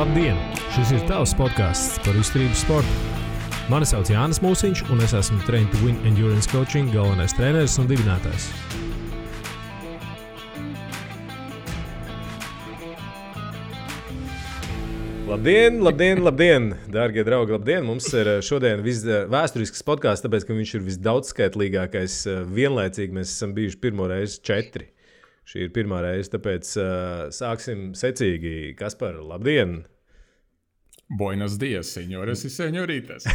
Labdien! Šis ir tavs podcasts par izturības sportu. Mani sauc Jānis Mūsiņš, un es esmu Train to Win Endurance Coaching galvenais treneris un dibinātājs. Labdien, dārgie draugi, labdien! Mums ir šodien vēsturisks podcasts, tāpēc, ka viņš ir visdaudzskaitlīgākais vienlaicīgi. Mēs esam bijuši pirmo reizi 4. Šī ir pirmā reize, tāpēc sāksim secīgi. Kaspar, labdien! Buenos dias, señores y señoritas.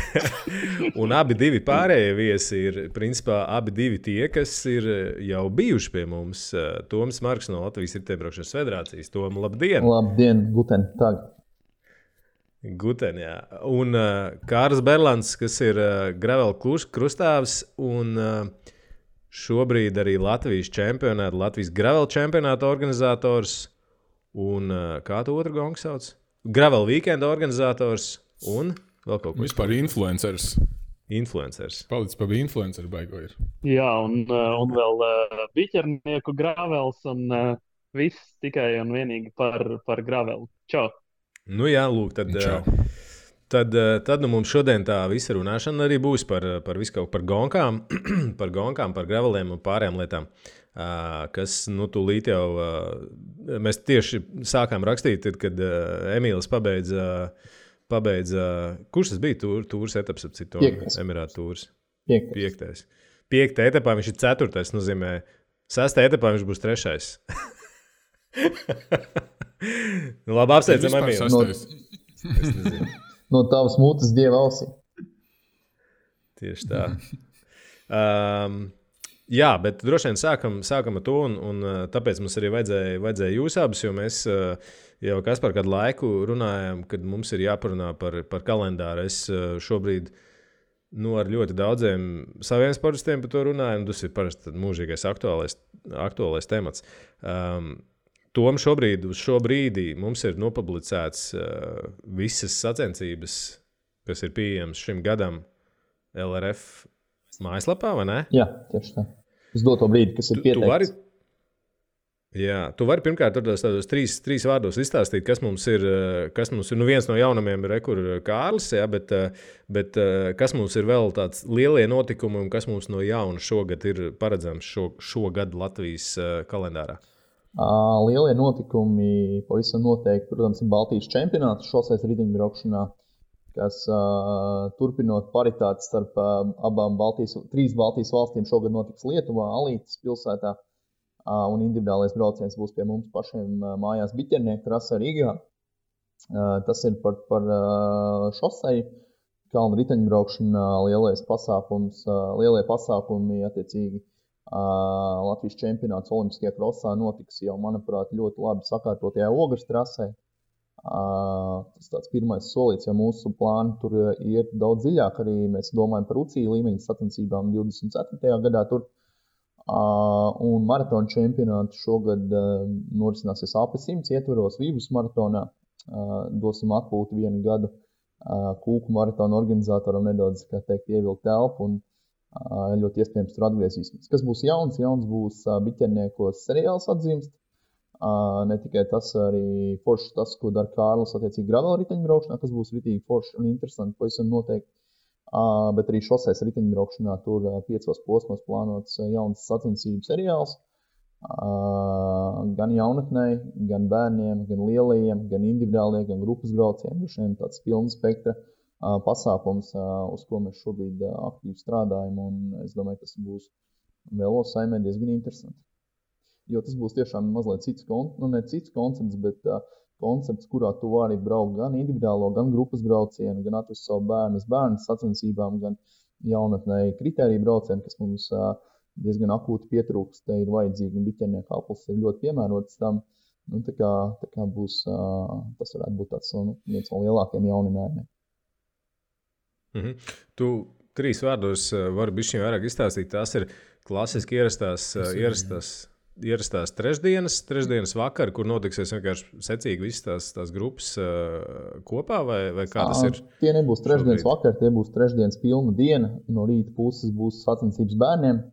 Un abi divi pārējie viesi ir, principā, abi divi tie, kas ir jau bijuši pie mums. Toms Marks no Latvijas Riteņbraukšanas federācijas. Tom, labdien! Labdien, guten tag! Guten, jā. Un Kārs Berlands, kas ir gravel krustāvs un šobrīd arī Latvijas čempionāta, Latvijas gravel čempionāta organizators un kā tu otru gongu sauc? Gravel weekenda organizators un vēl kaut ko. Vispār influencers. Palicis pa bija influenceru baigo ir. Jā, un vēl biķernieku gravels un viss tikai un vienīgi par gravelu. Čau! Nu jā, lūk, tad mums šodien tā visa runāšana arī būs par visu kaut par gonkām, par graveliem un pārējām lietām, kas, nu, tūlīt jau, mēs tieši sākām rakstīt, kad Emīls pabeidza, kurš tas bija tūrs etaps, ap citu Emirātu tūrs? 5. 5. etapā viņš ir 4. nozīmē, 6. etapā viņš būs 3. Nu, labi, apsveicam Emīlu. No tavas mutes dieva ausī. Tieši tā. Jā, bet droši vien sākam ar to, un tāpēc mums arī vajadzēja jūs abus, jo mēs jau Kaspar kādu laiku runājām, kad mums ir jāparunā par kalendāru. Es šobrīd ar ļoti daudziem saviem sportistiem par to runāju, un tas ir parasti mūžīgais aktuālais temats. Tom šobrīd, uz šo brīdī mums ir nopublicēts visas sacensības, kas ir pieejams šim gadam LRF mājaslapā, vai ne? Jā, tieši tā. Uz doto brīdi, kas ir pieteikts. Tu vari pirmkārt tādos trīs vārdos izstāstīt, kas mums ir. Nu, viens no jaunumiem ir Kārlis, jā, bet kas mums ir vēl tāds lielie notikumi un kas mums no jauna šogad ir paredzams šogad Latvijas kalendārā? Lielie notikumi pavisam noteikti, protams, ir Baltijas čempionāts šoseis riteņbraukšanā, kas turpinot paritāti starp trīs Baltijas valstīm šogad notiks Lietuvā, Alītas pilsētā, un individuālais brauciens būs pie mums pašiem mājās biķernieku trasē Rīgā. Tas ir par šosei, kalnu riteņbraukšanā lielie pasākumi attiecīgi. Latvijas čempionāts Olimpiskajā krosā notiks jau, manuprāt, ļoti labi sakārtotajā Ogres trasē. Tas tāds pirmais solīts, ja mūsu plāni tur iet daudz dziļāk, arī mēs domājam par UCI līmeņa sacensībām 24. gadā tur. Un maratona čempionāts šogad norisināsies AP100 ietveros Vīvus maratonā. Dosim atpūtu 1 gadu Kūku maratona organizatoram nedaudz, kā teikt, ievilkt telpu un ļoti iespējams tur atgriezīsimies. Kas būs jauns? Jauns būs biķerniekos seriāls atzīmst. Ne tikai tas, arī foršs tas, ko dara Kārlis attiecīgi gravel riteņbraukšanā, kas būs ritīgi foršs un interesanti, pavisam noteikti. Bet arī šoseis riteņbraukšanā tur 5 posmos plānots jauns sacensību seriāls. Gan jaunatnei, gan bērniem, gan lielajiem, gan individuāliem, gan grupas braucieniem. Šiem tāds pilna spektra pasākums, uz ko mēs šobrīd aktīvi strādājam, un es domāju, tas būs vēl saimē diezgan interesanti. Jo tas būs tiešām mazliet cits koncepts, bet koncepts, kurā tu vari braukt gan individuālo, gan grupas braucienu, gan atvest savu bērnu sacensībām, gan jaunatnēji kritēriju braucienu, kas mums diezgan akūti pietrūkst, te ir vajadzīgi, un biķernieku aplis ir ļoti piemērots tam. Nu, tā kā būs, tas varētu būt tāds viens no lielākiem jauninājumiem. Tu 3 vārdos vari bišķiņ vairāk izstāstīt. Tās ir klasiski ierastās trešdienas vakar, kur notiksies vienkārši secīgi visas tās grupas kopā, vai kā tas ir? Tie nebūs trešdienas vakar, tie būs trešdienas pilna diena. No rīta puses būs sacensības bērniem,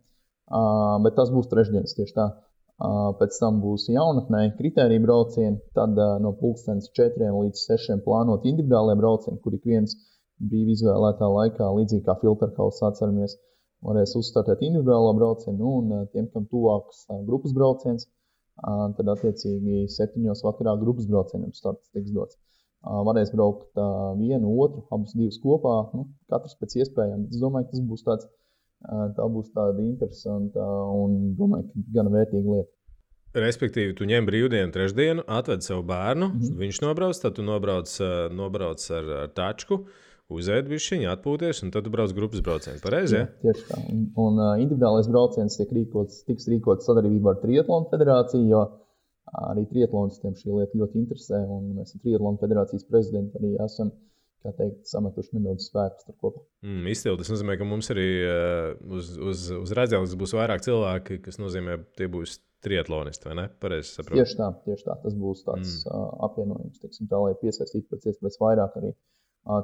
bet tas būs trešdienas tieši tā. Pēc tam būs jaunatnē kritērija braucieni, tad no 4 līdz 6 plānot individuālie braucieni, kur ik viens brīvi izvēlētā laikā, līdzīgi kā filterkaus atceramies, varēs uzstartēt individuālo braucienu, un tiem, kam tuvāks grupas brauciens, tad attiecīgi 7 vakarā grupas braucieniem starts tiks dots. Varēs braukt vienu, otru, abus divus kopā, katrs pēc iespējām. Es domāju, ka tas būs tā būs tāda interesanta un domāju, ka gan vērtīga lieta. Respektīvi, tu ņem brīvdienu trešdienu, atved savu bērnu, viņš nobrauc, tad tu nobrauc ar tačku, uzēd bišķiņu, atpūties, un tad tu brauc grupas braucienu. Pareizi, ja? Tieši tā. Un individuālais brauciens tiks rīkots sadarbībā ar Triatlonu federāciju, jo arī triatlonistiem šī lieta ļoti interesē, un mēs ar Triatlonu federācijas prezidentu arī esam, kā teikt, sametuši nedaudz spēkus tur kopā. Izcili. Tas nozīmē, ka mums arī uz redzēles būs vairāk cilvēki, kas nozīmē, tie būs triatlonisti, vai ne? Pareizi saprotu. Tieši tā. Tas būs tāds apvienojums, teiksim tā, lai piesaistītu pēc iespējas vairāk arī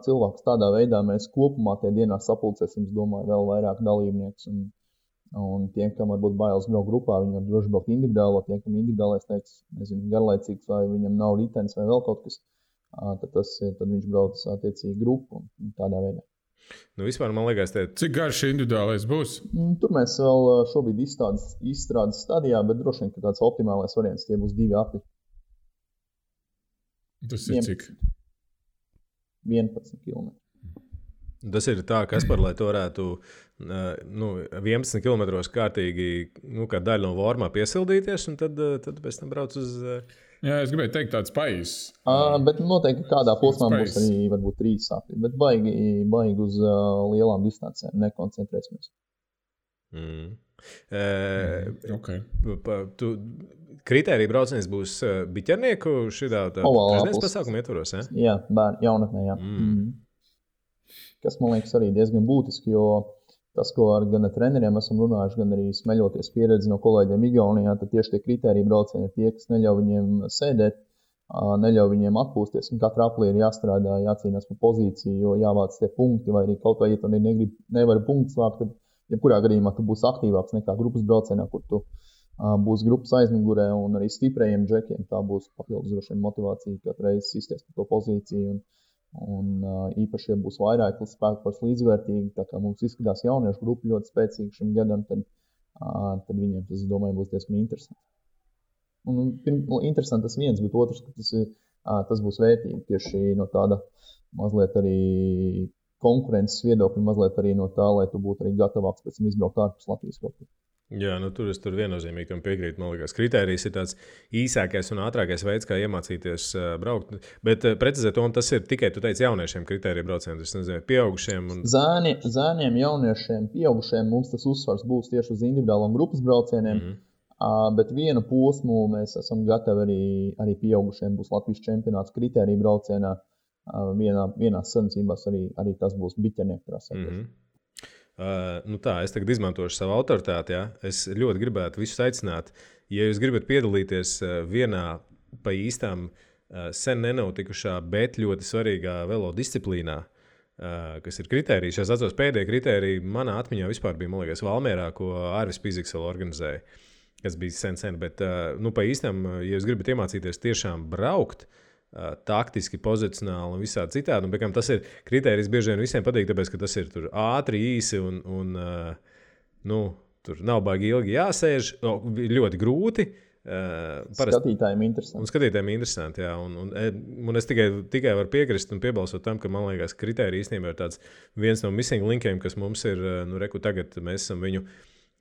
cilvēkus. Tādā veidā mēs kopumā tie dienā sapulcēsim, es domāju, vēl vairāk dalībniekus. Un tiem, kam varbūt bailes braukt grupā, viņi var droši braukt individuāli. Tiem, kam individuālais teiks, nezinu, garlaicīgs vai viņam nav ritenis vai vēl kaut kas, tad viņš brauc attiecīgi grupu un tādā veidā. Vispār man liekas, Cik garš individuālais būs? Tur mēs vēl šobrīd izstrādes stadijā, bet droši vien, ka tāds optimālais variants tie būs 2 apli. Tas ir cik? 11 km. Tas ir tā, Kaspar, lai tu varētu 11 km kārtīgi, kā daļa no vormā piesildīties, un tad pēc tam brauc uz... Jā, es gribēju teikt tāds pais. Bet noteikti kādā posmā būs arī varbūt 3 sapļi, bet baigi uz lielām distancēm nekoncentrēsimies. Okay. Kritērija brauciens būs biķernieku šitā trešdienas pasākuma ietvaros, ja? Jā, jaunatnē, jā. Kas, man liekas, arī diezgan būtiski, jo tas, ko gan ar treneriem esam runājuši, gan arī smeļoties pieredzi no kolēģiem Igaunijā, tad tieši tie kritērija braucieni ir tie, kas neļauj viņiem sēdēt, neļauj viņiem atpūsties, un katra aplī ir jāstrādā, jācīnās par pozīciju, jo jāvāc tie punkti, vai arī kaut vai, ja tu nevari punktus vākt, tad jebkurā gadījumā tu būsi aktīvāks nekā grupas braucienā, kur tu būs grupas aizmugurē, un arī stiprējiem džekiem tā būs papildus droši vien motivācija katru reizi sisties par to pozīciju, un īpaši, ja būs vairāk spēku līdzvērtīgi, tā kā mums izskatās jauniešu grupa ļoti spēcīga šim gadam, tad viņiem tas, es domāju, būs diezgan interesanti. Un interesanti tas viens, bet otrs, ka tas būs vērtīgi tieši no tāda mazliet arī konkurences viedokļa, mazliet arī no tā, lai tu būtu arī gatavāks pēc tam izbraukt ārpus Latvijas kaut kur. Jā, tur viennozīmīgi tam piekrītu. Man liekas, kritērijs ir tāds īsākais un ātrākais veids, kā iemācīties braukt. Bet precizēt, un tas ir tikai, tu teici, jauniešiem kritērija brauciens, es nezinu, pieaugušiem. Zēniem, jauniešiem, pieaugušiem mums tas uzsvars būs tieši uz individuālām grupas braucieniem, bet vienu posmu mēs esam gatavi arī pieaugušiem būs Latvijas čempionāts kritērija braucienā. Vienās sacensībās arī tas būs biķernieku trasē. Es tagad izmantošu savu autoritāti. Ja? Es ļoti gribētu visus aicināt, ja jūs gribat piedalīties vienā pa īstām sen nenotikušā, bet ļoti svarīgā velo disciplīnā, kas ir kritērijas. Es atceros, pēdējie kritēriji manā atmiņā vispār bija, man liekas, Valmierā, ko Ārvis Piziks vēl organizēja, kas bija sen, bet pa īstām, ja jūs gribat iemācīties tiešām braukt, taktiski, pozicionāli un visādi citādi. Un, tas ir kritērijs bieži vien visiem patīk, tāpēc, ka tas ir tur ātri, īsi un tur nav baigi ilgi jāsēž. Ļoti grūti. Skatītājiem interesanti. Un skatītājiem interesanti, jā. Un es tikai varu piekrist un piebalsot tam, ka man liekas, kritērija īstenībā ir tāds viens no missing linkiem, kas mums ir, tagad mēs esam viņu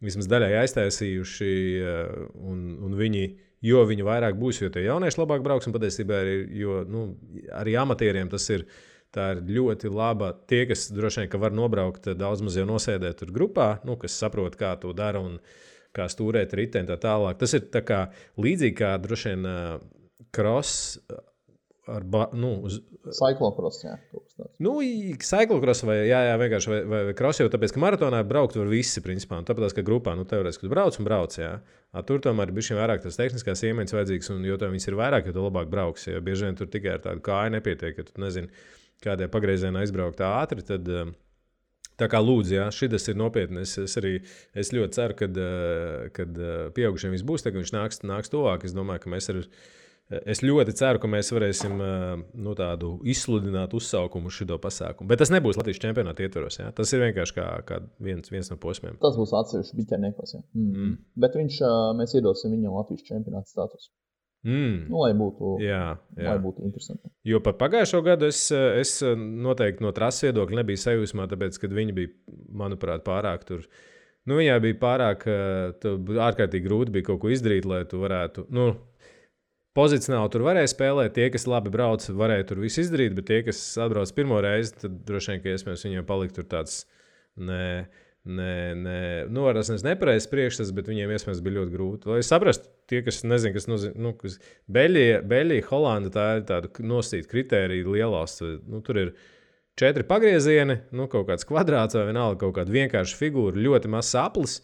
vismaz daļai aiztaisījuši un jo viņi vairāk būs, jo tie jaunieši labāk brauks, un patiesībā arī amatieriem tas ir, tā ir ļoti laba. Tie, kas droši vien, ka var nobraukt daudz maz jau nosēdēt tur grupā, kas saprot, kā to dara un kā stūrēt riteni tā tālāk. Tas ir tā kā līdzīgi kā droši vien cross ar cyclocross, jā. Cyclocross vai vienkārši vai cross, jo tāpēc, ka maratonā braukt var visi, principā, un tāpēc, ka grupā, teorētiski, ka tu brauc, jā. Tur tomēr ir bišķiņ vairāk tas tehniskās iemaņas vajadzīgs, un jo viņas ir vairāk, jo tu labāk brauks, jo bieži vien tur tikai ar tādu kāju nepietiek, ka tu nezini, kādē pagriezienā izbraukt ātri, tad Tā kā lūdzu, jā, šis ir nopietni. Es ļoti ceru, kad pieaugušiem viss būs, tad viņš nāks tuvāk. Es domāju, ka es ļoti ceru, ka mēs varēsim tādu izsludināt uzsaukumu uz šo pasākumu. Bet tas nebūs Latvijas čempionāta ietvaros. Jā. Tas ir vienkārši kā viens no posmiem. Tas būs atsevišķi biķerniekos. Bet mēs iedosim viņam Latvijas čempionāta statusu. Lai būtu interesanti. Jo par pagājušo gadu es noteikti no trases viedokļa nebiju sajūsmā, tāpēc, ka viņi bija, manuprāt, pārāk tur. Viņai bija pārāk ārkārtīgi grūti bija kaut ko izdarīt, lai tu varētu. Pozicionāli tur varēja spēlēt. Tie, kas labi brauc, varēja tur visu izdarīt, bet tie, kas atbrauc pirmo reizi, tad droši vien, ka iespējams viņiem palikt tur tāds varēs nepareizs priekšstats, bet viņiem iespējams bija ļoti grūti. Lai es saprastu, tie, kas nezina, kas nozīmē, Beļģija, Holanda, tā ir tāda nosacīta kritērija lielās. Tur ir 4 pagriezieni, kaut kāds kvadrāts vai vienalga kaut kāda vienkārša figūra, ļoti mazs aplis.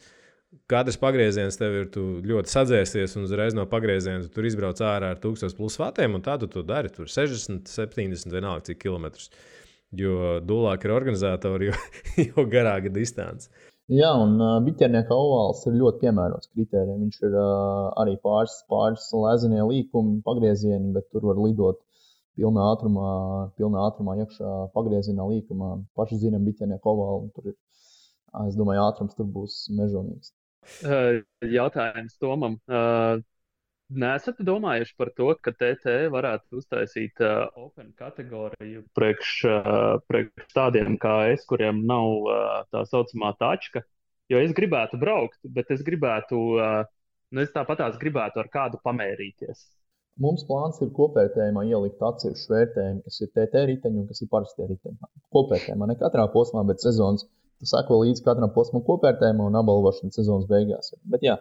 Katrs pagrieziens tev ir ļoti sadzēsties, un uzreiz no pagrieziena tur izbrauc ārā ar 1000+ vatiem, un tā tu to dari. Tur 60, 70, vienalga cik kilometrus. Jo dūlāk ir organizatori, jo garāka distance. Jā, un biķernieka ovāls ir ļoti piemērots kritērijiem. Viņš ir arī pāris lezenie līkumi, pagriezieni, bet tur var lidot pilnā ātrumā iekšā pagriezienā līkumā. Paši zinām biķernieka ovālu, tur ir, es domāju, ātrums tur būs mežonīgs. Jautājums Tomam. Nesat domājuši par to, ka TT varētu uztaisīt open kategoriju priekš tādiem kā es, kuriem nav tā saucamā tačka? Jo es gribētu braukt, bet es gribētu, es tāpatās gribētu ar kādu pamērīties. Mums plāns ir kopvērtējumā ielikt atsevišķu vērtējumu, kas ir TT riteņi un kas ir parastie riteņi. Kopvērtējumā ne katrā posmā, bet sezonas. Tu sako līdz katram posmam kopvērtējumā un apbalvošana sezonas beigās. Bet jā,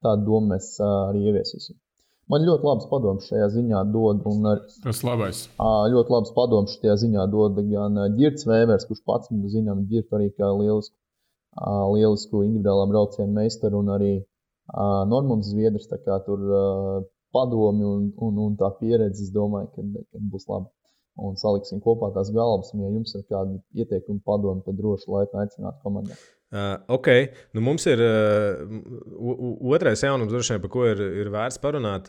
tādu domu mēs arī ieviesīsim. Man ļoti labs padoms šajā ziņā dod. Tas labais. Ļoti labs padoms šajā ziņā dod gan Ģirts Vēvers, kurš pats zinām Ģirtu arī kā lielisku individuālā braucienu meistaru, un arī Normunds Zviedrs. Tā kā tur padomi un tā pieredze, es domāju, ka būs labi. Un saliksim kopā tās galvas, un ja jums ir kādi ieteikumi padomi, tad droši laipni aicināt komandā. Ok, mums ir otrais jaunums, droši vien, par ko ir vērts parunāt.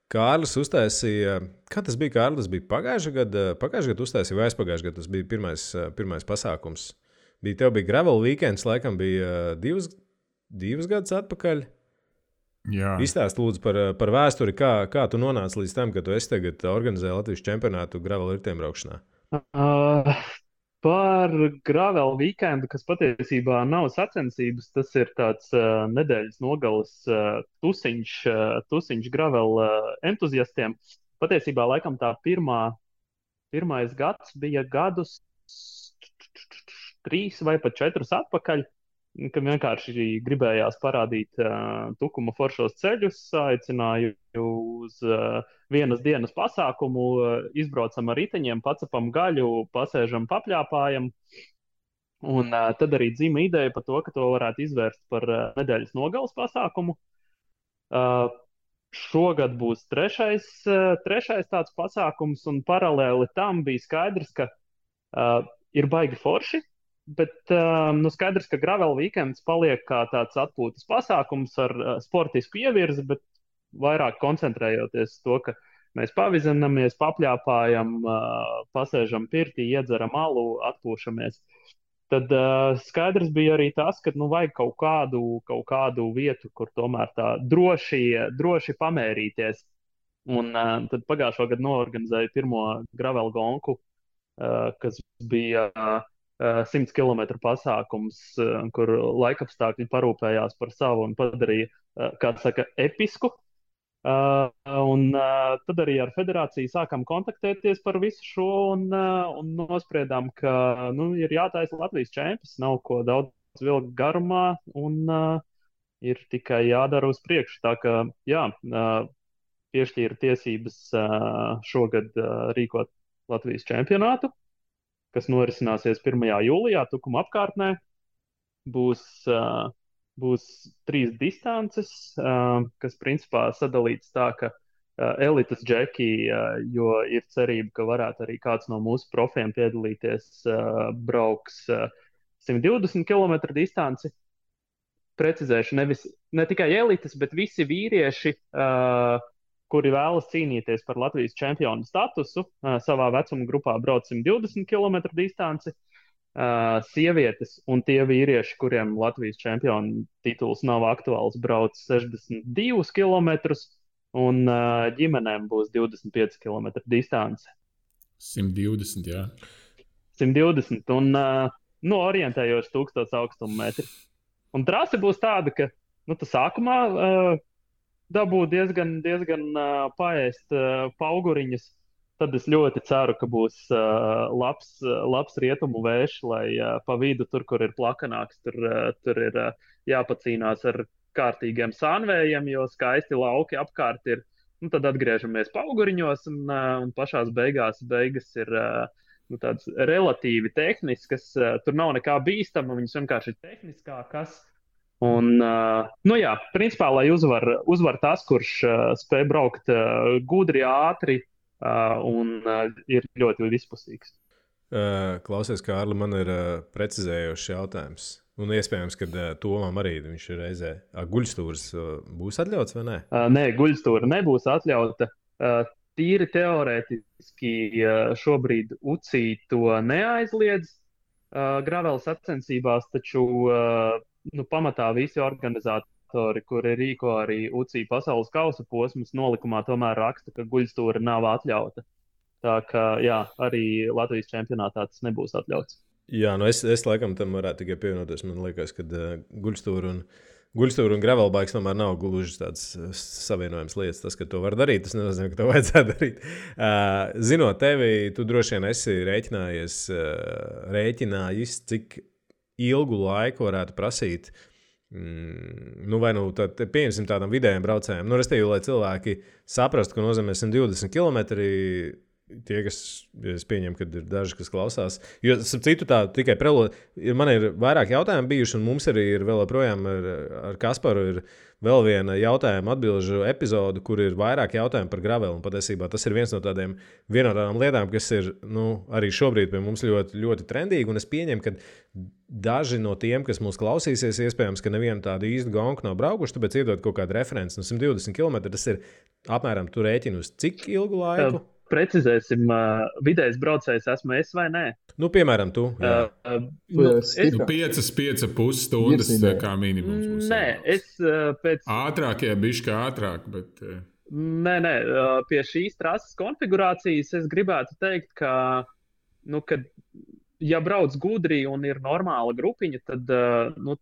Kārlis uztaisīja, kā tas bija, Kārlis? Tas bija pagājušajā gadā uztaisīja vai aizpagājušajā gadā? Tas bija pirmais pasākums. Tev bija gravel weekends, laikam bija divus gadus atpakaļ. Jā. Izstāst lūdzu par vēsturi, kā tu nonāci līdz tam, ka tu esi tagad organizē Latvijas čempionātu gravel ritiem braukšanā? Par gravel weekendu, kas patiesībā nav sacensības, tas ir tāds nedēļas nogales tusiņš gravel entuziastiem. Patiesībā laikam tā pirmais gads bija gadus 3 vai pat 4 atpakaļ, kad vienkārši gribējās parādīt tukuma foršos ceļus, aicināju uz vienas dienas pasākumu, izbraucam ar riteņiem, pacepam gaļu, pasēžam, papļāpājam. Un tad arī dzima ideja par to, ka to varētu izvērst par nedēļas nogales pasākumu. Šogad būs trešais tāds pasākums, un paralēli tam bija skaidrs, ka ir baigi forši. Bet skaidrs, ka gravel weekends paliek kā tāds atpūtas pasākums ar sportisku ievirzi, bet vairāk koncentrējoties to, ka mēs pavizinamies, papļāpājam, pasēžam pirtī, iedzeram alu, atpūšamies. Tad skaidrs bija arī tas, ka vajag kaut kādu vietu, kur tomēr tā droši pamērīties. Un tad pagājušo gadu noorganizēju pirmo gravel gonku, kas bija 100 km pasākums, kur laikapstākļi parūpējās par savu un padarīja, kā saka, episku. Un tad arī ar federāciju sākam kontaktēties par visu šo un nospriedām, ka ir jātaisa Latvijas čempions, nav ko daudz vilkt garumā un ir tikai jādara uz priekšu. Tā kā, jā, piešķīra tiesības šogad rīkot Latvijas čempionātu, kas norisināsies 1. jūlijā Tukuma apkārtnē. Būs 3 distances, kas principā sadalīts tā, ka elites džeki, jo ir cerība, ka varētu arī kāds no mūsu profiem piedalīties, brauks 120 km distanci. Precizēšu, ne tikai elites, bet visi vīrieši, kuri vēlas cīnīties par Latvijas čempionu statusu, savā vecuma grupā brauc 120 km distanci. Sievietes un tie vīrieši, kuriem Latvijas čempionu tituls nav aktuāls, brauc 62 km, un ģimenēm būs 25 km distance. 120, jā. 120, un orientējoši 1000 augstuma metri. Un trase būs tāda, ka tu sākumā dabū diezgan paēst pauguriņas. Tad es ļoti ceru, ka būs labs rietumu vējš, lai pa vidu, tur, kur ir plakanāks, tur ir jāpacīnās ar kārtīgiem sānvējiem, jo skaisti lauki apkārt ir. Tad atgriežamies pauguriņos, un pašās beigas ir tādas relatīvi tehniskas. Tur nav nekā bīstama, viņas vienkārši ir tehniskākas. Un, principā, lai uzvar tas, kurš spēj braukt gudri, ātri un ir ļoti vispusīgs. Klausies, Kārli, man ir precizējošs jautājums. Un iespējams, ka Tomam arī viņš ir reizē. Guļstūrs būs atļauts vai nē? Nē, guļstūra nebūs atļauta. Tīri teorētiski šobrīd UCI to neaizliedz graveles sacensībās, taču pamatā visi organizatori, kuri rīko arī UCI pasaules kausa posmus, nolikumā tomēr raksta, ka guļstūra nav atļauta. Tā kā jā, arī Latvijas čempionātā tas nebūs atļauts. Jā, es laikam tam varētu tikai pievienoties. Man liekas, ka guļstūra un gravelbikes tomēr nav gluži tāds savienojams lietas. Tas, ka to var darīt, tas nenozīmē, ka to vajadzētu darīt. Zinot tevi, tu droši vien esi rēķinājis, cik ilgu laiku varētu prasīt, pieņemsim tādam vidējiem braucējiem. Restīvi, lai cilvēki saprastu, ko nozīmē 120 km. Tie, kas es pieņemu, ka ir daži, kas klausās. Jo, citu tā tikai man ir vairāk jautājumu bijuši, un mums arī ir vēl joprojām ar Kasparu ir vēl viena jautājuma atbilžu epizode, kur ir vairāk jautājumu par graveli. Un patiesībā tas ir viena no tādām lietām, kas ir arī šobrīd pie mums ļoti, ļoti trendīgi. Un es pieņemu, ka daži no tiem, kas mūs klausīsies, iespējams, ka nevienu tādu īstu gonku nav braukuši, tāpēc iedod kaut kādu referenci. 120 km tas ir apmēram tu rēķini uz cik ilgu laiku? Precizēsim, vidējais braucējs esmu es vai nē? Piemēram, tu. 5,5 stundas kā minimums. Nē, es pēc... Ātrāk, bišķi ātrāk, bet... Nē, pie šīs trases konfigurācijas es gribētu teikt, ka, kad ja brauc gudri un ir normāla grupiņa, tad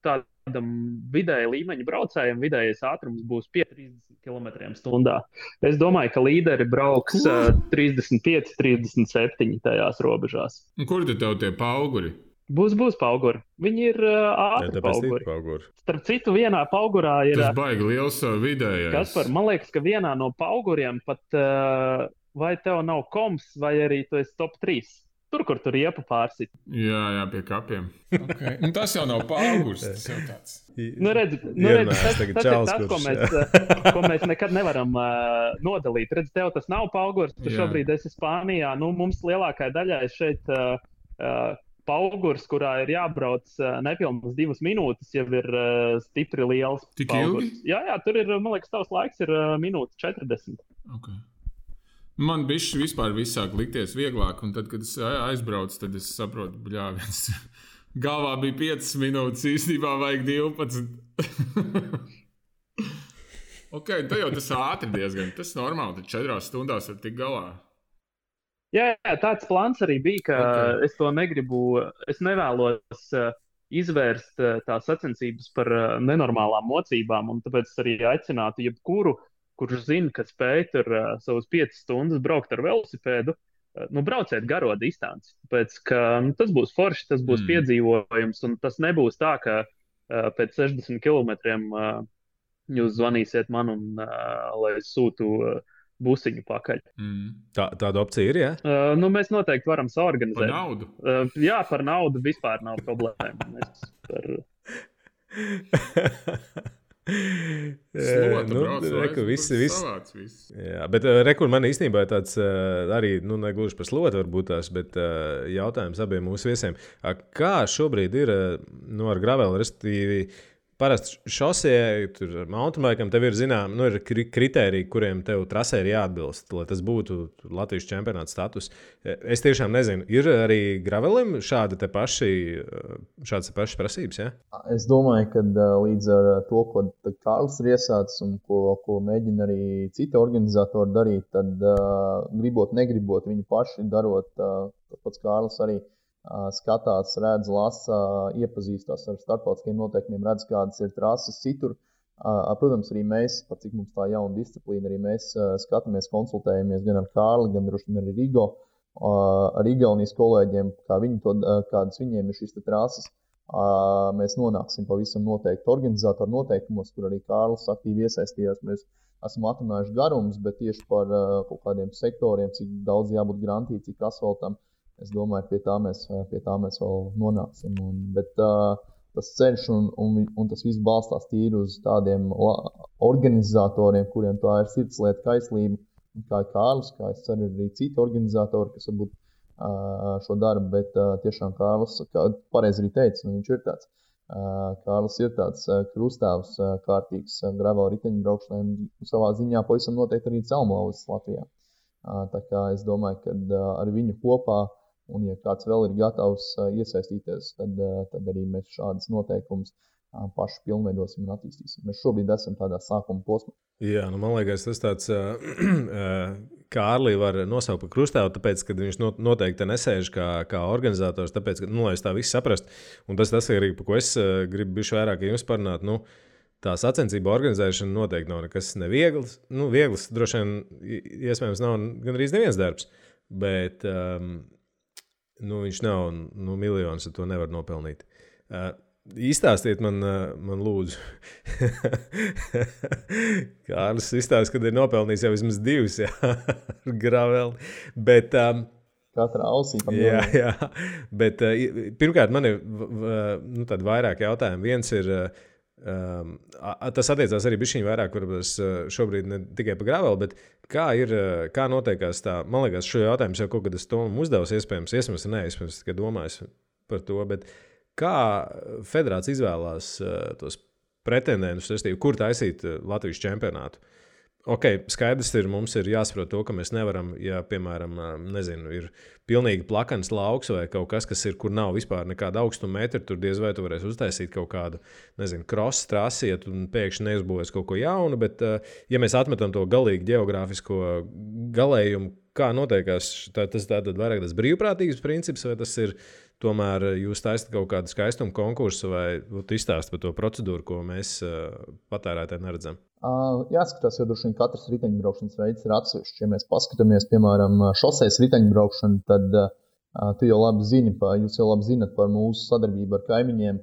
tādam vidēja līmeņa braucējiem vidējais ātrums būs 30 km/h. Es domāju, ka līderi brauks 35, 37 tajās robežās. Un kur tad tev tie pauguri? Būs pauguri. Viņi ir ātri pauguri. Starp citu, vienā paugurā ir... Tas baigi liels vidējais. Kaspar, man liekas, ka vienā no pauguriem pat vai tev nav koms, vai arī tu esi top 3. Tur, kur tur riepa pārsit. Jā, pie kapiem. Okay. Un tas jau nav paugurs, tas jau tāds. Redz, tas ir tas, ko mēs nekad nevaram nodalīt. Redz, tev tas nav paugurs, tu šobrīd esi Spānijā. Mums lielākai daļai šeit paugurs, kurā ir jābrauc nepilnas 2 minūtes, jau ir stipri liels Tik paugurs. Ilgi? Jā, tur ir, man liekas, tavs laiks ir minūte 40. Okay. Man bišķi vispār sāk likties vieglāk, un tad, kad es aizbraucu, tad es saprotu, viens galvā bija 5 minūtes, īstenībā vajag 12. Ok, tad jau tas ātri diezgan, tas normāli, tad 4 stundās var tikt galā. Jā, tāds plāns arī bija, ka es to negribu, es nevēlos izvērst tās sacensības par nenormālām mocībām, un tāpēc arī aicinātu jebkuru, kurš zina, ka spēj tur savus 5 stundas braukt ar velosipēdu, brauciet garo distanci. Tāpēc, ka tas būs forši, tas būs piedzīvojums, un tas nebūs tā, ka pēc 60 kilometriem jūs zvanīsiet man, un lai es sūtu busiņu pakaļ. Tāda opcija ir, jā? Mēs noteikti varam saorganizēt. Par naudu? Jā, par naudu vispār nav problēma. reku, viss. Savāds viss. Jā, bet rekur man īstenībā tāds arī, negluži par slotu varbūt tās, bet jautājums abiem mūsu viesiem. Kā šobrīd ir ar graveli, respektīvi, parasti šosejai, tur mountainbikam tev ir zinām, ir kritēriji, kuriem tev trasē ir jāatbilst, lai tas būtu Latvijas čempionāta status. Es tiešām nezinu, ir arī gravelim šādas pašas prasības, ja? Es domāju, ka līdz ar to, ko Kārlis ir iesācis un ko mēģina arī citi organizatori darīt, tad gribot, negribot, viņi paši darot, pats Kārlis arī skatās, redz, lasa, iepazīstās ar starptautiskiem noteikumiem, redz, kādas ir trases citur. Protams, arī mēs, par cik mums tā jauna disciplīna, arī mēs skatāmies, konsultējamies gan ar Kārli, gan droši vien arī Rigo, ar Igaunijas kolēģiem, kādas viņiem ir šīs trases. Mēs nonāksim pavisam noteikti organizatoru noteikumos, kur arī Kārlis aktīvi iesaistījās. Mēs esam atrunājuši garumus, bet tieši par kaut kādiem sektoriem, cik daudz jābūt grantī, cik asfaltam. Es domāju, pie tā mēs vēl nonāksim. Bet tas ceļš un tas viss balstās tīri uz tādiem organizatoriem, kuriem tā ir sirdslieta kaislība, kā Kārlis, kā es ceru arī citi organizatori, kas varbūt šo darbu, bet tiešām Kārlis, kā pareizi arī teica, viņš ir tāds. Kārlis ir tāds krustāvs, kārtīgs gravel riteņu braukšanai un savā ziņā pavisam noteikti arī celmlauzis Latvijā. Tā kā es domāju, ka ar viņu kopā, un ja kāds vēl ir gatavs iesaistīties, tad arī mēs šādas noteikumus paši pilnveidosim un attīstīsim. Mēs šobrīd esam tādā sākuma posmā. Jā, man liekas, tas tāds Kārli var nosaukt par krustāvu, tāpēc, ka viņš noteikti nesēž kā organizators, tāpēc, ka, lai es tā visu saprast, un tas arī, par ko es gribu bišķi vairāk jums parunāt, tā sacensība organizēšana noteikti nav nekas neviegls. Viegls droši vien, iespējams, nav gandrīz neviens darbs, bet viņš nav miljonus, ar to nevar nopelnīt. Izstāstiet man lūdzu. Kārlis izstāst, kad ir nopelnījis jau vismaz 2, ar graveli. Bet, Katrā ausī. Jā. Bet pirmkārt, man ir tādi vairāk jautājumi. Viens ir, tas attiecās arī bišķiņ vairāk, varbūt šobrīd ne tikai par graveli, bet kā notiekās tā, man liekas, šo jautājumu jau kaut kad es Tomam uzdevu, iespējams, tikai domājis par to, bet kā federācija izvēlās tos pretendentus, kur taisīt Latvijas čempionātu? Skaidrs ir, mums ir jāsaprot to, ka mēs nevaram, ja, piemēram, ir pilnīgi plakans lauks vai kaut kas ir, kur nav vispār nekāda augstuma metri, tur diez vai tu varēsi uztaisīt kaut kādu, cross trasiet un pēkšņi neuzbūvēs kaut ko jaunu, bet, ja mēs atmetam to galīgi geogrāfisko galējumu, kā notiekās, tas tātad vairāk tas brīvprātīgs princips, vai tas ir tomēr jūs taisat kaut kādu skaistumu konkursu vai izstāst par to procedūru, ko mēs patērētāji neredzam? Jāskatās, jo droši vien katrs riteņbraukšanas veids ir atsevišķs. Ja mēs paskatāmies, piemēram, šosejas riteņbraukšanu, tad jūs jau labi zinat par mūsu sadarbību ar kaimiņiem,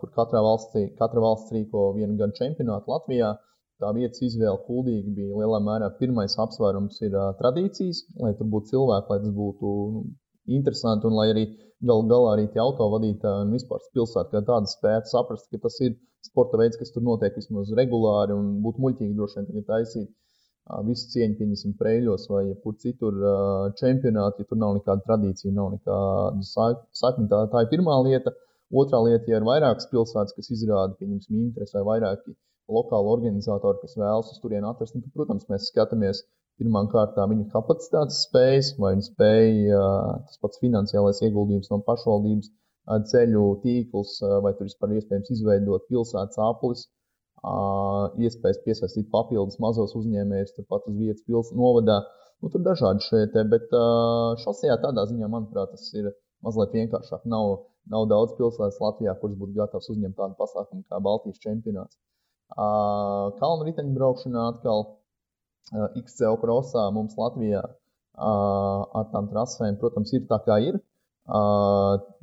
kur katra valsts rīko vienu gadu čempionātu Latvijā. Tā vietas izvēle kuldīgi bija lielā mērā pirmais apsvērums ir tradīcijas, lai tur būtu cilvēki, lai tas būtu interesanti un lai arī galā arī tie autovadītāji un vispār pilsēta kā tāda spētu saprast, ka tas ir sporta veids, kas tur notiek vismaz regulāri un būtu muļķīgi droši vien tagad taisīt visu cieņu, pieņemsim, Preiļos vai kur citur čempionāti, ja tur nav nekāda tradīcija, nav nekāda sakni. Tā ir pirmā lieta. Otrā lieta, ja ir vairākas pilsētas, kas izrāda, pieņemsim, interesi vai vairāki lokāli organizatori, kas vēlas uz turieni atrast, tad, protams, mēs skatāmies pirmām kārtām viņu kapacitātes spējas, vai viņi spēja tas pats finansiālais ieguldījums no pašvaldības, ceļu tīkls, vai tur vispār iespējams izveidot pilsētas aplis, iespējas piesaistīt papildus mazos uzņēmējus, turpat uz vietas novadā. Tur dažādi šeit, bet šosejā tādā ziņā, manuprāt, tas ir mazliet vienkāršāk. Nav daudz pilsētas Latvijā, kuras būtu gatavs uzņemt tādu pasākumu kā Baltijas čempionāts. Kalnu riteņbraukšanā atkal XCO crossā mums Latvijā ar tām trasēm, protams, ir tā kā ir.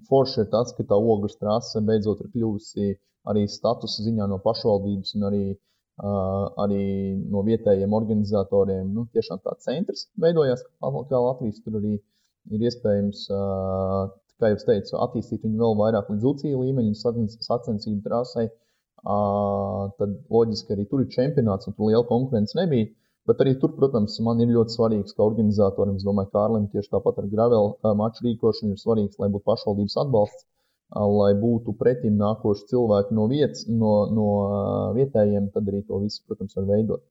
Forši ir tas, ka tā ogles trase beidzot ir kļuvusi arī statusa ziņā no pašvaldības un arī no vietējiem organizatoriem. Tiešām tā centrs veidojās, kā Latvijas tur arī ir iespējams, kā jau teicu, attīstīt viņu vēl vairāk līdz UCI līmeņu sacensību trasei. tad loģiski arī tur ir čempionāts un tur liela konkurence nebija. Bet arī tur, protams, man ir ļoti svarīgs, kā organizatoram, es domāju, Kārlim tieši tāpat ar gravel maču rīkošanu ir svarīgs, lai būtu pašvaldības atbalsts, lai būtu pretim nākoši cilvēki no vietas, no vietējiem, tad arī to visu, protams, var veidot.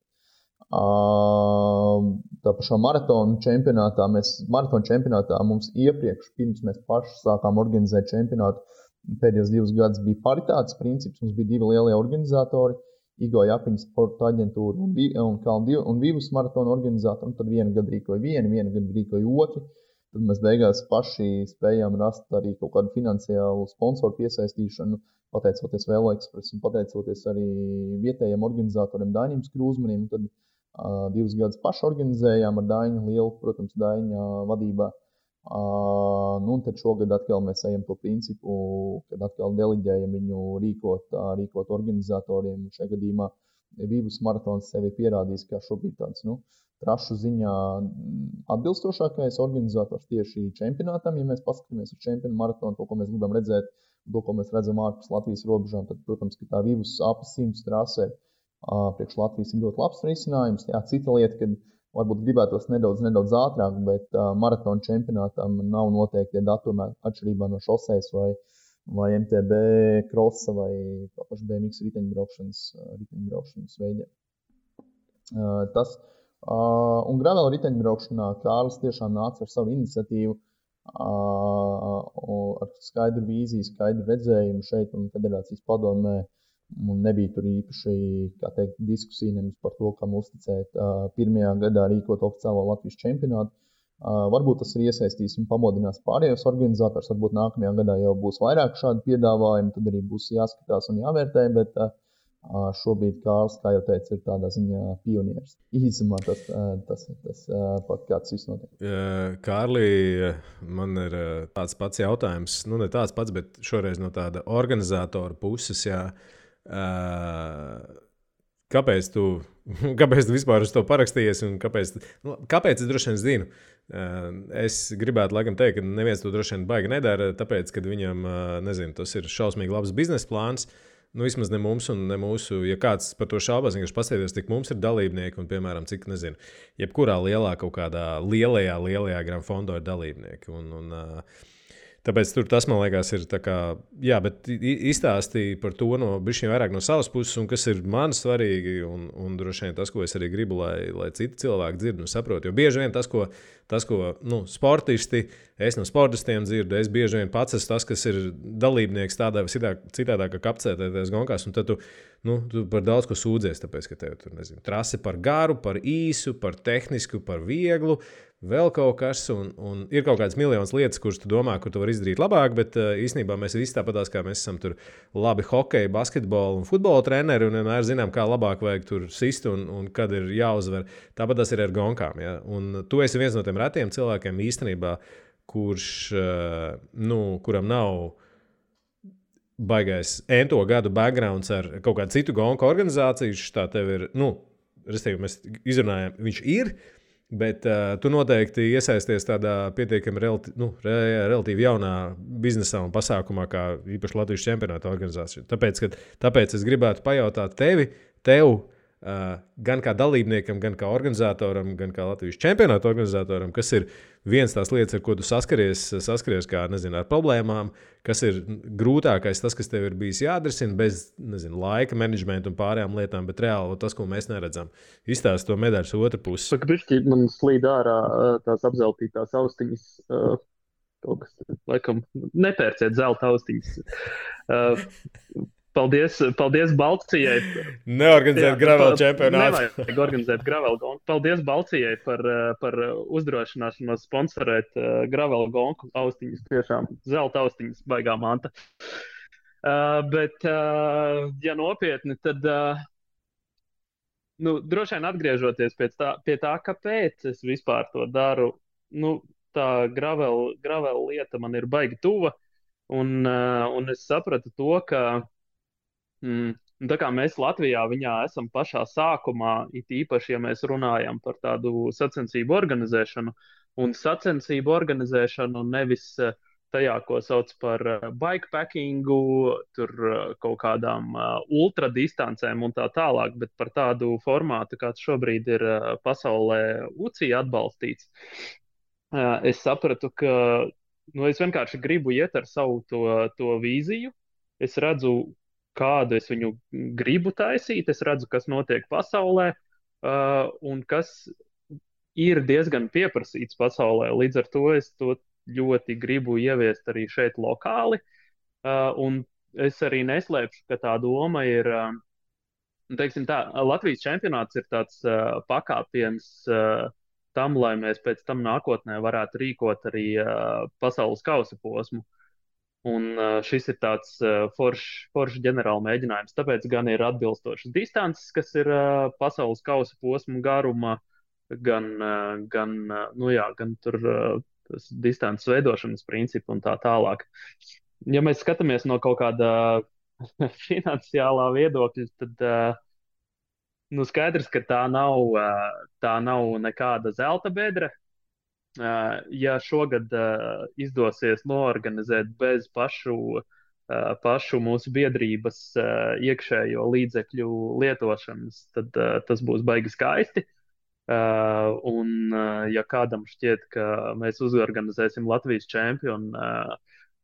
Tā pašā maratona čempionātā mums iepriekš, pirms mēs paši sākām organizēt čempionātu, pēdējos 2 gadus bija paritātes princips, mums bija 2 lielie organizatori, Igo Japiņas sporta aģentūra un Vivus maratona organizatori, un tad vienu gadu rīkoja vienu gadu rīkoja otru. Tad mēs beigās paši spējām rast arī kaut kādu finansiālu sponsoru piesaistīšanu, pateicoties Velo Express un pateicoties arī vietējiem organizatoriem Dainim Skrūzmanim. Tad 2 gadus paši organizējām ar Dainu lielu, protams, Daina vadībā. Un tad šogad atkal mēs ejam to principu, kad atkal deliģējam viņu rīkot organizatoriem. Šajā gadījumā Vivus maratons sevi pierādījis, kā šobrīd tāds, trašu ziņā atbilstošākais organizators tieši čempionātam. Ja mēs paskatāmies uz čempionu maratonu, to, ko mēs gribam redzēt, to, ko mēs redzam ārpus Latvijas robežām, tad, protams, ka tā Vivus ap 100 trasē priekš Latvijas ir ļoti labs risinājums. Jā, cita lieta, kad varbūt gribētos nedaudz ātrāk, bet maratona čempionātam nav noteikti datumi atšķirībā no šosejas vai MTB krosa vai paši BMX riteņbraukšanas veidiem. Un gravel riteņbraukšanā Kārlis tiešām nāca ar savu iniciatīvu, ar skaidru vīziju, skaidru redzējumu šeit un federācijas padomē. Un nebija tur īpaši, diskusija nemaz par to, kam uzticēt pirmajā gadā rīkot oficiālo Latvijas čempionātu. Varbūt tas ir iesaistīs un pamodinās pārējos organizators, varbūt nākamajā gadā jau būs vairāk šādu piedāvājumu, tad arī būs jāskatās un jāvērtē, bet šobrīd Kārlis, kā jau teicu, ir tādā ziņā pionieris. Īsumā tas pat kāds viss notiek. Kārli, man ir tāds pats jautājums, ne tāds pats, bet šoreiz no tāda organizatora puses, kāpēc tu vispār uz to parakstījies un kāpēc es droši vien zinu? Es gribētu laikam teikt, ka neviens to droši vien baigi nedara, tāpēc, ka viņam, tas ir šausmīgi labs biznesa plāns. Vismaz ne mums un ne mūsu, ja kāds par to šaubās, vienkārši paskatīties, cik mums ir dalībnieki un, piemēram, cik, jebkurā kaut kādā lielajā Grand Fondo ir dalībnieki. Tāpēc tas, man liekas, ir tā kā, bet izstāstīja par to bišķiņ vairāk no savas puses, un kas ir man svarīgi, un droši vien tas, ko es arī gribu, lai citi cilvēki dzird un saprot. Jo bieži vien tas, ko sportisti, es no sportistiem dzirdu, es bieži vien pats esmu tas, kas ir dalībnieks tādā vai citādā, kā kapcētēties gonkās, un tad tu par daudz ko sūdzies, tāpēc, ka tev tur, trase par garu, par īsu, par tehnisku, par vieglu, vēl kaut kas, un ir kaut kādas miljonas lietas, kuras tu domā, kur tu vari izdarīt labāk, bet īstenībā mēs visi tāpatās, kā mēs esam tur labi hokeja, basketbola un futbola treneri, un vienmēr zinām, kā labāk vajag tur sist un kad ir jāuzvar. Tāpat tas ir ar gonkām. Ja? Un tu esi viens no tiem retiem cilvēkiem īstenībā, kuram nav baigais ento gadu backgrounds ar kaut kādu citu gonku organizāciju. Tā tev ir, respektīvi, mēs izrunājam, viņš ir. Bet tu noteikti iesaisties tādā pietiekami relatīvi jaunā biznesā un pasākumā, kā īpaši Latvijas čempionāta organizācija. Tāpēc es gribētu pajautāt tev, gan kā dalībniekam, gan kā organizatoram, gan kā Latvijas čempionāta organizatoram, kas ir viens tās lietas, ar ko tu saskaries kā, ar problēmām, kas ir grūtākais, tas, kas tev ir bijis jāatrisina bez, laika menedžmenta un pārējām lietām, bet reāli tas, ko mēs neredzam. Izstāst to medaļas otru pusi. Saka, bišķi, man slīd ārā tās apzeltītās austiņas. Kaut kas, laikam, nepērciet zelta austiņas. Paldies Balcijai. Neorganizēt gravel čempionātu. Nevajag organizēt gravel gonku. Paldies Balcijai par uzdrošināšanos sponsorēt gravel gonku austiņas. Tiešām zelta austiņas, baigā manta. Bet, ja nopietni, tad droši vien atgriežoties pie tā, kāpēc es vispār to daru, tā gravel lieta man ir baigi tuva. Un es sapratu to, ka tā kā mēs Latvijā viņā esam pašā sākumā, it īpaši, ja mēs runājam par tādu sacensību organizēšanu, un sacensību organizēšanu nevis tajā, ko sauc par bikepackingu, tur kaut kādām ultradistancēm un tā tālāk, bet par tādu formātu, kāds šobrīd ir pasaulē UCI atbalstīts. Es sapratu, ka es vienkārši gribu iet ar savu to vīziju. Es redzu, kādu es viņu gribu taisīt, es redzu, kas notiek pasaulē un kas ir diezgan pieprasīts pasaulē. Līdz ar to es to ļoti gribu ieviest arī šeit lokāli. Un es arī neslēpšu, ka tā doma ir, teiksim tā, Latvijas čempionāts ir tāds pakāpiens tam, lai mēs pēc tam nākotnē varētu rīkot arī pasaules kausa posmu. Un šis ir tāds foršs ģenerāla mēģinājums. Tāpēc gan ir atbilstošas distances, kas ir pasaules kausa posmu garuma, gan tur tas distances veidošanas principu un tā tālāk. Ja mēs skatāmies no kaut kāda finansiālā viedokļa, tad skaidrs, ka tā nav nekāda zelta bedre. Ja šogad izdosies noorganizēt bez pašu mūsu biedrības iekšējo līdzekļu lietošanas, tad tas būs baigi skaisti. Un ja kādam šķiet, ka mēs uzorganizēsim Latvijas čempionu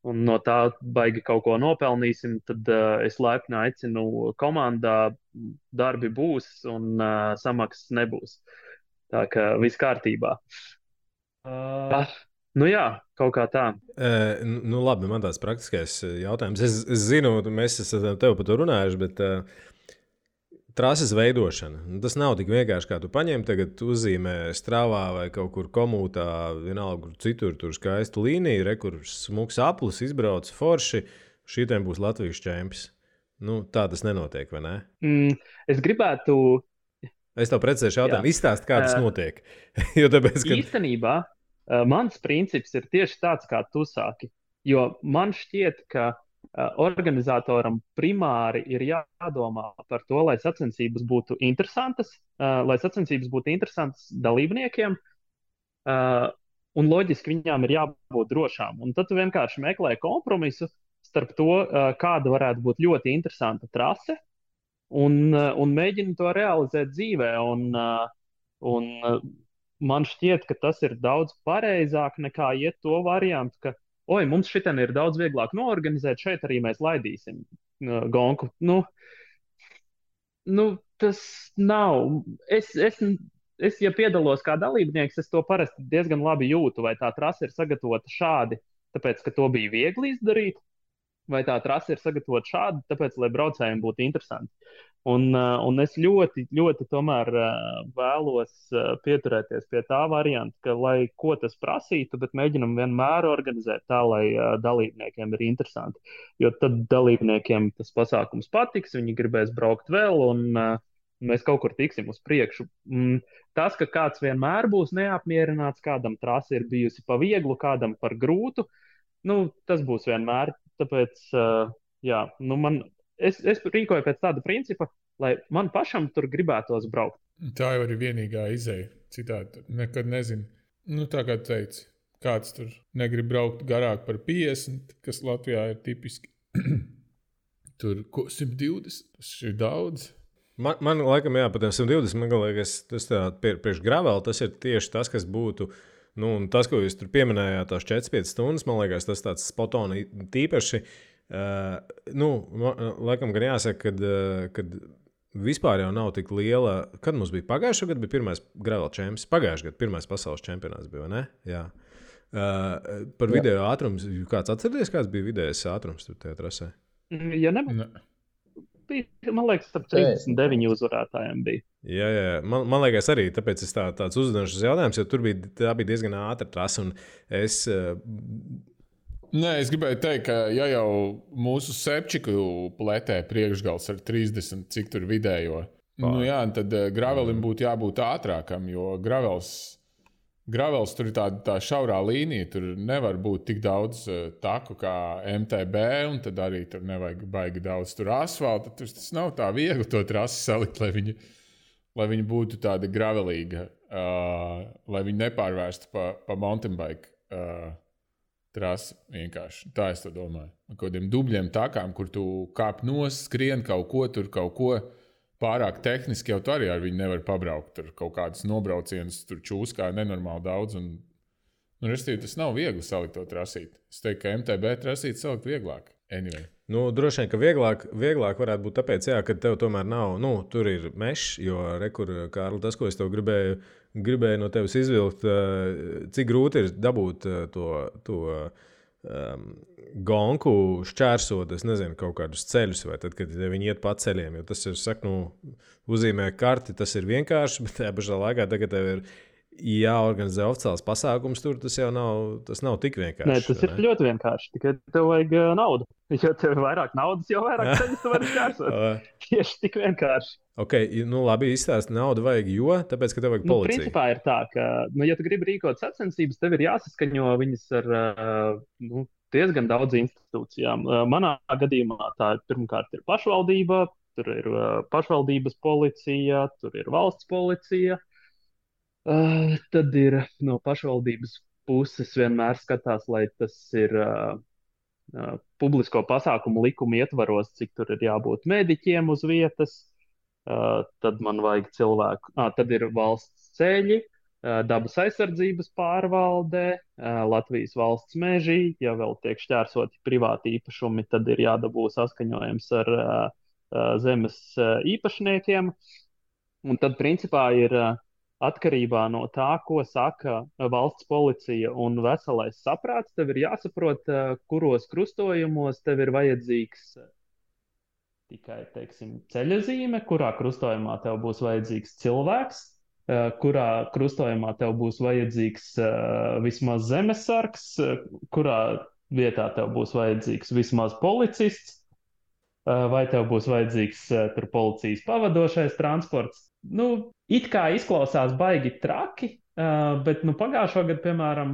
un no tā baigi kaut ko nopelnīsim, tad es laipni aicinu komandā, darbi būs un samaksas nebūs. Tā kā viss kārtībā. Jā, kaut kā tā. Labi, man tāds praktiskais jautājums. Es zinu, mēs esam tev par to runājuši, bet trases veidošana. Tas nav tik vienkārši, kā tu paņem, tagad uzzīmē Strāvā vai kaut kur komūtā, vienalga, kur citur, tur skaistu līniju, kur smuks aplis, izbrauc forši, šitiem būs Latvijas čempions. Tā tas nenotiek, vai ne? Es gribētu... Es tev precēšu jautājumu, izstāst, kā tas notiek. Jo tāpēc, ka... Īstenībā mans princips ir tieši tāds, kā tu sāki. Jo man šķiet, ka organizatoram primāri ir jādomā par to, lai sacensības būtu interesantas, dalībniekiem, un loģiski viņām ir jābūt drošām. Un tad tu vienkārši meklē kompromisu starp to, kāda varētu būt ļoti interesanta trase, un mēģini to realizēt dzīvē. Un man šķiet, ka tas ir daudz pareizāk nekā iet to variantu, ka mums šitien ir daudz vieglāk noorganizēt, šeit arī mēs laidīsim gonku. Tas nav. Es, ja piedalos kā dalībnieks, es to parasti diezgan labi jūtu, vai tā trase ir sagatavota šādi, tāpēc, ka to bija viegli izdarīt, vai tā trase ir sagatavota šādi, tāpēc, lai braucējiem būtu interesanti. Un es ļoti, ļoti tomēr vēlos pieturēties pie tā varianta, ka, lai ko tas prasītu, bet mēģinam vienmēr organizēt tā, lai dalībniekiem ir interesanti. Jo tad dalībniekiem tas pasākums patiks, viņi gribēs braukt vēl, un mēs kaut kur tiksim uz priekšu. Tas, ka kāds vienmēr būs neapmierināts, kādam trase ir bijusi pa vieglu, kādam par grūtu, tas būs vienmēr. Tāpēc, es rīkoju pēc tāda principa, lai man pašam tur gribētos braukt. Tā jau ir vienīgā izeja. Citādi nekad nezinu. Tā kā teici, kāds tur negrib braukt garāk par 50, kas Latvijā ir tipiski. Tur 120, tas ir daudz. Man laikam, jā, pat 120, man liekas, tas priekš gravela, tas ir tieši tas, kas būtu, un tas, ko jūs tur pieminējāt, tās 4-5 stundas, man liekas, tas tāds spotoni tīpaši. Laikam gan jāsaka, kad vispār jau nav tik liela. Kad mums bija pagājušā gada, bija pirmais gravel čempions. Pagājušā gada pirmais pasaules čempionāts bija, vai ne? Jā. Par video ātrums. Kāds atcerieties, kāds bija vidējais ātrums tur tajā trasē? Ja nebūtu. Man liekas, ap 39 uzvarētājiem bija. Jā. Man liekas arī, tāpēc es tāds uzdevums jautājums, jo tā bija diezgan ātra trasa, un es... Nē, es gribēju teikt, ka ja jau mūsu Sepčiku pletē priekšgals ar 30, cik tur vidējo, tad gravelim būtu jābūt ātrākam, jo gravels tur ir tā šaurā līnija, tur nevar būt tik daudz taku kā MTB, un tad arī tur nevajag baigi daudz tur asfalta. Tas nav tā viegli to trasi salikt, lai viņi būtu tāda gravelīga, lai viņi nepārvērstu pa mountain bike trasi vienkārši. Tā es to domāju. Ar kādiem dubļiem takām, kur tu kāp nost, skrien kaut ko pārāk tehniski, jau tu arī ar viņu nevar pabraukt. Tur kaut kādas nobraucienas, tur čūskā nenormāli daudz. Restīvi, tas nav viegli salikt to trasīt. Es teiktu, ka MTB trasīt salikt vieglāk. Anyway. Droši vien, ka vieglāk varētu būt tāpēc, ka tev tomēr nav, tur ir mešs, jo Kārli, tas, ko es tev gribēju no tevis izvilkt, cik grūti ir dabūt to gonku šķērsot, es nezinu, kaut kādus ceļus, vai tad, kad viņi iet pa ceļiem, jo tas ir, uzzīmē karti, tas ir vienkārši, bet tajā pašā laikā tagad tev ir jāorganizē oficiāls pasākums, tur tas nav tik vienkārši. Nē, tas ir ļoti vienkārši, tikai tev vajag naudu. Jo tev ir vairāk naudas, jo vairāk ceļus tu vari šķērsot. Tieši tik vienkārši. Ok, labi, izstāsti naudu vajag, tāpēc, ka tev vajag policija. Principā ir tā, ka, ja tu gribi rīkot sacensības, tev ir jāsaskaņo viņas ar diezgan daudz institūcijām. Manā gadījumā tā pirmkārt ir pašvaldība, tur ir pašvaldības policija, tur ir valsts policija. Tad ir no pašvaldības puses vienmēr skatās, lai tas ir publisko pasākumu likuma ietvaros, cik tur ir jābūt mediķiem uz vietas. Tad man vajag cilvēku. Tad ir valsts ceļi, dabas aizsardzības pārvalde, Latvijas valsts meži. Ja vēl tiek šķērsoti privāti īpašumi, tad ir jādabū saskaņojums ar zemes īpašniekiem. Un tad principā ir atkarībā no tā, ko saka valsts policija un veselais saprāts, tev ir jāsaprot, kuros krustojumos tev ir vajadzīgs tikai, teiksim, ceļazīme, kurā krustojumā tev būs vajadzīgs cilvēks, kurā krustojumā tev būs vajadzīgs vismaz zemesargs, kurā vietā tev būs vajadzīgs vismaz policists, vai tev būs vajadzīgs tur policijas pavadošais transports. It kā izklausās baigi traki, bet pagājušo gadu, piemēram,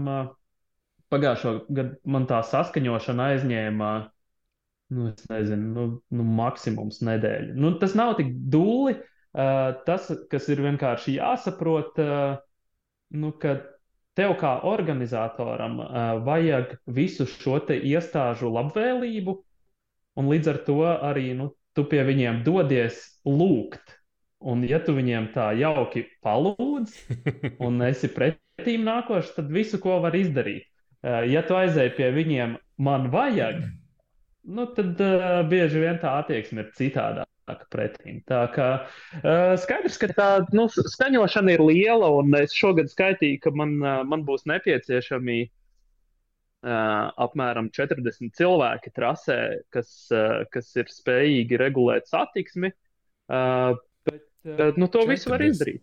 man tā saskaņošana aizņēma, es nezinu, maksimums nedēļu. Tas nav tik dūli, tas, kas ir vienkārši jāsaprot, ka tev kā organizatoram vajag visu šo te iestāžu labvēlību, un līdz ar to arī tu pie viņiem dodies lūgt. Un ja tu viņiem tā jauki palūdz un esi pretīm nākošs, tad visu, ko var izdarīt. Ja tu aizēji pie viņiem, man vajag, tad bieži vien tā attieksme ir citādāka pretīm. Tā kā skaidrs, ka tā skaņošana ir liela, un es šogad skaitīju, ka man būs nepieciešami apmēram 40 cilvēki trasē, kas ir spējīgi regulēt satiksmi. To visu var izdarīt.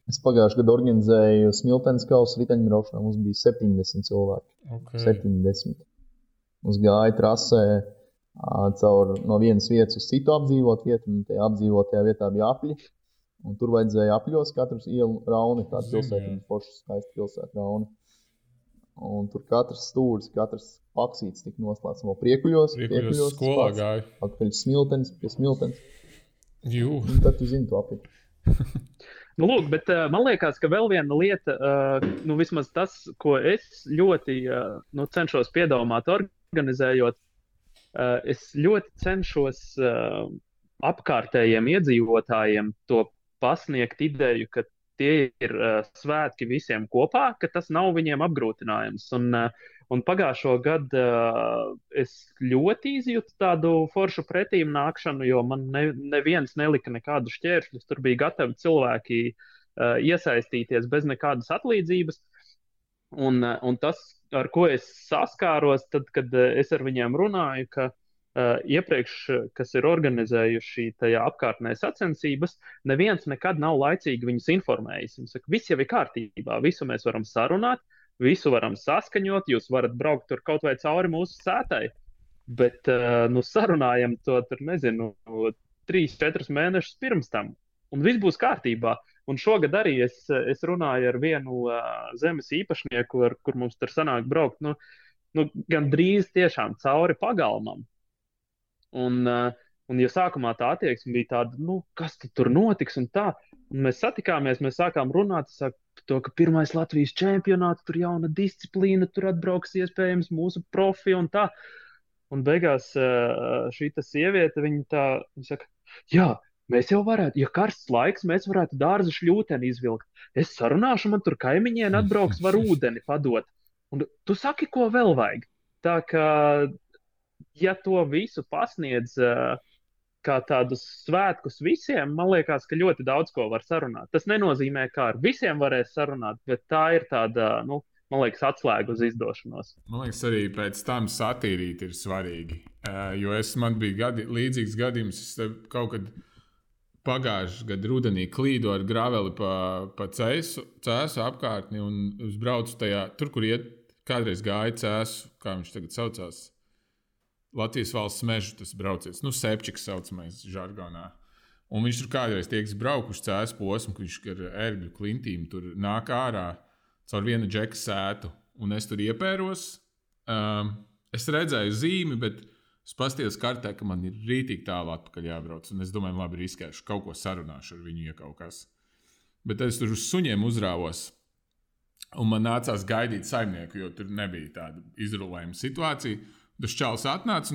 Es pagājušajā gadā organizēju Smiltenes kausa riteņbraukšanā. Mums bija 70 cilvēki. Okay. 70. Mums gāja trasē caur no vienas vietas uz citu apdzīvot vietu, un tajā apdzīvotajā vietā bija apļi. Un tur vajadzēja apļos katrs ielu rauni, tāda pilsēta, forša skaista pilsēta rauni. Un tur katrs stūris, katrs paksīts tika noslēgts vēl priekuļos. Priekuļos skolā gāja. Atpakaļ Smiltenes, pie Smiltenes. Un tad tu zini to apļu. Lūk, bet man liekas, ka vēl viena lieta, vismaz tas, ko es ļoti cenšos piedomāt organizējot, es ļoti cenšos apkārtējiem iedzīvotājiem to pasniegt ideju, ka tie ir svētki visiem kopā, ka tas nav viņiem apgrūtinājums. Un pagājušo gadu es ļoti izjūtu tādu foršu pretīm nākšanu, jo man neviens nelika nekādu šķēršļus. Tur bija gatavi cilvēki iesaistīties bez nekādas atlīdzības. Un tas, ar ko es saskāros, tad, kad es ar viņiem runāju, ka iepriekš, kas ir organizējuši tajā apkārtnē sacensības, neviens nekad nav laicīgi viņus informējis. Viņš saka, viss jau ir kārtībā, visu mēs varam sarunāt, visu varam saskaņot, jūs varat braukt tur kaut vai cauri mūsu sētai, bet sarunājam to tur, 3-4 mēnešus pirms tam, un viss būs kārtībā. Un šogad arī es runāju ar vienu zemes īpašnieku, kur mums tur sanāk braukt, gan drīz tiešām cauri pagalmam. Un ja sākumā tā attieksme bija tāda, kas tur notiks un tā, Un mēs satikāmies, mēs sākām runāt par to, ka pirmais Latvijas čempionāts, tur jauna disciplīna, tur atbrauks iespējams mūsu profi un tā. Un beigās šī sieviete, viņa saka, jā, mēs jau varētu, ja karsts laiks, mēs varētu dārza šļūteni izvilkt. Es sarunāšu, man tur kaimiņieni atbrauks, var ūdeni padot. Un tu saki, ko vēl vajag? Tā kā, ja to visu pasniedz kā tādus svētkus visiem, man liekas, ka ļoti daudz ko var sarunāt. Tas nenozīmē, ka ar visiem varēs sarunāt, bet tā ir tāda, man liekas, atslēga uz izdošanos. Man liekas, arī pēc tam satīrīt ir svarīgi. Jo man bija līdzīgs gadījums, es kaut kad pagājušajā gadā rudenī klīdu ar graveli pa cēsu apkārtni un uzbraucu tajā, tur, kur kādreiz gāja cēsu, kā viņš tagad saucās. Latvijas valsts meža tas braucies, sepčiks saucamais žargonā. Un viņš tur kādreiz tiek braukuši cēsu posmu, ka viņš ar ērgļu klintīm tur nāk ārā caur vienu džeka sētu. Un es tur iepēros. Es redzēju zīmi, bet es paskatījos kartē, ka man ir rītīgi tālu atpakaļ jābrauc. Un es domāju, labi, riskēšu, kaut ko sarunāšu ar viņu, ja kaut kas. Bet tad es tur uz suņiem uzrāvos. Un man nācās gaidīt saimnieku, jo tur nebija tāda izrulējuma situācija. Tas čalis atnāca,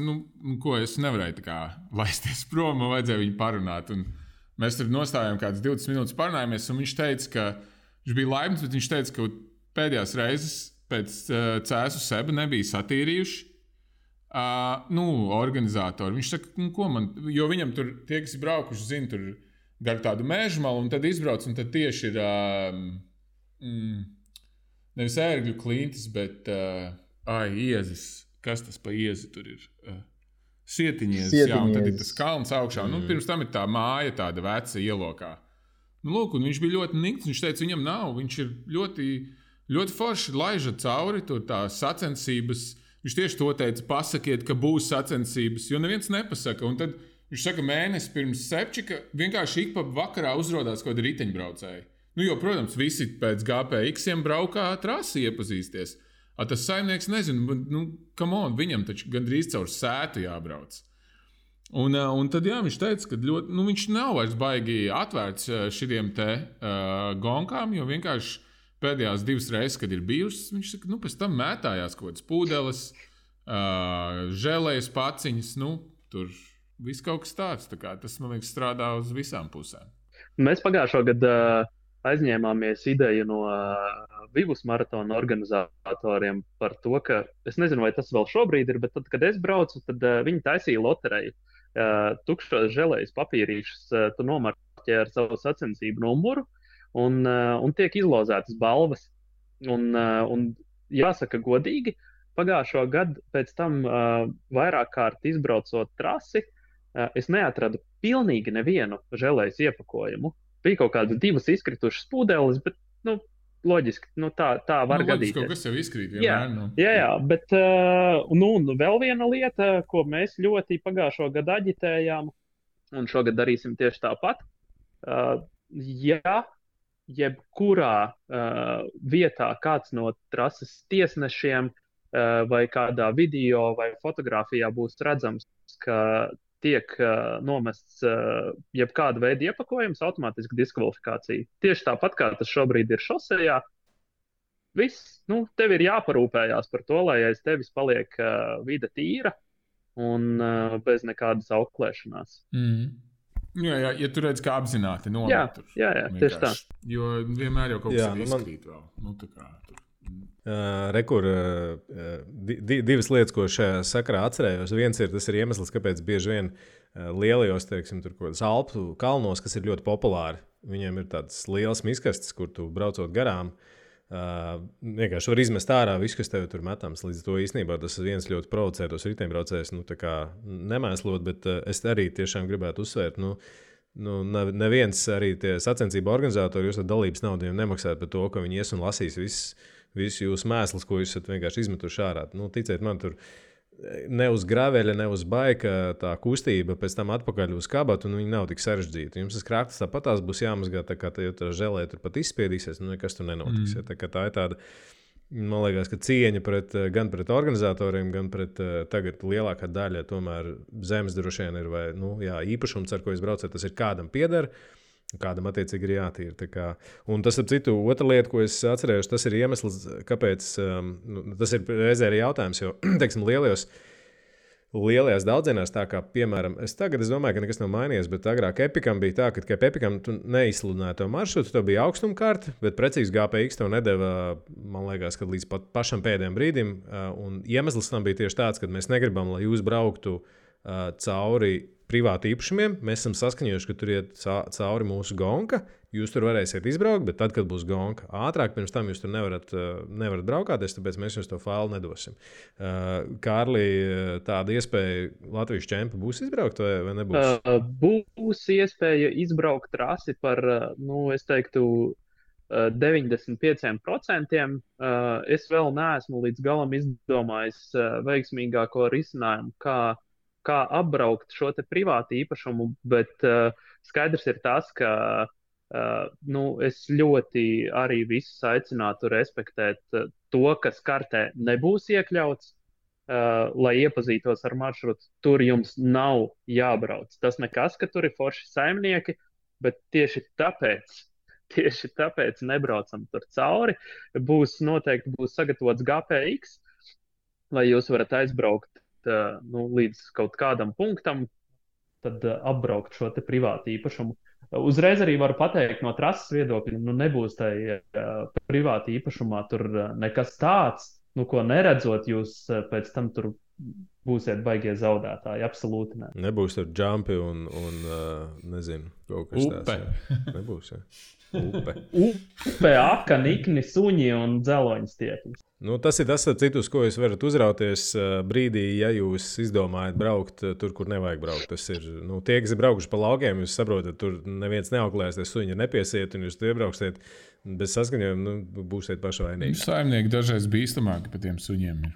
ko es nevarēju tā kā laisties prom, man vajadzēja viņu parunāt. Un mēs tur nostājām kādas 20 minūtes parunājāmies, un viņš teica, ka viņš bija laimīgs, bet viņš teica, ka pēdējās reizes pēc cēsu seba nebija satīrījuši organizatori. Viņš saka, ko man, jo viņam tur tie, kas ir braukuši, zina, tur gar tādu mežu malu, un tad izbrauc, un tad tieši ir nevis ērgļu klintis, bet iezis. Kas tas pa iezi tur ir? Sietiņies, jā, un tad ir tas kalns augšā. Pirms tam ir tā māja, tāda veca ielokā. Lūk, un viņš bija ļoti nikts, viņš teica, viņam nav. Viņš ir ļoti, ļoti forši laiža cauri, tur tā sacensības. Viņš tieši to teica, pasakiet, ka būs sacensības, jo neviens nepasaka. Un tad viņš saka, mēnesi pirms sepčika vienkārši ik pa vakarā uzrodās kaut kādi riteņbraucēji. Jo, protams, visi pēc GPX-iem braukā trasi iepazīsties. Tas saimnieks nezina, come on, viņam taču gandrīz caur sētu jābrauc. Un tad jā, viņš teica, ka ļoti, viņš nav vairs baigi atvērts šitiem te gonkām, jo vienkārši pēdējās 2 reizes, kad ir bijušas, viņš saka, pēc tam mētājās kaut kāds pūdeles, žēlējas paciņas, tur viss kaut kas tāds. Tā kā tas, man liekas, strādā uz visām pusēm. Mēs pagājušo gadu aizņēmāmies ideju no Vivus maratona organizatoriem par to, ka es nezinu, vai tas vēl šobrīd ir, bet tad, kad es braucu, tad viņi taisīja lotereju. Tukšos želējas papīrīšus tu nomarķē ar savu sacensību numuru un tiek izlozētas balvas. Un jāsaka godīgi, pagājušo gadu pēc tam vairāk kārt izbraucot trasi, es neatradu pilnīgi nevienu želējas iepakojumu. Bija kaut kādas 2 izkritušas pūdeles, bet, loģiski, tā var gadīties. Kaut kas jau izkrīt vienmēr. Jā, bet vēl viena lieta, ko mēs ļoti pagājušo gadu aģitējām, un šogad darīsim tieši tāpat. Ja jebkurā vietā kāds no trases tiesnešiem vai kādā video vai fotografijā būs redzams, ka tiek nomests jebkāda veida iepakojums, automātiski diskvalifikācija. Tieši tāpat, kā tas šobrīd ir šosejā, viss, tev ir jāparūpējās par to, lai aiz tevis paliek vide tīra un bez nekādas auklēšanās. Jā, ja tu redz, kā apzināti nomet. Jā, tieši tā. Jo vienmēr jau kaut kas izkrīt vēl. Tā kā tur. Rekur, 2 lietas, ko šajā sakarā atcerējos. Viens ir, tas ir iemesls, kāpēc bieži vien lielajos, teiksim, tur kaut kādas Alpu kalnos, kas ir ļoti populāri, viņiem ir tāds liels miskastes, kur tu braucot garām, vienkārši var izmest ārā visu, kas tev tur metams. Līdz to īstenībā tas viens ļoti provocē tos riteņbraucējus, nemēslot, bet es arī tiešām gribētu uzsvērt, neviens arī tie sacensību organizatori, jūs ar dalības naudu nemaksājat par to, ka viņi ies un lasīs visu jūsu mēslus, ko jūs esat vienkārši izmetuši ārā. Ticiet man, tur ne uz graveļa, ne uz baika tā kustība pēc tam atpakaļ uz kabatu, un viņi nav tik sarežģīti. Jums tas krāktas tāpat tās būs jāmazgā, tā kā tā želē tur pat izspiedīsies, nekas tur nenotiks. Tā ir tāda, man liekas, ka cieņa gan pret organizatoriem, gan pret tagad lielākā daļa tomēr zemes droši vien ir vai, īpašums, ar ko jūs braucat, tas ir kādam pieder. Kādam attiecīgi ir jātīra. Un tas, ap citu, otra lieta, ko es atcerējos, tas ir iemesls, kāpēc tas ir reizē arī jautājums, jo, teiksim, lielajās daudzienās, tā kā, piemēram, es domāju, ka nekas nav mainījies, bet agrāk Epikam bija tā, ka Epikam tu neizsludināji to maršrutu, tev bija augstumkārta, bet precīzi GPX tev nedeva, man liekas, kad līdz pat pašam pēdējiem brīdim, un iemesls tam bija tieši tāds, ka mēs negribam, lai jūs brauktu cauri privāti īpašumiem. Mēs esam saskaņojuši, ka tur iet cauri mūsu gonka. Jūs tur varēsiet izbraukt, bet tad, kad būs gonka ātrāk, pirms tam jūs tur nevarat braukāties, tāpēc mēs jums to failu nedosim. Kārli, tāda iespēja Latvijas čempi būs izbraukt vai nebūs? Būs iespēja izbraukt trasi par, es teiktu, 95%. Es vēl neesmu līdz galam izdomājis veiksmīgāko risinājumu, kā apbraukt šo te privātu īpašumu, bet skaidrs ir tas, ka es ļoti arī visus aicinātu respektēt to, kas kartē nebūs iekļauts, lai iepazītos ar maršrutu. Tur jums nav jābrauc. Tas nekas, ka tur ir forši saimnieki, bet tieši tāpēc nebraucam tur cauri. Noteikti būs sagatavots GPX, lai jūs varat aizbraukt līdz kaut kādam punktam, tad apbraukt šo te privātu īpašumu. Uzreiz arī varu pateikt no trases viedokļa, nebūs tai privāti īpašumā tur nekas tāds, ko neredzot, jūs pēc tam tur būsiet baigie zaudētāji. Absolūti ne. Nebūs tur jumpi un nezinu, kaut kas tāds. Nebūs, jā. Upe, aka, nikni, suņi un dzeloņas tiekļus. Tas ir tas, citus, ko jūs varat uzrauties brīdī, ja jūs izdomājat braukt tur, kur nevajag braukt. Tas ir, tie, kas ir braukuši pa laukiem, jūs saprotat, tur neviens neauklēs, tie suņi nepiesiet, un jūs tur iebrauksiet bez saskaņojuma, būsiet paši vainīgi. Saimnieki dažreiz bīstamāki par tiem suņiem ir.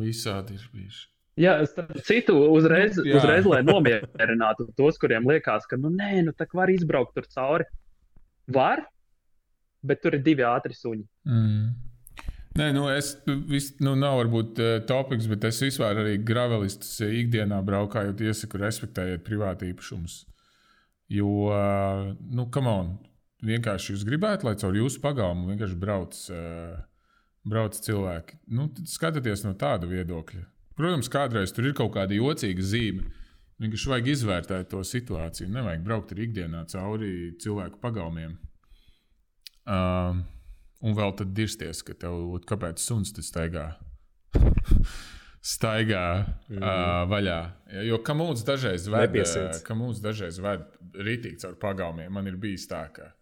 Visādi ir bijuši. Jā, citu uzreiz, lai nomierinātu tos, kuriem liekas, ka tā var izbraukt tur cauri. Var, bet tur ir 2 ātri suņi. Nē, nav varbūt topiks, bet es vispār arī gravelistus ikdienā braukājot iesaku respektējiet privāti īpašumus. Jo, come on, vienkārši jūs gribētu, lai caur jūsu pagalmu vienkārši brauc cilvēki. Tad skatieties no tāda viedokļa. Protams, kādreiz tur ir kaut kāda jocīga zīme. Vienkārši vajag izvērtēt to situāciju. Nevajag braukt arī ikdienā cauri cilvēku pagalmiem. Un vēl tad dirsties, ka tev, kāpēc suns te staigā vaļā. Jo kamūns dažreiz ved ritīgi caur pagalmiem. Man ir bijis tā, ka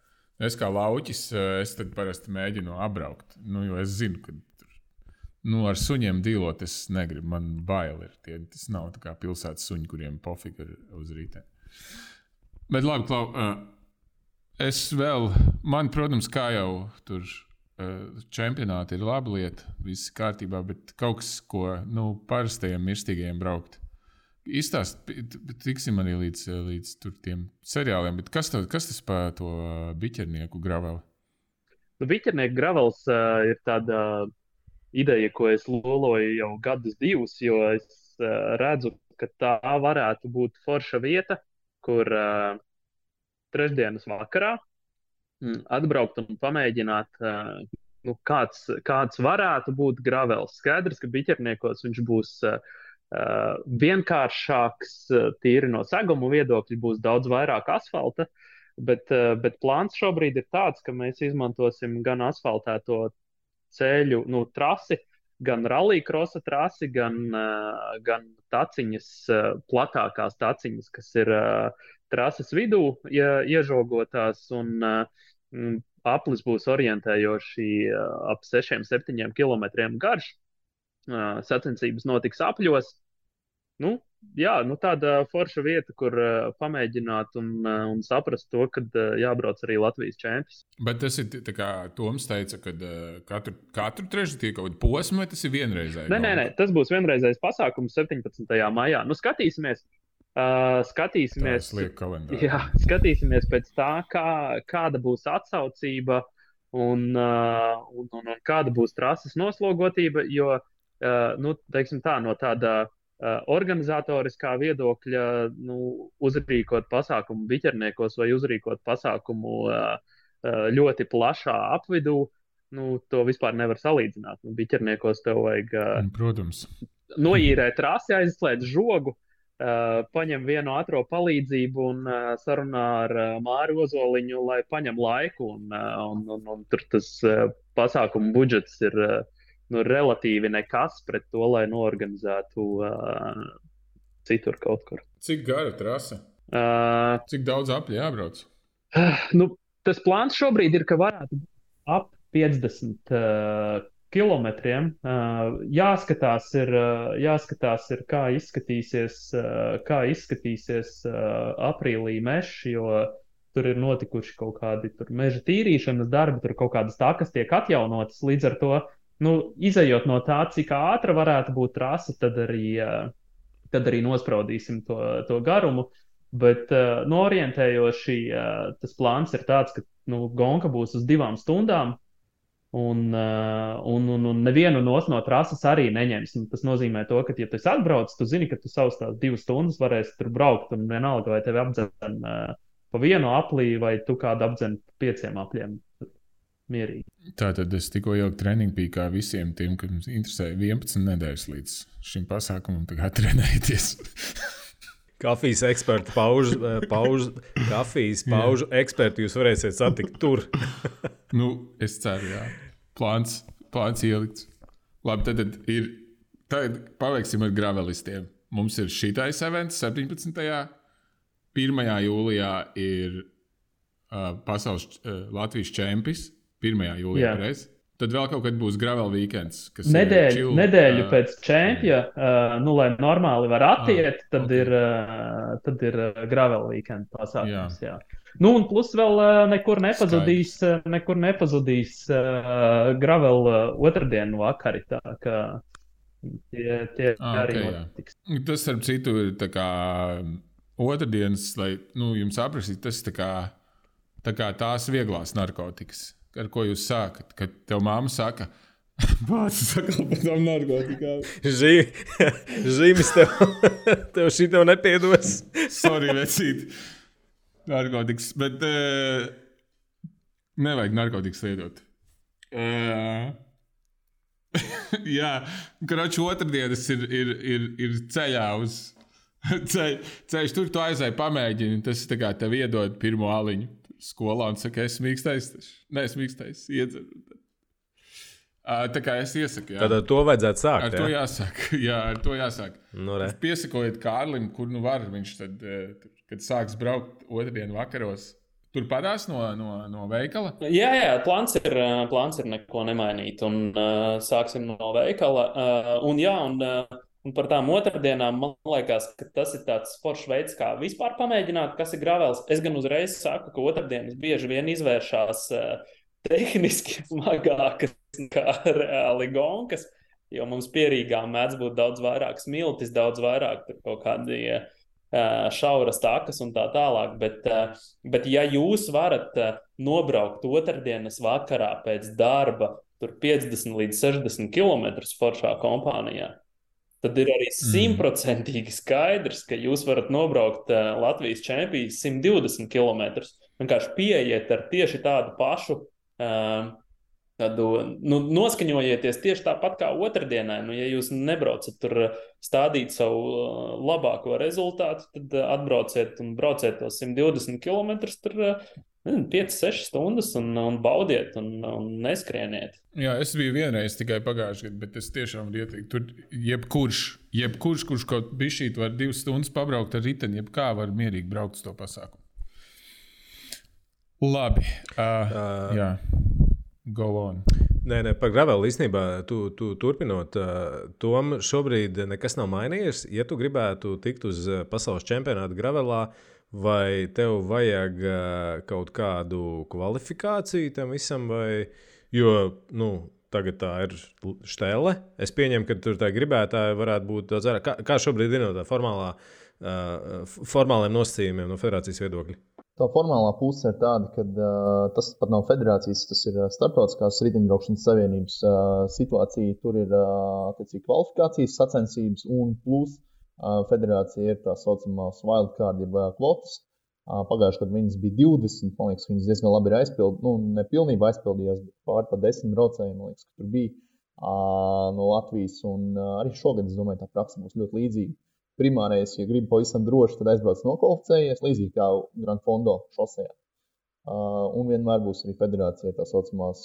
es kā lauķis, es tad parasti mēģinu apbraukt. Jo es zinu, ka ar suņiem dīlot es negribu. Man bail ir. Tas nav tā kā pilsētas suņi, kuriem pofīgi ir uz rītē. Bet labi, Klau, man, protams, kā jau tur čempionāti ir laba lieta, viss kārtībā, bet kaut kas, ko parastajiem mirstīgajiem braukt. Tiksim arī līdz tur tiem seriāliem, bet kas tas par to biķernieku graveli? Biķernieku gravels ir tāda ideja, ko es loloju jau gadus 2, jo es redzu, ka tā varētu būt forša vieta, kur trešdienas vakarā atbraukt un pamēģināt, kāds varētu būt gravels. Skaidrs, ka biķerniekos viņš būs vienkāršāks, tīri no seguma viedokļa, būs daudz vairāk asfalta, bet plāns šobrīd ir tāds, ka mēs izmantosim gan asfaltēto ceļu, trasi, gan rallycrossa trasi, gan taciņas, platākās taciņas, kas ir trases vidū iežogotās, un aplis būs orientējoši ap 6-7 kilometriem garš. Sacensības notiks apļos. Tāda forša vieta, kur pamēģināt un saprast to, kad jābrauc arī Latvijas čempions. Bet tas ir tā kā Toms teica, ka katru trešdien kaut kāda posma, vai tas ir vienreizēji? Nē, tas būs vienreizējs pasākums 17. maijā. Skatīsimies. Skatīsimies pēc tā, kāda būs atsaucība un kāda būs trases noslogotība, jo, teiksim tā, no tāda organizatoriskā viedokļa uzrīkot pasākumu biķerniekos vai uzrīkot pasākumu ļoti plašā apvidū, to vispār nevar salīdzināt. Biķerniekos tev vajag protams. Noīrēt trasi, aizslēgt žogu, paņem vienu ātro palīdzību un sarunā ar Māru Ozoliņu, lai paņem laiku. Un tur tas pasākumu budžets ir relatīvi nekas pret to, lai noorganizētu citur kaut kur. Cik gara trase? Cik daudz apļi jābrauc? Tas plāns šobrīd ir, ka varētu būt ap 50 kilometriem. Jāskatās ir, kā izskatīsies aprīlī mežs, jo tur ir notikuši kaut kādi meža tīrīšanas darbi, tur kaut kādas takas tiek atjaunotas, līdz ar to izejot no tā, cik ātra varētu būt trase, tad arī nospraudīsim to garumu. Bet orientējoši tas plāns ir tāds, ka gonka būs uz 2 stundām, un nevienu no trases arī neņems. Tas nozīmē to, ka, ja tu esi atbraucis, tu zini, ka tu savus tās 2 stundas varēsi tur braukt, un vienalga, vai tevi apdzen pa vienu aplī, vai tu kādu apdzen 5 apļiem. Mierīgi. Tātad es tikko jau treniņu pīkā visiem tiem, kas mums interesē 11 nedēļas līdz šim pasākumam, tagad trenēties. Kafijas ekspertu paužu ekspertu jūs varēsiet satikt tur. Es ceru, jā. Plāns ielikts. Labi, tad paveiksim ar gravelistiem. Mums ir šitais events 17. 1. jūlijā ir pasaules Latvijas čempis. 1. jūlijā reiz. Tad vēl kaut kad būs gravel weekends. Nedēļu pēc čempja, lai normāli var attiet, tad ir gravel weekend pasākums. Jā. Un plus vēl nekur nepazudīs gravel otrdienu vakari. Tā kā tie arī notiks. Tas, starp citu, ir tā kā otrdienas, lai jums aprakstīt, tas tā kā tās vieglās narkotikas. Ar ko jūs sākat? Kad tev māma saka, bācis sakal par tām narkotikām. Zīmes tev šito nepiedos. Sorry, vecīt. Narkotikas, bet nevajag narkotikas lietot. Jā, kroči otrdienas ir ceļā uz ceļš. Tur tu aizēji pamēģini, tas tā kā tev iedod pirmo aliņu. Skolā un saka, es mīkstais. Nē, es mīkstais, iedzeru. Tā kā es iesaku, jā. Tad ar to vajadzētu sākt, ar to jāsāk. Jā, ar to jāsāk. Piesakojiet Kārlim, kur var. Viņš tad, kad sāks braukt otrdienu vakaros, tur padās no veikala? Jā, plāns ir neko nemainīt. Un sāksim no veikala. Un par tām otrdienām, man liekas, ka tas ir tāds foršs veids, kā vispār pamēģināt, kas ir gravels. Es gan uzreiz saku, ka otrdienas bieži vien izvēršās tehniski smagākas nekā reāli gonkas, jo mums pierīgā mēdz būt daudz vairāk smiltis, daudz vairāk kaut kādi šauras takas un tā tālāk. Bet ja jūs varat nobraukt otrdienas vakarā pēc darba tur 50 līdz 60 kilometrus foršā kompānijā, tad ir arī 100% skaidrs, ka jūs varat nobraukt Latvijas čempijas 120 km. Vienkārši pieiet ar tieši tādu pašu, noskaņojieties tieši tāpat kā otrdienai. Ja jūs nebraucat tur stādīt savu labāko rezultātu, tad atbrauciet un brauciet tos 120 km, tur 5-6 stundas un baudiet un neskrieniet. Jā, es biju vienreiz tikai pagājušajā gadā, bet es tiešām varu ieteikt. Tur jebkurš, kurš kaut bišķīt var 2 stundas pabraukt ar riteni, jebkā var mierīgi braukt uz to pasākumu. Labi. Jā. Go on. Nē, par gravelu īstenībā tu turpinot. Tom šobrīd nekas nav mainījies. Ja tu gribētu tikt uz pasaules čempionātu gravelā, vai tev vajag kaut kādu kvalifikāciju tam visam, vai, jo, tagad tā ir štele. Es pieņemu, ka tur tā gribētāja varētu būt daudz vairāk. Kā šobrīd ir no tā formāliem nosacījumiem no federācijas viedokļa? Tā formālā puse ir tāda, ka tas pat nav federācijas, tas ir starptautiskās riteņbraukšanas savienības situācija. Tur ir attiecīgi kvalifikācijas sacensības un plus federācija ir tā saucamās wildcard, jeb kvotas. Pagājušajā gadā viņas bija 20, man liekas, viņas diezgan labi ir aizpildījās. Ne pilnībā aizpildījās, bet pāri pa 10 braucējiem, man liekas, ka tur bija no Latvijas. Un arī šogad, es domāju, tā praksa būs ļoti līdzīga. Primārais, ja gribi pavisam droši, tad aizbrauc nokvalificējies, līdzīgi kā Grand Fondo šosejā. Un vienmēr būs arī federācija tā saucamās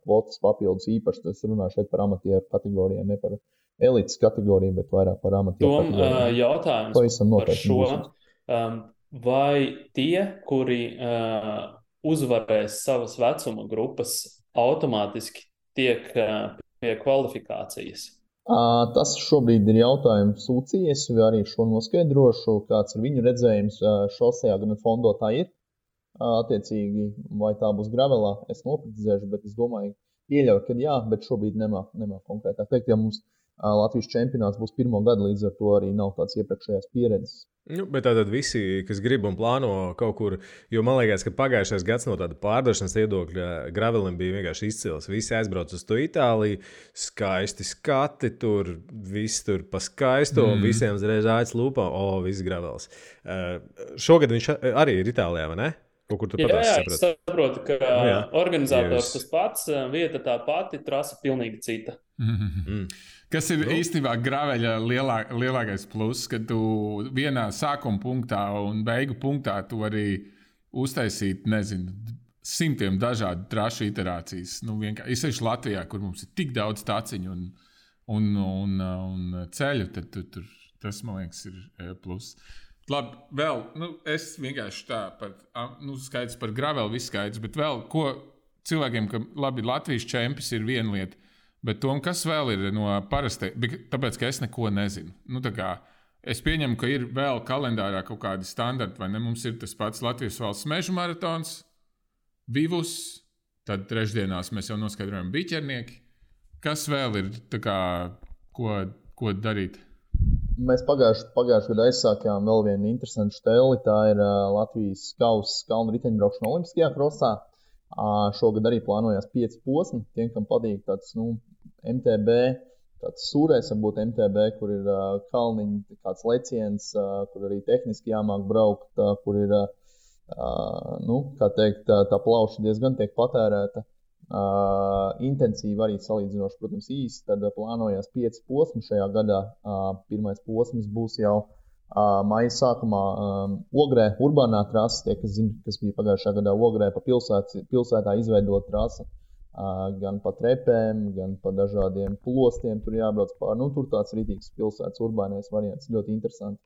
kvotas papildus īpaši. Es runāju šeit par amatieru kategorijām, ne par elites kategoriju, bet vairāk par amatieru kategorijām. Jautājums par šo. Vai tie, kuri uzvarēs savas vecuma grupas, automātiski tiek pie kvalifikācijas? Tas šobrīd ir jautājums UCIS, vai arī šo noskaidrošu, kāds ir viņu redzējums šosejā, gan Fondo tā ir. Attiecīgi, vai tā būs gravelā, es noprecizēšu, bet es domāju, pieļauju, ka jā, bet šobrīd nemāk konkrētāk teikt, ja mums Latvijas čempionāts būs pirmo gadu, līdz ar to arī nav tāds iepriekšējās pieredzes. Bet tātad visi, kas grib un plāno kaut kur, jo man liekas, ka pagājušais gads no tāda pārdošanas viedokļa gravelim bija vienkārši izcils. Visi aizbrauc uz to Itāliju, skaisti skati tur, viss tur pa skaisto, visiem uzreiz āķis lūpā, viss gravels. Šogad viņš arī ir Itālijā, vai ne? Jā, es saprotu, ka organizators tas pats, vieta tā pati, trasa pilnīgi cita. Kas ir īstenībā graveļa lielākais pluss, ka tu vienā sākuma punktā un beigu punktā tu vari uztaisīt, nezinu, simtiem dažādu trašu iterācijas. Īpaši Latvijā, kur mums ir tik daudz taciņu un ceļu, tad tas, man liekas, ir pluss. Labi, vēl, es vienkārši tā skaidrs par graveli, viss skaidrs, bet vēl, ko cilvēkiem, ka labi, Latvijas čempions ir viena lieta, bet Tom, kas vēl ir no parastai, tāpēc, ka es neko nezinu. Es pieņemu, ka ir vēl kalendārā kaut kādi standarti, vai ne? Mums ir tas pats Latvijas valsts mežu maratons, Vivus, tad trešdienās mēs jau noskaidrojam biķernieki. Kas vēl ir, ko darīt? Mēs pagājušajā gadā aizsākām vēl vienu interesantu šteli. Tā ir Latvijas kausa kalnu riteņbraukšana olimpiskajā krosā. Šogad arī plānojās 5 posmi. Tiem, kam patīk tāds MTB, tāds sūrais varbūt MTB, kur ir kalniņi, kāds leciens, kur arī tehniski jāmāk braukt, kur ir, kā teikt, tā plauša diezgan tiek patērēta. Intensīvi arī salīdzinoši, protams, īsi, tad plānojās 5 posmi šajā gadā. Pirmais posms būs jau maija sākumā Ogrē, urbānā trasa, tie, kas zina, kas bija pagājušā gadā Ogrē, pa pilsētā izveidot trasa, gan pa trepēm, gan pa dažādiem plostiem, tur jābrauc pār, tur tāds rītīgs pilsētas urbānais variants, ļoti interesanti.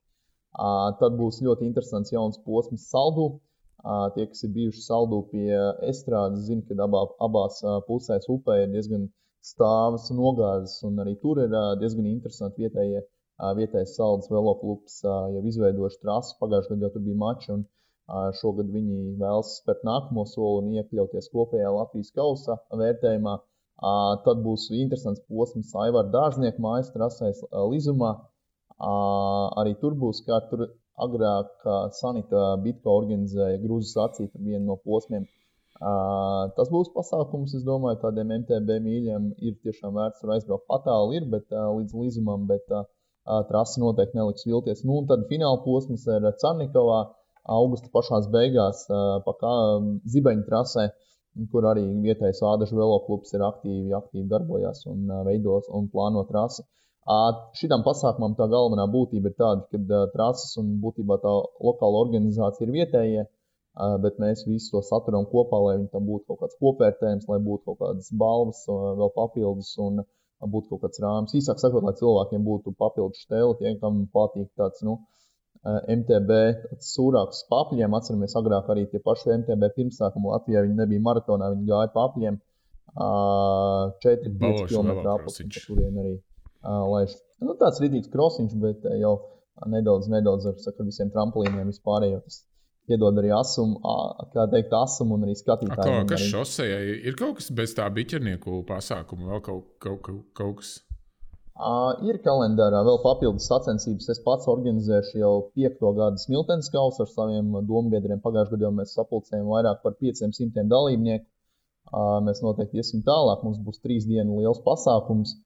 Tad būs ļoti interesants jauns posms Saldū. Tie, kas ir bijuši Saldū pie estrādes, zina, ka abās pusēs upē ir diezgan stāvas un nogāzes, un arī tur ir diezgan interesanti vietējais Saldas veloklubs jau izveidojuši trasi. Pagājušajā gadā jau tur bija mači, un šogad viņi vēlas spērt nākamo soli un iekļauties kopējā Latvijas kausa vērtējumā. Tad būs interesants posms Aivara Dārznieka mājas trasēs Lizumā. Arī tur būs kā tur. Agrāk Sanita Bitko organizēja Grūzu sacīt ar vienu no posmiem. Tas būs pasākums, es domāju, tādiem MTB mīļiem ir tiešām vērts tur aizbraukt. Patāli ir, bet līdz Līzumam, bet trasi noteikti neliks vilties. Un tad fināla posms ir Carnikovā, augusta pašās beigās, pa Zibeņu trasē, kur arī vietējais Ādažu veloklubs ir aktīvi darbojās un veidos un plāno trasi. Šitam pasākumam tā galvenā būtība ir tāda, ka trases un būtībā tā lokāla organizācija ir vietējie, bet mēs visu to saturam kopā, lai viņi tam būtu kaut kāds kopvērtējums, lai būtu kaut kādas balvas vēl papildus un būtu kaut kāds rāms. Īsāk sakot, lai cilvēkiem būtu papildus štēli, tie, kam patīk tāds, MTB tāds sūrāks papļiem. Atceramies agrāk arī tie paši MTB pirmsākumu Latvijā, viņi nebija maratonā, viņi gāja papļiem 4-5 km apakšņi, kurien arī. Tāds rītīgs krosiņš, bet jau nedaudz ar visiem trampolīniem vispārējo. Tas iedod arī asumu un arī skatītājiem. Kas šosejai ir kaut kas bez tā biķernieku pasākuma, vēl kaut kas? Ir kalendārā vēl papildus sacensības. Es pats organizēšu jau 5. gadu Smiltenes kausu ar saviem dombiedriem. Pagājušajā gadā mēs sapulcējām vairāk par 500 dalībnieku. Mēs noteikti iesim tālāk. Mums būs 3 dienu liels pasākums.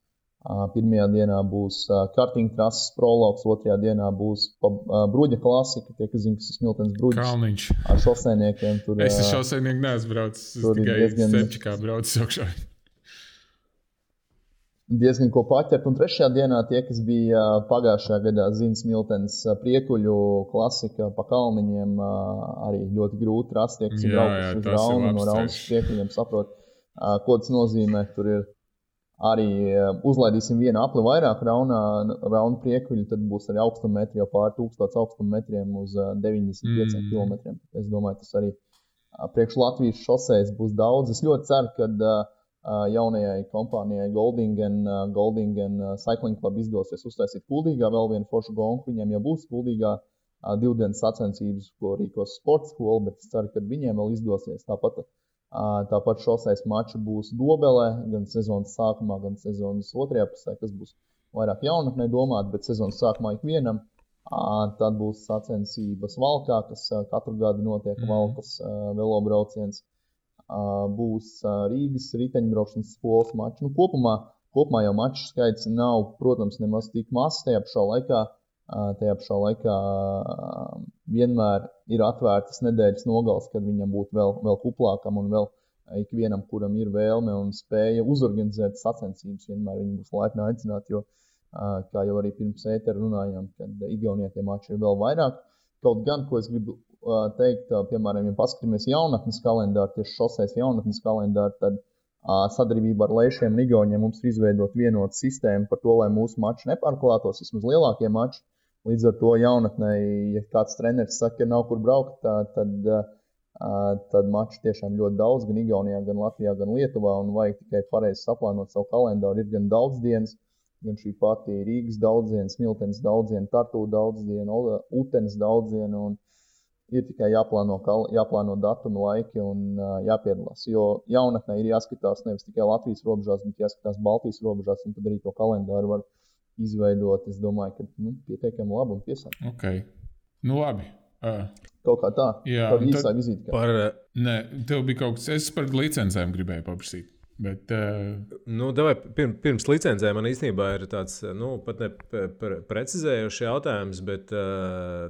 Pirmajā dienā būs karting trases prologs, otrajā dienā būs bruģa klasika, tie, kas zina, kas ir Smiltenes bruģis. Kalniņš. Ar šoseiniekiem. Es ar šoseinieku neesmu braucis, es tikai Sepčikā braucis augšā. Diezgan ko paķert, un trešajā dienā tie, kas bija pagājušajā gadā zina Smiltenes priekuļu klasika pa kalniņiem, arī ļoti grūti rast, tie, kas ir braukuši uz Raunu, no Raunas priekuļiem saprot, ko tas nozīmē. Tur ir arī uzlaidīsim vienu apli vairāk Rauna priekuļu, tad būs arī augstumetri jau pār 1000 augstumetriem uz 95 kilometriem. Es domāju, tas arī priekš Latvijas šosejas būs daudz. Es ļoti ceru, ka jaunajai kompānijai Goldingen Cycling Club izdosies uztaisīt Kuldīgā vēl vienu foršu gonku. Viņiem jau būs Kuldīgā 2 dienas sacensības, ko rīkos sporta skola, bet es ceru, ka viņiem vēl izdosies. Tāpat šosejas mači būs Dobelē, gan sezonas sākumā, gan sezonas otrajā pusē, kas būs vairāk jaunatnē domāt, bet sezonas sākumā ikvienam. Tad būs sacensības Valkā, kas katru gadu notiek Valkas velobrauciens. Būs Rīgas riteņbraukšanas skolas mači. Kopumā jau maču skaits nav, protams, nemaz tik mazs. Tajā pašā laikā vienmēr ir atvērtas nedēļas nogales, kad viņam būtu vēl kuplākam un vēl ikvienam, kuram ir vēlme un spēja uzorganizēt sacensības. Vienmēr viņi būs laipni aicināti, jo, kā jau arī pirms ētera runājām, kad Igaunijā tie mači ir vēl vairāk. Kaut gan, ko es gribu teikt, piemēram, ja paskatāmies jaunatnes kalendāru, tieši šosejas jaunatnes kalendāru, tad sadarbībā ar Leišiem un Igauniem mums ir izveidot vienotu sistēmu par to, lai mūsu mači nepārklātos, vismaz lielākie mači. Līdz ar to jaunatnē, ja kāds treneris saka, ka nav kur braukt, tad mači tiešām ļoti daudz, gan Igaunijā, gan Latvijā, gan Lietuvā, un vajag tikai pareizi saplānot savu kalendāru. Ir gan daudz dienas, gan šī pati Rīgas daudziena, Smiltenes daudziena, Tartu daudziena, Utenes daudziena, un ir tikai jāplāno datumi, laiki un jāpiedalās. Jo jaunatnē ir jāskatās nevis tikai Latvijas robežās, bet jāskatās Baltijas robežās, un tad arī to kalendāru var izveidot. Es domāju, ka pietiekami labi un piesākt. Ok, labi. Kaut kā tā, tāda īsā vizīte. Nē, tev bija kaut kas, es par licencēm gribēju paprasīt. Bet, davai, pirms licencēm man īstenībā ir tāds, pat ne precizējošs jautājums, bet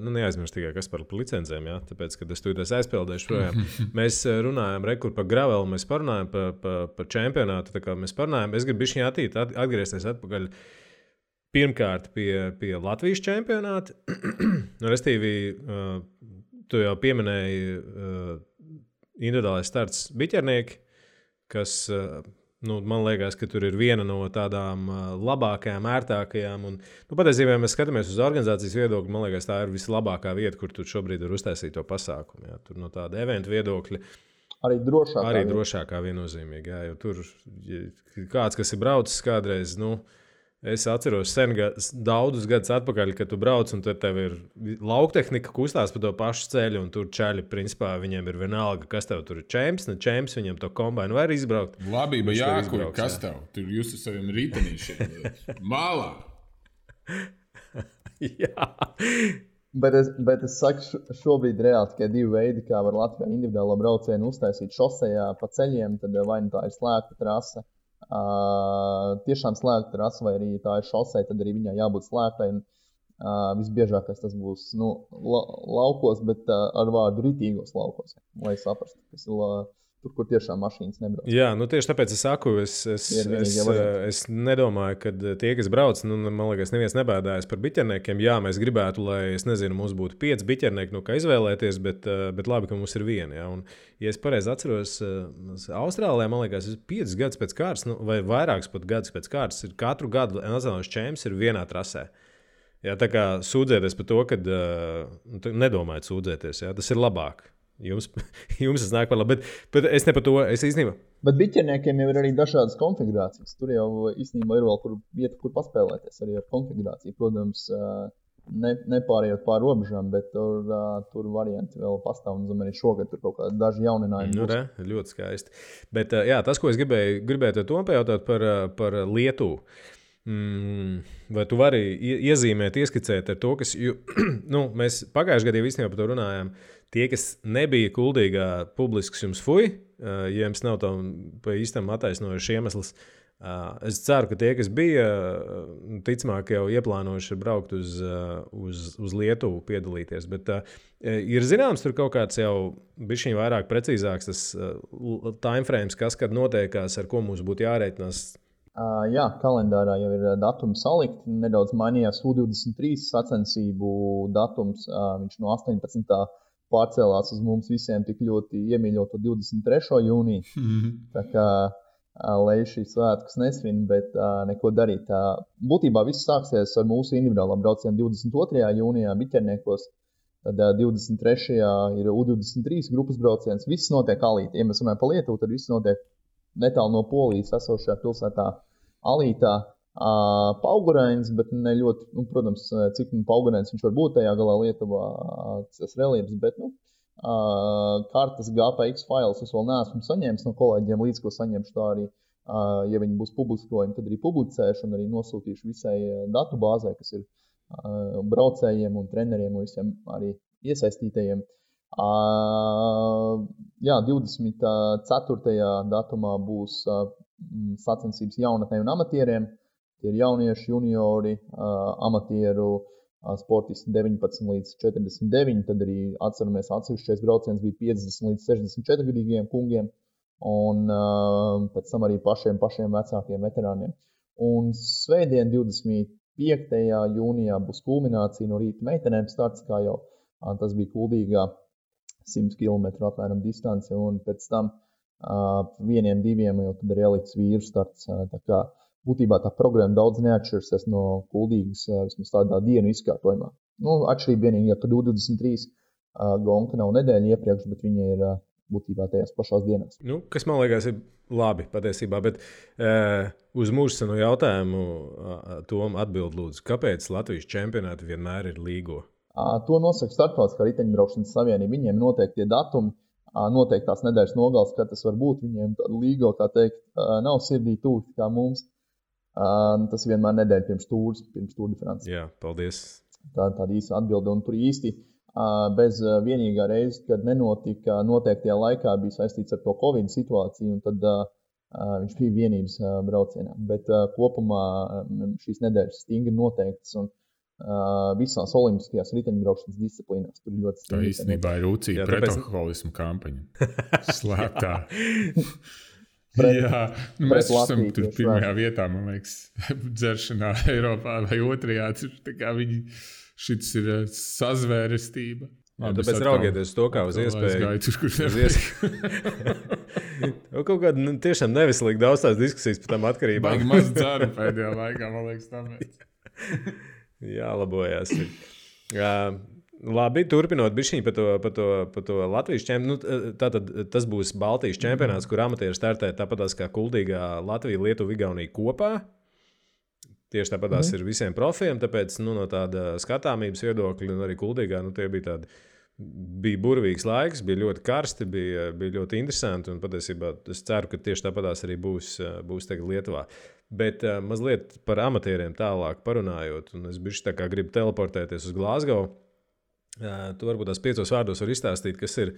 neaizmirst tikai, kas par licencēm, jā, tāpēc, kad es tūlīt aizpildēšu projām. Mēs runājam rekur par gravelu, mēs parunājam par čempionātu, tā kā mēs parunājam, es gribu bišķiņ atgriezties atpakaļ pirmkārt pie Latvijas čempionāta, restīvi, tu jau pieminēji individuālais starts biķernieki, kas, man liekas, ka tur ir viena no tādām labākajām, ērtākajām. Un, patiesībā, ja mēs skatāmies uz organizācijas viedokļu, man liekas, tā ir vislabākā vieta, kur tu šobrīd var uztaisīt to pasākumu. Jā. Tur no tāda eventu viedokļa arī drošākā viennozīmīgi. Jā, jo tur kāds, kas ir braucis kādreiz, es atceros sen daudzus gadus atpakaļ, kad tu brauc un tad tev ir lauktehnika kustās pa to pašu ceļu un tur čaļi, principā, viņiem ir vienalga, kas tev tur ir čemps, ne čemps, viņam to kombainu var izbraukt. Labība jākur, kas tev? Tur jūs ar saviem ritenīšiem. Mālā! Jā. Bet es saku, šobrīd reāli tikai 2 veidi, kā var Latvijā individuālo braucienu uztaisīt šosejā pa ceļiem, tad vai tā ir slēgta trase. Tiešām slēgta trase, vai arī tā ir šosei, tad arī viņai jābūt slēgtai. Visbiežākais tas būs laukos, bet ar vārdu ritīgos laukos, lai saprastu, kas ir tur, kur tiešām mašīnas nebrauc. Jā, tieši tāpēc es saku, es nedomāju, ka tie, kas brauc, man liekas, neviens nebēdājas par biķerniekiem. Jā, mēs gribētu, lai, es nezinu, mums būtu 5 biķernieki, kā izvēlēties, bet labi, ka mums ir viena. Ja? Un, ja es pareizi atceros, Austrālijā, man liekas, 5 gadus pēc kārtas, vai vairākus pat gadus pēc kārtas, ir katru gadu nacionālais čemps ir vienā trasē. Jā, tā kā sūdzēties par to, ka nedomājat sūdzēties, jā, tas ir labāk. Jums tas nāk par labi, bet es ne par to, es īstenībā. Bet biķerniekiem jau ir arī dažādas konfigurācijas. Tur jau īstenībā ir vēl vieta, kur paspēlēties arī ar konfigurāciju. Protams, nepārējot pār robežām, bet tur varianti vēl pastāv. Un arī šogad tur kaut kādi daži jauninājumi. Ļoti skaisti. Bet jā, tas, ko es gribēju to pajautāt par Lietuvu. Vai tu vari iezīmēt, ieskicēt ar to, kas, mēs pagājušajā gadā īstenībā par to runājām, tie, kas nebija Kuldīgā publisks jums fuj, ja jums nav tam pa īstam attaisnojuši iemesls, Es ceru, ka tie, kas bija, ticamāk jau ieplānojuši braukt uz Lietuvu piedalīties. Bet ir zināms, tur kaut kāds jau bišķiņ vairāk precīzāks tas timeframes, kas kad notiekās, ar ko mums būtu jārēķinās. Jā, kalendārā jau ir datumi salikti. Nedaudz mainījās U23 sacensību datums. Viņš no 18. pārcēlās uz mums visiem tik ļoti iemīļoto 23. jūniju. Tā kā lai šīs svētkus nesvin, bet neko darīt. Būtībā viss sāksies ar mūsu individuālām braucienu 22. jūnijā Biķerniekos. Tad 23. ir U23 grupas brauciens. Viss notiek Alītā. Ja mēs runājam par Lietuvu, tad viss notiek netālu no Polijas esošajā pilsētā Alītā. Paugurains, bet ne ļoti, protams, cik paugurains viņš var būt tajā galā Lietuvā, tas reliefs, bet, kartas GPX failus es vēl neesmu saņēmis no kolēģiem, līdz ko saņemšu tā arī, ja viņi būs publiskojumi, tad arī publicēšu un arī nosūtīšu visai datu bāzē, kas ir braucējiem un treneriem un visiem arī iesaistītajiem. Jā, 24. datumā būs sacensības jaunatnē un amatieriem. Tie ir jaunieši, juniori, amatieru, sportisti 19 līdz 49, tad arī atceramies atsevišķais brauciens bija 50 līdz 64 gadīgiem kungiem un pēc tam arī pašiem vecākiem veterāniem. Un svētdien 25. jūnijā būs kulminācija no rīta meitenēm starts, kā jau tas bija Kuldīgā 100 km apmēram distance, un pēc tam 1-2 jau tad ir elites vīru starts. Tā kā būtībā tā programma daudz neatšķirsies no Kuldīgas, vismaz tādā dienu izkārtojumā. Atšķirība vienīgi, ka 23 gonka nav nedēļa iepriekš, bet viņa ir būtībā tajās pašās dienās. Kas man liekas ir labi patiesībā, bet uz mūsu jautājumu Tom atbild lūdzu, kāpēc Latvijas čempionāti vienmēr ir līgo? To nosaka Startautiskā riteņbraukšanas savienība. Viņiem noteikti tie datumi, noteiktās nedēļas nogales, kad tas var būt. Viņiem līgo, kā teikt, nav sirdī tuvi kā mums. Tas vienmēr nedēļa pirms Tour de France. Jā, paldies. Tāda īsa atbilde. Un tur īsti bez vienīgā reize, kad nenotika noteiktajā laikā, bija saistīts ar to Covid situāciju, un tad viņš bija vienības braucienā. Bet kopumā šīs nedēļas stingri noteiktas un visās olimpiskajās riteņbraukšanas disciplīnās. Tur ļoti stingri. Tā īstenībā ir rūcīga pretalkoholismu kampaņa. Slēptā. Jā, mēs esam tur pirmajā vietā, man liekas, dzeršanā Eiropā vai otrajā. Šis ir sazvērestība. Tāpēc raugieties to kā uz iespēju. Kaut kāda tiešām neveselīga daudz tās diskusijas par tām atkarībām. Baigi maz dzeru pēdējā laikā, man liekas, tāpēc. Jālabojās. Labi, turpinot bišķiņ par to Latvijas čempionātu. Tātad tas būs Baltijas čempionāts, kur amatieri startē tāpatās kā Kuldīgā Latvija, Lietuva, Igaunija kopā. Tieši tāpatās ir visiem profiem, tāpēc no tāda skatāmības viedokļa un arī Kuldīgā tie bija burvīgs laiks, bija ļoti karsti, bija ļoti interesanti un patiesībā es ceru, ka tieši tāpatās arī būs tagad Lietuvā. Bet mazliet par amatieriem tālāk parunājot, un es bišķi tā kā gribu teleportēties uz Glasgow. Tu varbūt tās 5 vārdos var izstāstīt, kas ir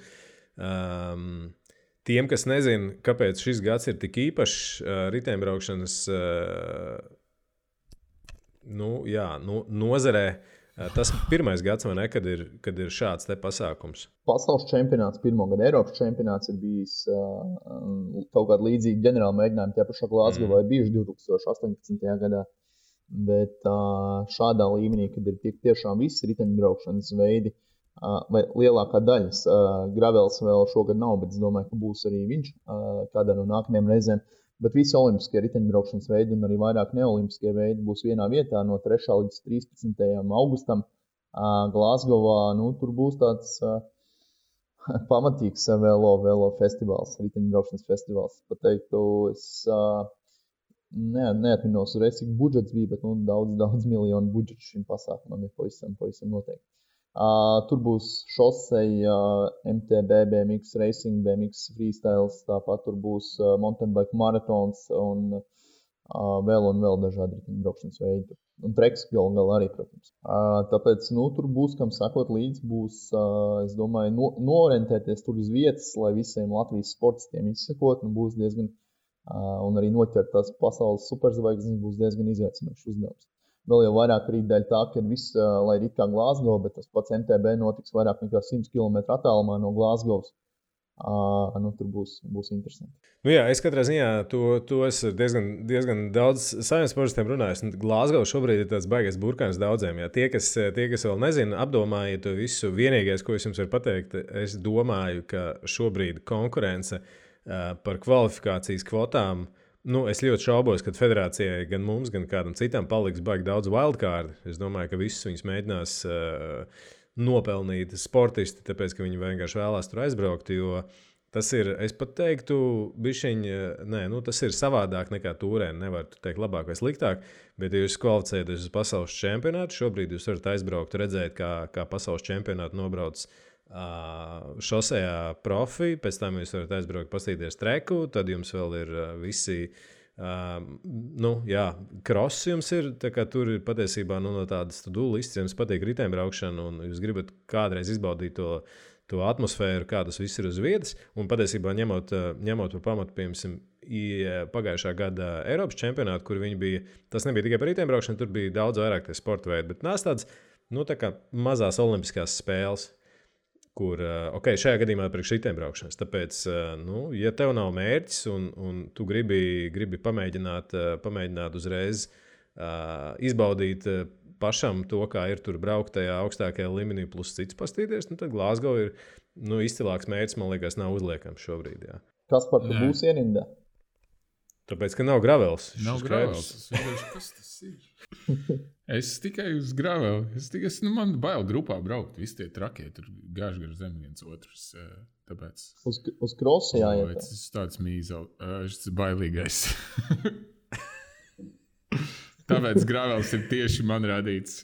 tiem, kas nezina, kāpēc šis gads ir tik īpašs riteņbraukšanas nozarē. Tas pirmais gads, vai ne, kad ir šāds te pasākums? Pasaules čempionāts, pirmo gadu Eiropas čempionāts ir bijis kaut kāda līdzīga ģenerāla mēģinājuma. Tie pašā Glasgowā ir bijuši 2018. gadā. Bet šādā līmenī, kad ir tiešām visi riteņbraukšanas veidi, vai lielākā daļas, gravels vēl šogad nav, bet es domāju, ka būs arī viņš kādā no nākamajām reizēm. Bet visi olimpiskie riteņbraukšanas veidi un arī vairāk neolimpiskie veidi būs vienā vietā no 3. līdz 13. augustam Glasgowā. Tur būs tāds pamatīgs velo festivāls, riteņbraukšanas festivāls. Pateiktu, es neatminos reiz, cik budžets bija, bet daudz miljonu budžets šim pasākumam ir pavisam noteikti. Tur būs šoseja, MTB, BMX Racing, BMX Freestyles, tāpat tur būs mountain bike maratons un vēl dažādi riteņbraukšanas veidi. Un treks galā arī, protams. Tāpēc, tur būs, kam sakot līdz, būs, es domāju, noorientēties tur uz vietas, lai visiem Latvijas sportistiem izsekot, būs diezgan un arī noķert tās pasaules superzvaigznes būs diezgan izaicinošs uzdevums. Vēl jau vairāk arī dēļ tā, ka viss, lai ir it kā Glasgow, bet tas pats MTB notiks vairāk nekā 100 km attālumā no Glasgows. Tur būs interesanti. Jā, es katrā ziņā to esmu diezgan daudz saviem sportistiem runājis. Glasgow šobrīd ir tāds baigais burkāns daudziem. Jā. Tie, kas vēl nezina, apdomājiet to visu. Vienīgais, ko es jums varu pateikt, es domāju, ka šobrīd konkurence par kvalifikācijas kvotām, es ļoti šaubos, ka federācijai gan mums, gan kādam citam paliks baigi daudz wildcard. Es domāju, ka visus viņus mēģinās nopelnīt sportisti, tāpēc, ka viņi vienkārši vēlās tur aizbraukt, jo tas ir, es pat teiktu, tas ir savādāk nekā turēni. Nevar teikt labāk vai sliktāk, bet ja jūs kvalificējaties uz pasaules čempionātu, šobrīd jūs varat aizbraukt, redzēt, kā pasaules čempionātu nobrauc šosejā profi, pēc tam jūs varat aizbraukt, pastīties treku, tad jums vēl ir visi kross jums ir, tā kā tur ir patiesībā no tādas to-do listas, jums patīk riteņbraukšana un jūs gribat kādreiz izbaudīt to atmosfēru, kā tas viss ir uz vietas, un patiesībā ņemot par pamatu, piemēram, pagājušā gada Eiropas čempionātu, kur viņi bija, tas nebija tikai par riteņbraukšanu, tur bija daudz vairāk tie sporta veidi, bet nāc tāds, tā kā mazās olimpiskās spēles, kur, šajā gadījumā priekš riteņbraukšanas. Tāpēc, ja tev nav mērķis un tu gribi pamēģināt uzreiz izbaudīt pašam to, kā ir tur braukt tajā augstākajā līmenī plus cits pastīties, tad Glasgow ir izcilāks mērķis, man liekas, nav uzliekams šobrīd. Jā. Kas par to būs ierindā? Tāpēc, ka nav gravels. Nav gravels. Kas tas ir? Es tikai uz gravelu. Man bail grupā braukt. Visi tie trakie tur gāž gar zem viens otrs. Tāpēc... Uz krosu jāiet. Tas ir tāds mīzel. Tas ir bailīgais. Tāpēc gravels ir tieši man radīts.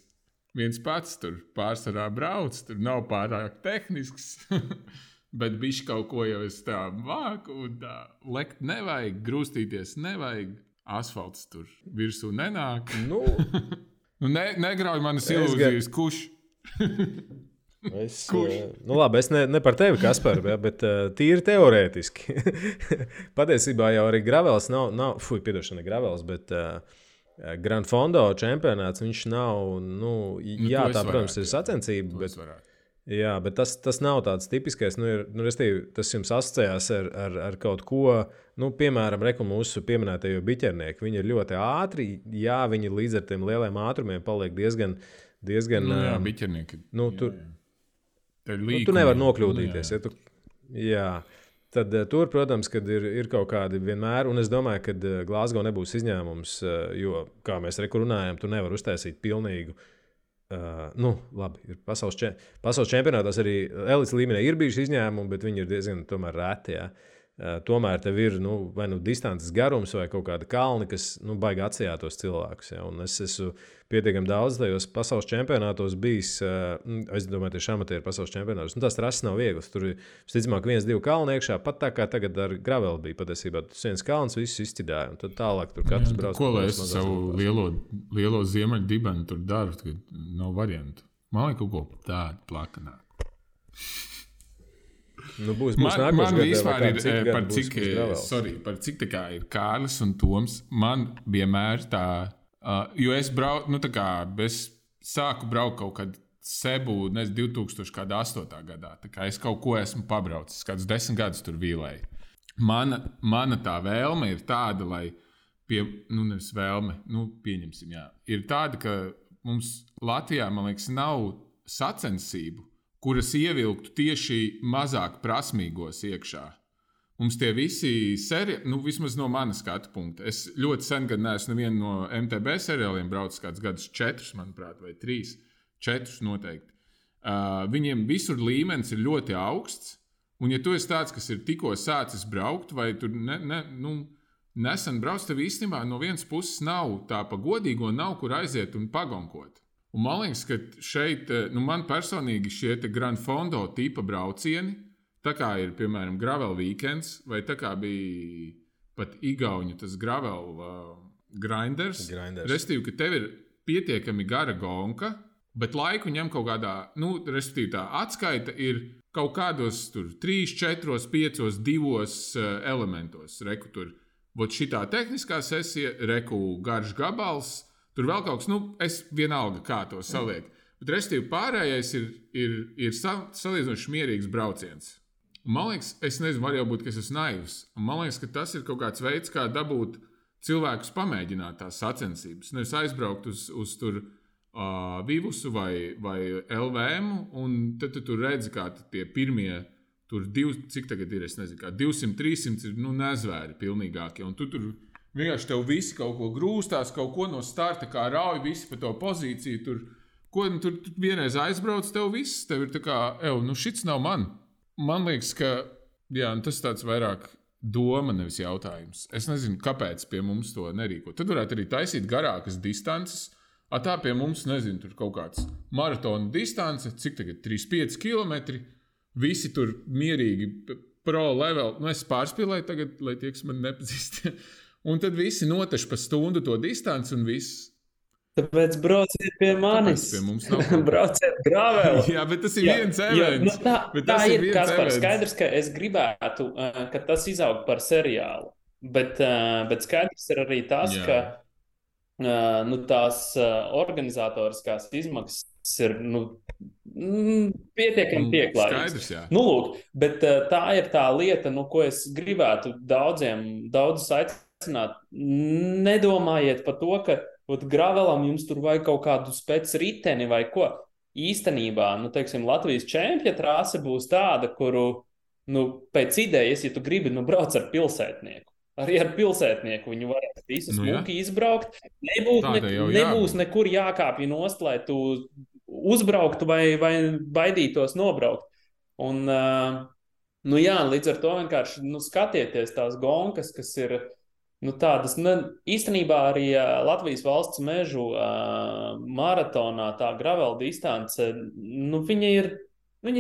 Viens pats tur pārsvarā brauc. Tur nav pārāk tehnisks. Bet bišķi kaut ko jau es tā māku. Un tā lekt nevajag, grūstīties nevajag. Asfalts tur virsū nenāk. Negrauj manas ilūzijas, kurš. Es ne par tevi, Kaspar, bet tīri teorētiski. Patiesībā jau arī gravels nav ne gravels, bet Grand Fondo čempionāts, viņš nav, tā, protams, ir sacensība, bet tas nav tāds tipiskais, tas jums asociējās ar kaut ko, piemēram, mūsu pieminētajie biķernieki, viņi ir ļoti ātri, viņi līdz ar tiem lieliem ātrumiem paliek diezgan biķernieki. Tu nevar nokļūdīties. Tad tur, protams, kad ir kaut kādi vienmēr, un es domāju, ka Glasgow nebūs izņēmums, jo, kā mēs runājam, tu nevar uztaisīt pilnīgu. Labi, ir pasaules čempionātās arī elites līmenī ir bijuši izņēmumi, bet viņi ir diezgan tomēr reti. Jā. Tomēr tev ir vai distances garums vai kaut kāda kalni, kas baigi atsijāt tos cilvēkus. Ja? Un es esmu pietiekami daudz tajos pasaules čempionātos bijis, es domāju, tieši amatieru pasaules čempionātos. Tas trases nav viegls. Tur ir, visticamāk, 1-2 kalni iekšā, pat tā kā tagad ar graveli bija patiesībā. Tas viens kalns visus izķidāja, un tad tālāk tur katrs brauc. Ko lai es savu lielo ziemeļu dibenu tur daru, kad nav variantu? Man vajag kaut ko tādu plakanāku. Būs man vispār ir par cik tā kā ir Kārlis un Toms, man vienmēr tā, jo es braucu, es sāku braukt kaut kad Sebu, 2008. gadā, tā kā es kaut ko esmu pabraucis, kādus 10 gadus tur vīlēju. Mana tā vēlme ir tāda, lai nevis vēlme, pieņemsim, jā, ir tāda, ka mums Latvijā, man liekas, nav sacensību, kuras ievilktu tieši mazāk prasmīgos iekšā. Mums tie visi seriāli, vismaz no manas skatu punkta. Es ļoti sen gan neesmu nevienu no MTB seriāliem braucis kādus gadus 4, manuprāt, vai 3. 4 noteikti. Viņiem visur līmenis ir ļoti augsts, un ja tu esi tāds, kas ir tikko sācis braukt, vai tur nesen brauc, tev īstenībā no vienas puses nav tā pa godīgo, nav kur aiziet un pagonkot. Un man liekas, ka šeit, man personīgi šie Grand Fondo tipa braucieni, tā kā ir, piemēram, Gravel Weekends, vai tā kā bija pat Igauņu tas Gravel Grinders. Restīvi, ka tev ir pietiekami gara gonka, bet laiku ņem kaut kādā, restīvi tā atskaita ir kaut kādos tur 3, 4, 5, 2 elementos. Reku tur vot šitā tehniskā sesija, reku garš gabals, tur vēl kaut kas, es vienalga kā to salieku. Bet restīvi pārējais ir salīdzinoši mierīgs brauciens. Un man liekas, es nezinu, var jau būt, ka es esmu naivs. Un man liekas, ka tas ir kaut kāds veids, kā dabūt cilvēkus pamēģināt tās sacensības. Nevis aizbraukt uz tur Vivusu vai LVM, un tad tu tur redzi, kā tie pirmie, cik tagad ir, es nezinu, kā 200, 300 ir, nezvēri pilnīgākie. Un tu tur vienkārši tev visi kaut ko grūstās, kaut ko no starta, kā rauj visi pa to pozīciju. Tur vienreiz aizbrauc, tev viss, tev ir tā kā, šits nav man. Man liekas, ka tas tāds vairāk doma, nevis jautājums. Es nezinu, kāpēc pie mums to nerīko. Tad varētu arī taisīt garākas distances. Tā pie mums, nezinu, tur kaut kāds maratona distance, cik tagad 3-5 kilometri. Visi tur mierīgi pro level. Es pārspīlēju tagad, lai tie, kas man nepazīst. Un tad visi noteši pa stundu to distanci un viss. Tāpēc brauciet pie manis. Pie mums nav. Brauciet graveli. Jā, bet tas ir viens events. Tā ir, Kaspar, skaidrs, ka es gribētu, ka tas izaug par seriālu. Bet skaidrs ir arī tas, ka tās organizatoriskās izmaksas ir pietiekami pieklājīgas. Skaidrs, jā. Lūk, bet tā ir tā lieta, ko es gribētu daudzus aicināt. Nedomājiet par to, ka gravelam jums tur vajag kaut kādu spec riteni vai ko. Īstenībā, teiksim, Latvijas čempja trase būs tāda, kuru, pēc idejas, ja tu gribi, brauc ar pilsētnieku. Arī ar pilsētnieku viņu varēs visu smuki izbraukt. Nebūs nekur jākāpj nost, lai tu uzbrauktu vai baidītos nobraukt. Un, līdz ar to vienkārši skatieties tās gonkas, kas ir tādas, īstenībā arī Latvijas valsts mežu maratonā tā gravel distance, viņa ir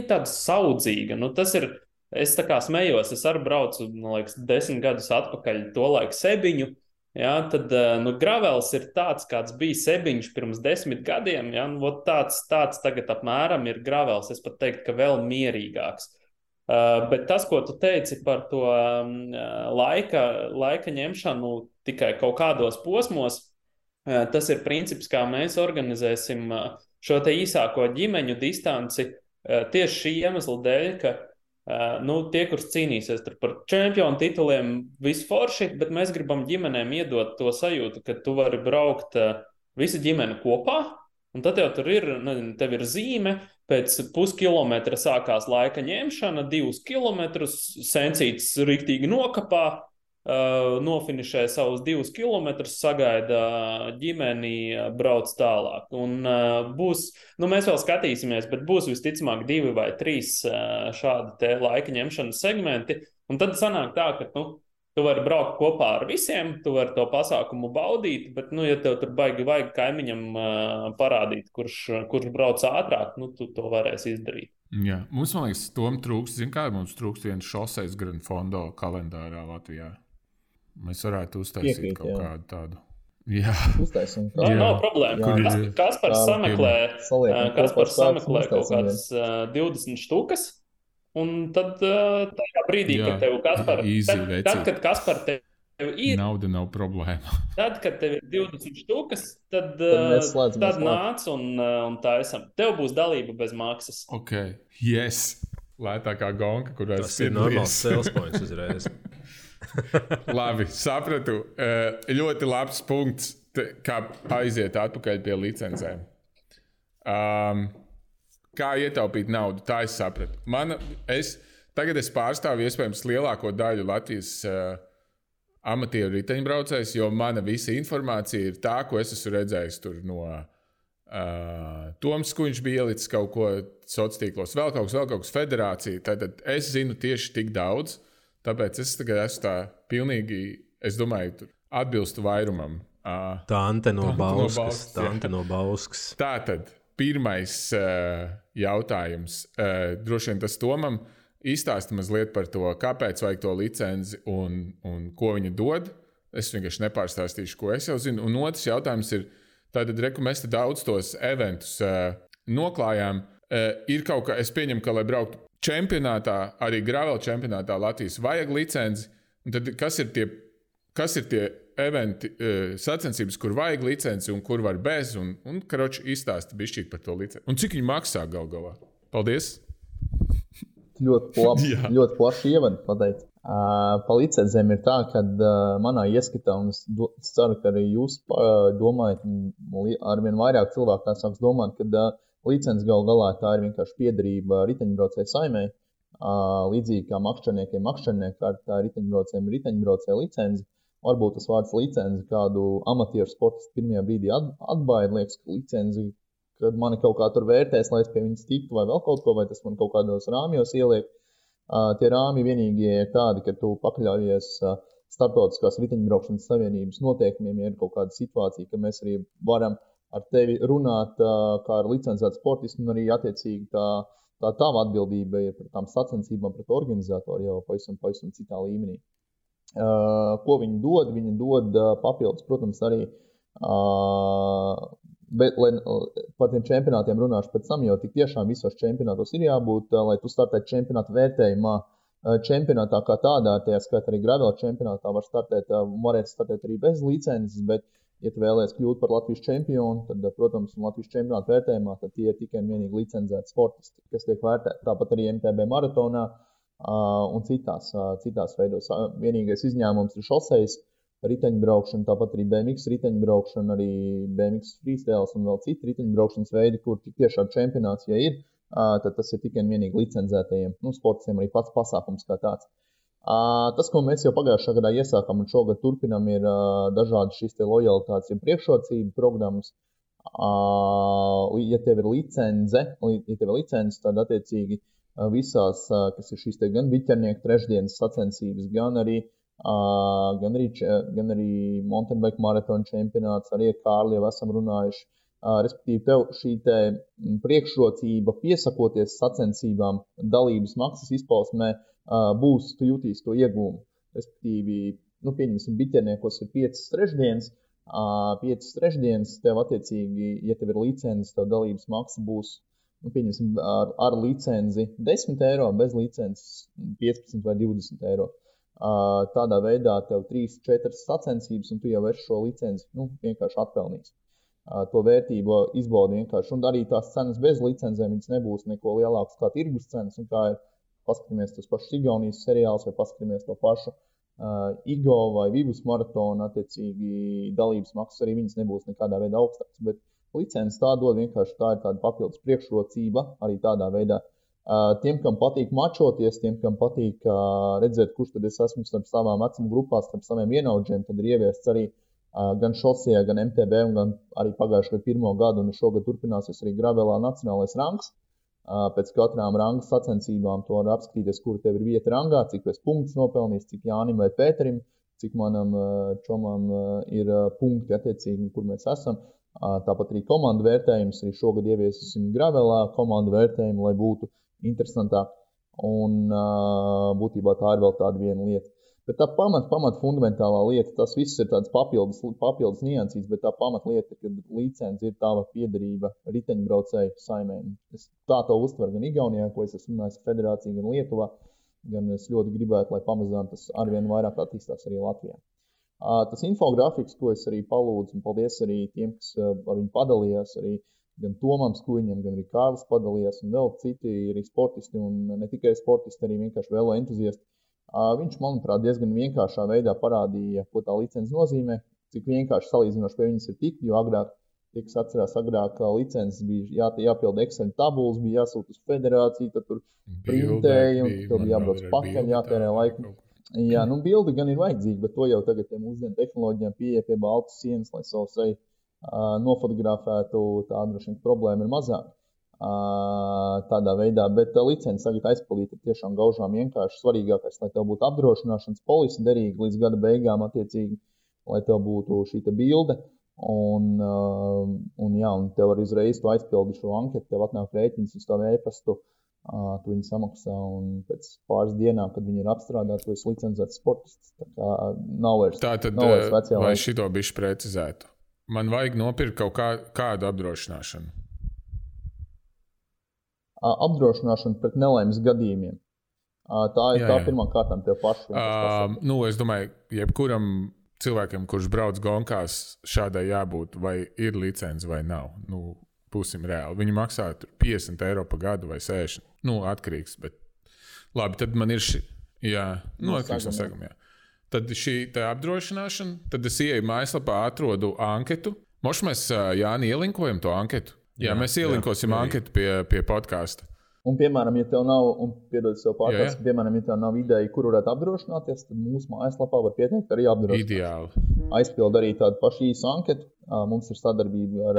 tāda saudzīga. Tas ir, es tā kā smējos, es arī braucu, 10 gadus atpakaļ to laiku Sebiņu, tad gravels ir tāds, kāds bija Sebiņš pirms 10 gadiem, tāds tagad apmēram ir gravels, es pat teiktu, ka vēl mierīgāks. Bet tas, ko tu teici par to laika ņemšanu tikai kaut kādos posmos, tas ir princips, kā mēs organizēsim šo te īsāko ģimeņu distanci tieši šī iemesla dēļ, ka tie, kurš cīnīsies par čempionu tituliem, visu forši, bet mēs gribam ģimenēm iedot to sajūtu, ka tu vari braukt visa ģimene kopā, un tad jau tur ir, tev ir zīme, pēc puskilometra sākās laika ņemšana, 2 kilometrus, sencīts riktīgi nokapā, nofinišē savus 2 kilometrus, sagaida ģimeni, brauc tālāk. Un būs, mēs vēl skatīsimies, bet būs visticamāk 2 vai 3 šādi te laika ņemšanas segmenti. Un tad sanāk tā, ka tu vari braukt kopā ar visiem, tu vari to pasākumu baudīt, bet, ja tev tur baigi vajag kaimiņam parādīt, kurš brauc ātrāk, tu to varēsi izdarīt. Jā, mums, man liekas, tom trūkst, mums trūkst viens šoseis Grand Fondo kalendārā Latvijā. Mēs varētu uztaisīt kaut kādu tādu. Jā. Uztaisim. Nav problēma. Kaspars sameklē kaut kādas 20 štukas. Un tad tajā brīdī, kad tev Kaspar, tad, kad Kaspar tev ir nauda, nav problēma. Tad, kad tev ir 20 štukas, tad nāc un taisam. Tev būs dalība bez maksas. Ok, yes. Lētākā gonka, kurā tas ir normāls sales points uzreiz. Labi, sapratu. Ļoti labs punkts, kā aiziet atpakaļ pie licencēm. Kā ietaupīt naudu, tā es sapratu. Tagad es pārstāvu iespējams lielāko daļu Latvijas amatieru riteņbraucējus, jo mana visa informācija ir tā, ko es esmu redzējis tur no Toms, ko viņš bija ielicis kaut ko sociālos tīklos, vēl kaut kas federācija. Tad es zinu tieši tik daudz, tāpēc es tagad esmu tā pilnīgi, es domāju, atbilstu vairumam. Tante no Bauskas. Tātad. Pirmais jautājums, droši vien tas Tomam, izstāsti mazliet par to, kāpēc vajag to licenci un ko viņa dod. Es vienkārši nepārstāstīšu, ko es jau zinu. Un otrs jautājums ir, tātad, mēs te daudz tos eventus noklājām. Ir kaut kā, es pieņemu, ka, lai brauktu čempionātā, arī gravel čempionātā Latvijas vajag licenci. Un tad kas ir tie kas ir tie eventi, sacensības, kur vajag licenci un kur var bez, un karoči izstāsti bišķīt par to licenci. Un cik viņi maksā gal galā? Paldies! Ļoti plaši ievadu pateikt. Pa licencēm ir tā, ka manā ieskatā, un es ceru, ka arī jūs domājat, arvien vairāk cilvēku tā sāks domāt, ka licences gal galā tā ir vienkārši piederība riteņbraucēju saimei. Līdzīgi kā makšķerniekiem kārtā riteņbraucēju licenci. Varbūt tas vārds licenci kādu amatieru sportistu pirmajā brīdī atbaida, liekas, ka licenci, kad mani kaut kā tur vērtēs, lai es pie viņas tiktu vai vēl kaut ko, vai tas man kaut kādos rāmjos ieliek. Tie rāmi vienīgie ir tādi, ka tu pakļaujies starptautiskās riteņbraukšanas savienības noteikumiem, ja ir kaut kāda situācija, ka mēs arī varam ar tevi runāt kā ar licencētu sportistu, un arī attiecīgi tā tava atbildība ir par tām sacensībām pret organizatoru jau pavisam citā līmenī. Ko viņi dod? Viņi dod papildus, protams, arī, bet par tiem čempionātiem runāšu pēc tam, jo tik tiešām visos čempionātos ir jābūt, lai tu startētu čempionātu vērtējumā. Čempionātā kā tādā, tajā skaitā arī gravel čempionātā varētu startēt arī bez licences, bet, ja tu vēlies kļūt par Latvijas čempionu, tad, protams, Latvijas čempionātu vērtējumā, tad tie ir tikai un vienīgi licencēti sportisti, kas tiek vērtēti. Tāpat arī MTB maratonā un citās veidos. Vienīgais izņēmums ir šosejas riteņbraukšana, tāpat arī BMX riteņbraukšana, arī BMX freestyles un vēl citi riteņbraukšanas veidi, kur tik tiešām čempionāts, ja ir, tad tas ir tikai un vienīgi licencētajiem. Sportistiem arī pats pasākums kā tāds. Tas, ko mēs jau pagājušā gadā iesākām un šogad turpinām, ir dažādi šīs te lojalitātes un priekšrocību programmas. Ja tev ir licence, tad attiecīgi visās, kas ir šīs te gan biķernieku trešdienas sacensības, gan arī mountain bike maratona čempionāts, arī ar Kārli jau esam runājuši. Respektīvi, tev šī te priekšrocība piesakoties sacensībām dalības maksas izpausmē būs, tu jutīs to iegūmu. Respektīvi, pieņemsim, biķerniekos ir 5 trešdienas, tev attiecīgi, ja tev ir licences, tev dalības maksa būs, pieņemsim, ar licenci 10 eiro, bez licences 15 vai 20 eiro. Tādā veidā tev 3-4 sacensības, un tu jau esi šo licenci vienkārši atpelnījis. To vērtību izbaudi vienkārši. Un arī tās cenas bez licencēm, viņas nebūs neko lielākas kā tirgus cenas. Un kā ir, paskatāmies tos pašus Igaunijas seriālus, vai paskatāmies to pašu Igo vai Vivus maratonu, attiecīgi dalības maksas arī viņas nebūs nekādā veidā augstākas. Bet licences tā dod vienkārši, tā ir tāda papildus priekšrocība arī tādā veidā. Tiem, kam patīk mačoties, tiem, kam patīk redzēt, kurš tad es esmu starp savām vecuma grupās, starp saviem vienaudžiem, tad ir ieviests arī gan šosejā, gan MTB, un gan arī pagājušajā gadu 1. gadu, un šogad turpināsies arī gravelā nacionālais rangs. Pēc katrām ranga sacensībām to var apskatīties, kur tev ir vieta rangā, cik es punktus nopelnījis, cik Jānim vai Pēterim, cik manam čomam ir punkti attiecīgi, kur mēs esam. Tāpat arī komandu vērtējums, arī šogad ieviesīsim gravelā komandu vērtējumu, lai būtu interesantāk. Un būtībā tā ir vēl tāda viena lieta. Bet tā pamat fundamentālā lieta, tas viss ir tāds papildus niansīts, bet tā pamatlieta, kad licence ir tava piederība riteņbraucēju saimē. Es tā to uztveru gan Igaunijā, ko es esmu runājis federācija, gan Lietuvā, gan es ļoti gribētu, lai pamazām tas arvien vairāk attīstās arī Latvijā. Tas infografiks, ko es arī palūdzu, un paldies arī tiem, kas ar viņu padalījās, arī gan Tomam Skuiņam, gan arī Kārlis padalījās, un vēl citi arī sportisti, un ne tikai sportisti, arī vienkārši vēlo entuziasti. Viņš, manuprāt, diezgan vienkāršā veidā parādīja, ko tā licence nozīmē, cik vienkārši salīdzinoši pie viņas ir tikt, jo agrāk, tie, kas atcerās, agrāk licences bija jāpilda Excel tabulas, bija jāsūt uz federāciju, tad tur printēja, un tev bija jābrauc pakaļ, jātērē laiku. Jā, bildi gan ir vajadzīgi, bet to jau tagad mūsdienu tehnoloģijām pieeja pie baltas sienas, lai savu seju nofotografētu, tā droši vien problēma ir mazāk. Tādā veidā, bet licenci tagad aizpildīt ir tiešām gaužām vienkārši svarīgākais, lai tev būtu apdrošināšanas polise derīga līdz gada beigām attiecīgi, lai tev būtu šī bilde, un tev arī uzreiz tu aizpildi šo anketu, tev atnāk rēķins uz tavu e-pastu, tu viņu samaksā, un pēc pāris dienām, kad viņi ir apstrādāti, tu esi licencēts sportists, tā kā nav vairs vecajā laikā. Lai šito bišķi precizētu, man vajag nopirkt kaut kādu apdrošināšanu. Apdrošināšana pret nelaimes gadījumiem. Tā ir tā pirmā kārtām tev pašu. Es domāju, jebkuram cilvēkiem, kurš brauc gonkās, šādai jābūt, vai ir licence vai nav. Nu, būsim reāli. Viņi maksā €50 pa gadu vai 60. Nu, atkarīgs, bet labi, tad man ir atkarīgs no seguma, jā. Tad šī apdrošināšana, tad es ieeju mājaslapā, atrodu anketu. Moš mēs, Jāni, ielinkojam to anketu? Jā, mēs ielinkosim anketu pie podkāsta. Un, piemēram, ja tev nav, piemēram, ja tev nav ideja, kur varētu apdrošināties, tad mūsu mājaslapā var pieteikt arī apdrošināties. Ideāli. Aizpild arī tādu pašu īsu anketu. Mums ir sadarbība ar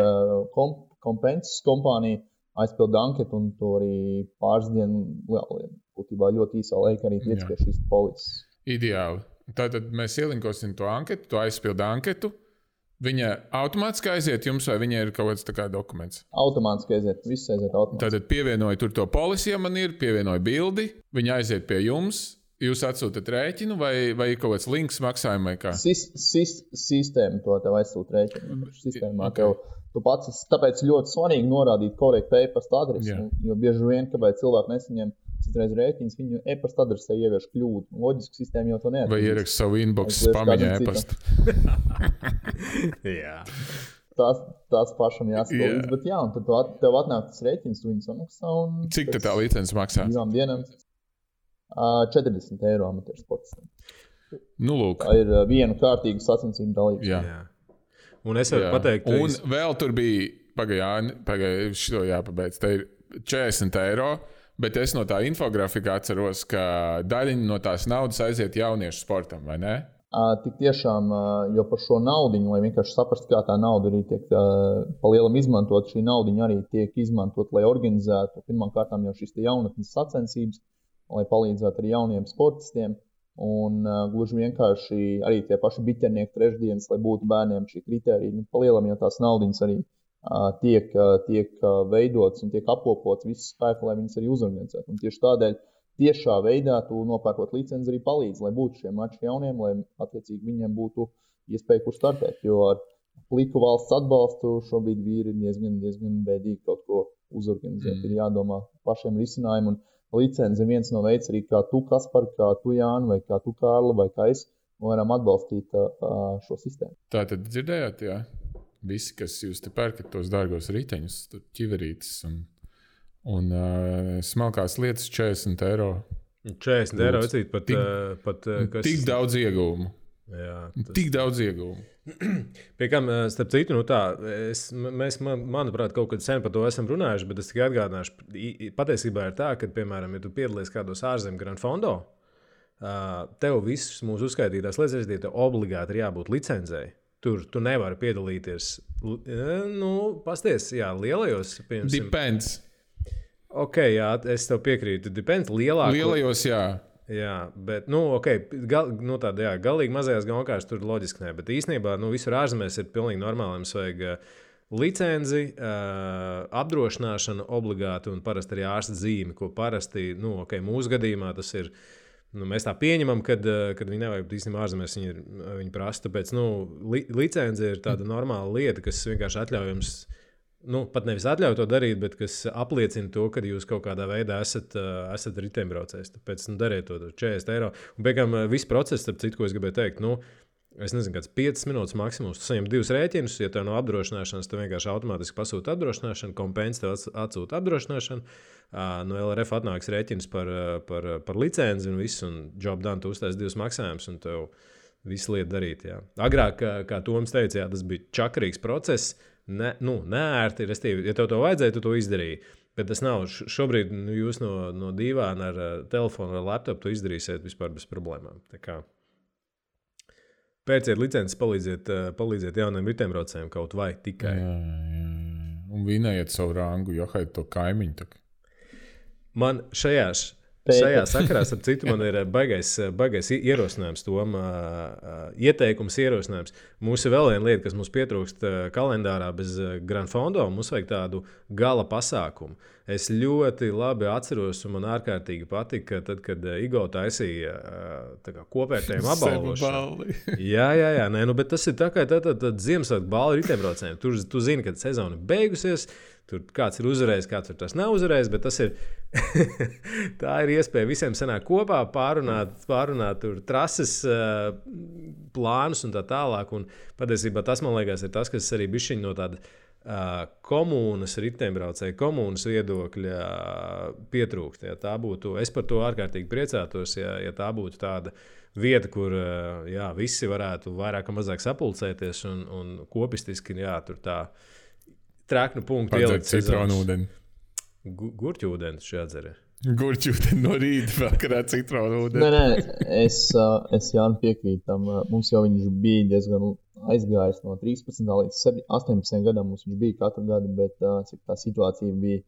Compensas kompāniju. Aizpild anketu un to arī pāris dienu būtībā ļoti īsā laikā arī tiec pie šīs polises. Ideāli. Tātad mēs ielinkosim to anketu, tu aizpild anketu. Viņa automātiski aiziet jums, vai viņa ir kaut kāds tā kā dokuments? Automātiski aiziet, viss aiziet automātiski. Tātad pievienoju tur to polisi, ja man ir, pievienoju bildi, viņa aiziet pie jums, jūs atsūtat rēķinu, vai kaut kāds links maksājumu vai kā? Sistēma to tev aizsūt rēķinu. Sistēmā tev, tu pats, tāpēc ļoti svarīgi norādīt korektu e-pasta adresi, jo bieži vien, kāpēc cilvēki nesaņem citreiz rēķins, viņu e-pasta adresē ievieš kļūdu. Loģiski sistēma jau to neatzīst. Vai ierakst savu inbox spamiņā e-pastu. Jā. Tās pašam jāspēlīdz, bet jā, un tad tev atnāk tas rēķins, tu viņu samaksā un... Cik tā licence maksā? 2 dienām €40 amatieru sportistam. Nu, lūk. Tā ir viena kārtīga sacensību dalības. Jā. Un es varu pateikt... Un vēl tur bija, pagaidām, šito jāpabeidz, te ir €40, bet es no tā infografika atceros, ka daļiņa no tās naudas aiziet jauniešu sportam, vai ne? Tik tiešām, jo par šo naudiņu, lai vienkārši saprastu, kā tā nauda arī tiek pa lielam izmantot, šī naudiņa arī tiek izmantot, lai organizētu pirmām kārtām jau šīs jaunatnes sacensības, lai palīdzētu arī jauniem sportistiem. Un gluži vienkārši arī tie paši biķernieki trešdienas, lai būtu bērniem šī kritērija. Pa lielam jau tās naudiņas arī tiek veidots un tiek apkopots visu spēku, lai viņas arī uzorganizētu. Un tieši tādēļ tiešā veidā tu nopērkot licenci arī palīdz, lai būtu šie mači jauniem, lai attiecīgi viņiem būtu iespēja, kur startēt. Jo ar pliku valsts atbalstu šobrīd vīri ir diezgan bēdīgi kaut ko uzorganizēt. Ir jādomā pašiem risinājumu. Un licenci ir viens no veids arī, kā tu, Kaspar, kā tu, Jāni, vai kā tu, Kārli, vai kā es, varam atbalstīt šo sistēmu. Tā tad dzirdējāt, jā? Visi, kas jūs te pērkat tos dārgos riteņus, ķiverītes un smalkās lietas €40. €40 vecīt pat kas... Tik daudz ieguvumu. Jā, Tik daudz ieguvumu. Pie kam, starp citu, mēs, manuprāt, kaut kad sen par to esam runājuši, bet es tikai atgādināšu, patiesībā ir tā, ka, piemēram, ja tu piedalies kādos ārzemju Grand Fondo, tev visas mūsu uzskaitītās lietas, tev obligāti ir jābūt licencei. Tur tu nevari piedalīties, pasties, jā, lielajos, piemēram. Depends. Ok, jā, es tev piekrītu, depends, lielajos, jā. Jā, bet, galīgi mazajās gonkās tur loģiski ne, bet īstenībā, visur ārzemēs ir pilnīgi normāli, mums vajag licenci, apdrošināšanu obligāti un parasti arī ārsta zīmi, ko parasti, mūsu gadījumā tas ir. Mēs tā pieņemam, kad viņi nevajag īstenībā ārzemēs viņi prasa. Tāpēc licence ir tāda normāla lieta, kas vienkārši atļauj jums, pat nevis atļauj to darīt, bet kas apliecina to, ka jūs kaut kādā veidā esat riteņbraucējs. Tāpēc dariet to €40. Un beigām viss process, starp citu, ko es gribēju teikt, es nezinu, kāds 5 minūtes maksimums. Tu saņem 2 rēķinus, ja tev nav apdrošināšanas, tu vienkārši automātiski pasūti apdrošināšanu, Compensas tev atsūta apdrošināšanu. No LRF atnāks rēķins par licenci un viss, un job done, tu uztais 2 maksājumus, un tev visu lietu darīt. Jā. Agrāk, kā Toms teica, jā, tas bija čakarīgs process, neērti, restīvi, ja tev to vajadzēja, tu to izdarīji. Bet tas nav. Šobrīd jūs no dīvāna ar telefonu vai laptopu to izdarīsiet vispār bez problēmām. Tā kā pērciet licences, palīdziet jauniem riteņbraucējiem kaut vai tikai. Jā. Un vinējiet savu rangu, johaiet to kaimiņu. Tak. Man šajā sakarā, starp citu, man ir baigais ierosinājums, ieteikums ierosinājums. Mums ir vēl viena lieta, kas mums pietrūkst kalendārā bez Grand Fondo, mums vajag tādu gala pasākumu. Es ļoti labi atceros, un man ārkārtīgi patika, tad, kad Igo taisīja kopvērtējumu apbalvošanu. Jā, bet tas ir tā kā Ziemassvētku balva riteņbraucējiem. Tu zini, kad sezona ir beigusies, tur kāds ir uzvarējis, kāds tas nav uzvarējis, bet tas ir tā ir iespēja visiem sanākt kopā, pārunāt tur trases plānus un tā tālāk. Un patiesībā tas, man liekas, ir tas, kas arī bišķiņ no tāda komunas, riteņbraucēju komunas viedokļa pietrūkst. Ja tā būtu, es par to ārkārtīgi priecātos, ja tā būtu tāda vieta, kur visi varētu vairāk vai mazāk sapulcēties un kopistiski, tur tā traknu punktu ielikt citronu ūdeni. Gurķu ūdeni šī atzara. Gurķu ūdeni no rīta, vakarā citronu ūdeni. Nē, es Jāni piekrītu tam. Mums jau viņš bija diezgan aizgājis no 13. līdz 18 gadam. Mums viņš bija katru gadu, bet cik tā situācija bija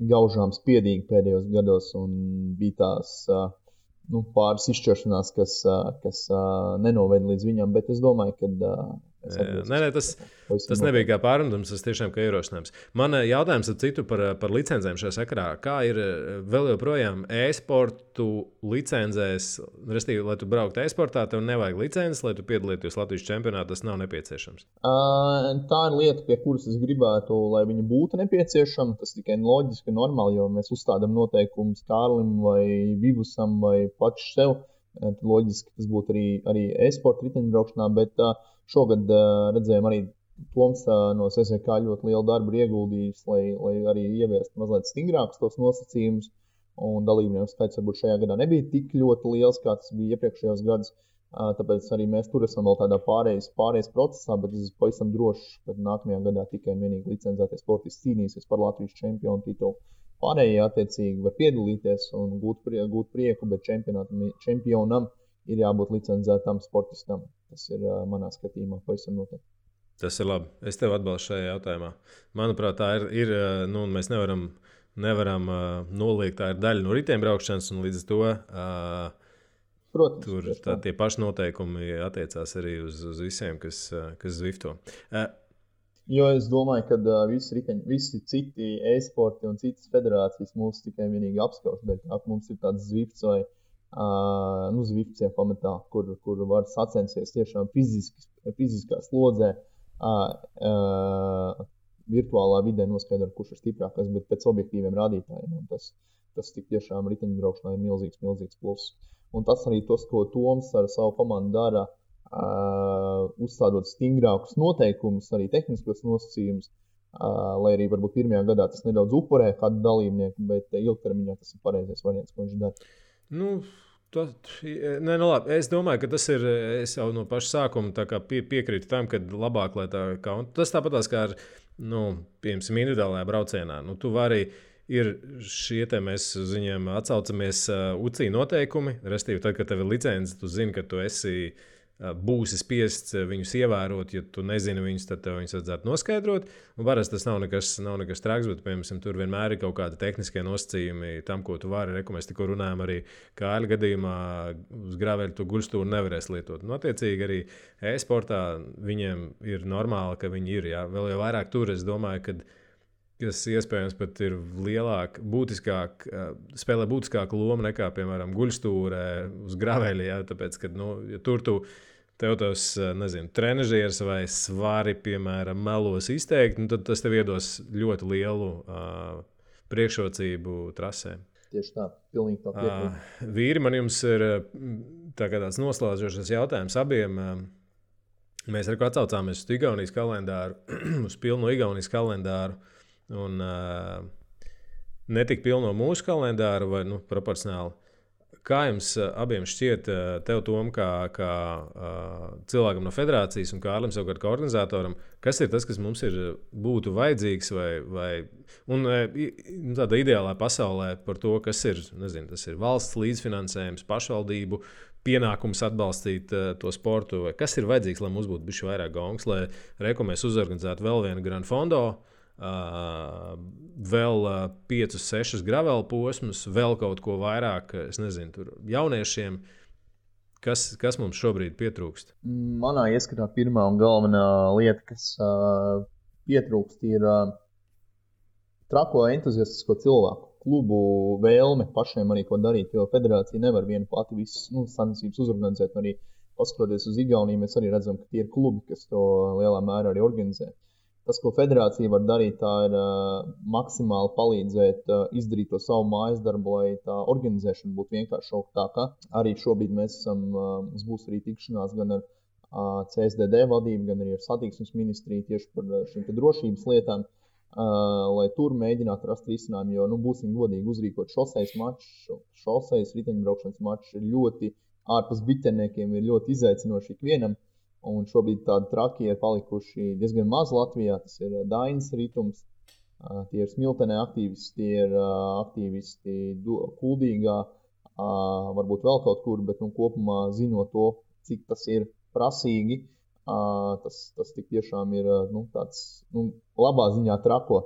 gaužām spiedīga pēdējos gados un bija tās pāris izšķiršanās, kas nenoveda līdz viņam, bet es domāju, ka tas nebija kā pārmetums, tas tiešām kā ierosinājums. Man jautājums ar citu par licencēm šajā sakarā. Kā ir vēl joprojām e-sportu licencēs, respektīvi, lai tu brauktu e-sportā, tev nevajag licences, lai tu piedalītos Latvijas čempionātā, tas nav nepieciešams? Tā ir lieta, pie kuras es gribētu, lai viņa būtu nepieciešama. Tas tikai loģiski un normāli, jo mēs uzstādām noteikumus Kārlim vai Vivusam vai paši sev. Loģiski tas būtu arī e-sporta riteņbraukšanā, bet šogad redzējām arī Toms no SSK ļoti lielu darbu ieguldījis, lai arī ieviestu mazliet stingrākus tos nosacījumus. Un dalībnieku skaits varbūt šajā gadā nebija tik ļoti liels, kā tas bija iepriekšējos gados. Tāpēc arī mēs tur esam vēl tādā pārējais procesā, bet es esmu pavisam drošs, ka nākamajā gadā tikai un vienīgi licencētie sportisti cīnīsies par Latvijas čempionu titulu. Pārējie attiecīgi var piedalīties un gūt prieku, bet čempionam ir jābūt licencētam sportistam. Tas ir manā skatījumā pavisam noteikti. Tas ir labi. Es tev atbalstu šajā jautājumā. Manuprāt, tā ir mēs nevaram noliegt, tā ir daļa no riteņbraukšanas, un līdz ar to Protams, tur tie paši noteikumi attiecās arī uz visiem, kas zvifto. Jo es domāju, ka visi citi e-sporti un citas federācijas mūs tikai vienīgi apskauž. Mums ir tāds zvifts vai zvifts pamatā, kur var sacensties tiešām fiziskā slodzē, virtuālā vidē noskaidrot, kurš ir stiprākais, bet pēc objektīviem rādītājiem. Tas tik tiešām riteņbraukšanā ir milzīgs pluss. Un tas arī tas, ko Toms ar savu komandu dara, uzstādot stingrākus noteikumus, arī tehniskos nosacījumus, lai arī varbūt pirmajā gadā tas nedaudz upurē kādu dalībnieku, bet ilgtermiņā tas ir pareizais variants, ko viņš dara. Labi. Es domāju, ka tas ir, es jau no paša sākuma piekrītu tam, ka labāk, lai tā kā, un tas tāpatās kā ar, piemēram, individuālajā braucienā. Tu vari, ir šie te mēs uz viņiem atsaucamies UCI noteikumi, respektīvi tad, kad tev ir licence, tu zini, ka tu būsi spiests viņus ievērot, ja tu nezini viņus, tad tev viņus vajadzētu noskaidrot. Un parasti tas nav nekas traks, bet, piemēram, tur vienmēr ir kaut kādi tehniskie nosacījumi tam, ko tu vari. Mēs tikko runājam arī Kāļa gadījumā uz graveļa tu guļstūru nevarēs lietot. Attiecīgi arī e-sportā viņiem ir normāli, ka viņi ir. Jā. Vēl jau vairāk tur, es domāju, kas iespējams pat ir spēlē būtiskāku lomu nekā, piemēram, guļstūrē uz graveļa. Jā, tāpēc, ka, ja tur tev tos, trenažieris vai svari, piemēram, melos izteikti, tad tas tev iedos ļoti lielu priekšrocību trasē. Tieši tā, pilnīgi tā piekrīt. Vīri, man jums ir tāds noslēdzošs jautājums abiem. Mēs arī atsaucāmies uz Igaunijas kalendāru, uz pilno Igaunijas kalendāru. Un ne tik pilno mūsu kalendāru, vai proporcionāli. Kā jums abiem šķiet, tev, Tom, kā cilvēkam no federācijas un Kārlim savukārt kā organizatoram, kas ir tas, kas mums būtu vajadzīgs un tādā ideālā pasaulē par to, kas ir, tas ir valsts līdzfinansējums, pašvaldību pienākums atbalstīt to sportu, vai kas ir vajadzīgs, lai mums būtu bišķi vairāk gongs, lai mēs uzorganizētu vēl vienu Grand Fondo, vēl 5-6 gravela posmus, vēl kaut ko vairāk, tur jauniešiem. Kas mums šobrīd pietrūkst? Manā ieskatā pirmā un galvenā lieta, kas pietrūkst, ir trako entuziastisko cilvēku, klubu vēlme pašiem arī ko darīt, jo federācija nevar viena pati visas sacensības uzorganizēt. Arī paskatoties uz Igauniju, mēs arī redzam, ka tie ir klubi, kas to lielā mērā arī organizē. Tas, ko federācija var darīt, tā ir maksimāli palīdzēt izdarīt to savu mājas darbu, lai tā organizēšana būtu vienkāršāka. Arī šobrīd mums būs arī tikšanās gan ar CSDD vadību, gan arī ar satiksmes ministriju tieši par šīm drošības lietām, lai tur mēģinātu rast risinājumu, jo, būsim godīgi, uzrīkot šosejas riteņbraukšanas mačs ir ļoti ārpus biķerniekiem, ir ļoti izaicinoši ikvienam. Un šobrīd tādi traki ir palikuši diezgan maz Latvijā. Tas ir Dainis Ritums, tie ir Smiltenē aktīvisti, tie ir aktīvisti Kuldīgā, varbūt vēl kaut kur, bet kopumā zinot to, cik tas ir prasīgi, tas tik tiešām ir tāds labā ziņā trako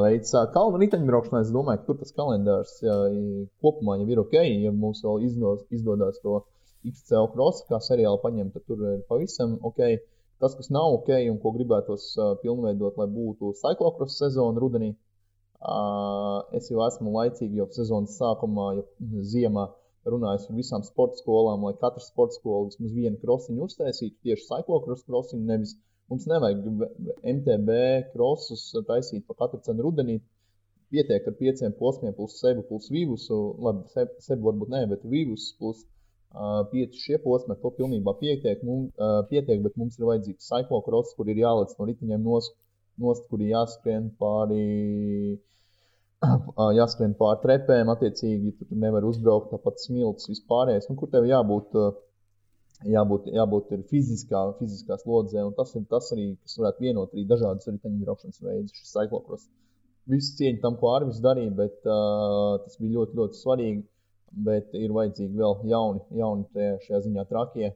veids. Kalnu riteņbraukšanā es domāju, ka tur tas kalendārs kopumā jau ir ok, ja mums vēl izdodas to XCL cross, kā seriāli paņemt, tad tur ir pavisam ok. Tas, kas nav ok un ko gribētos pilnveidot, lai būtu cyclocross sezona rudenī, es jau esmu laicīgi jau sezonas sākumā, jau ziemā runājis ar visām sporta skolām, lai katra sporta skola vismaz vienu krosiņu uztaisītu, tieši cyclocross krosiņu, nevis mums nevajag MTB crossus taisīt pa katru cenu rudenī, pietiek ar 5 posmiem plus sebu plus vivusu, labi, sebu varbūt ne, bet vivus plus 5 šie posmi, to pilnībā pietiek, bet mums ir vajadzīgs cyclocross, kur ir jālec no ritiņiem nost, kur ir jāskrien pāri trepēm, attiecīgi, tu nevar uzbraukt tāpat smilts vispārējais, kur tev jābūt ir fiziskā slodzē, un tas ir tas arī, kas varētu vienot arī dažādas riteņbraukšanas veidus, šis cyclocross. Visu cieņu tam, ko Arvis darīja, bet tas bija ļoti, ļoti svarīgi. Bet ir vajadzīgi vēl jauni šajā ziņā trakie,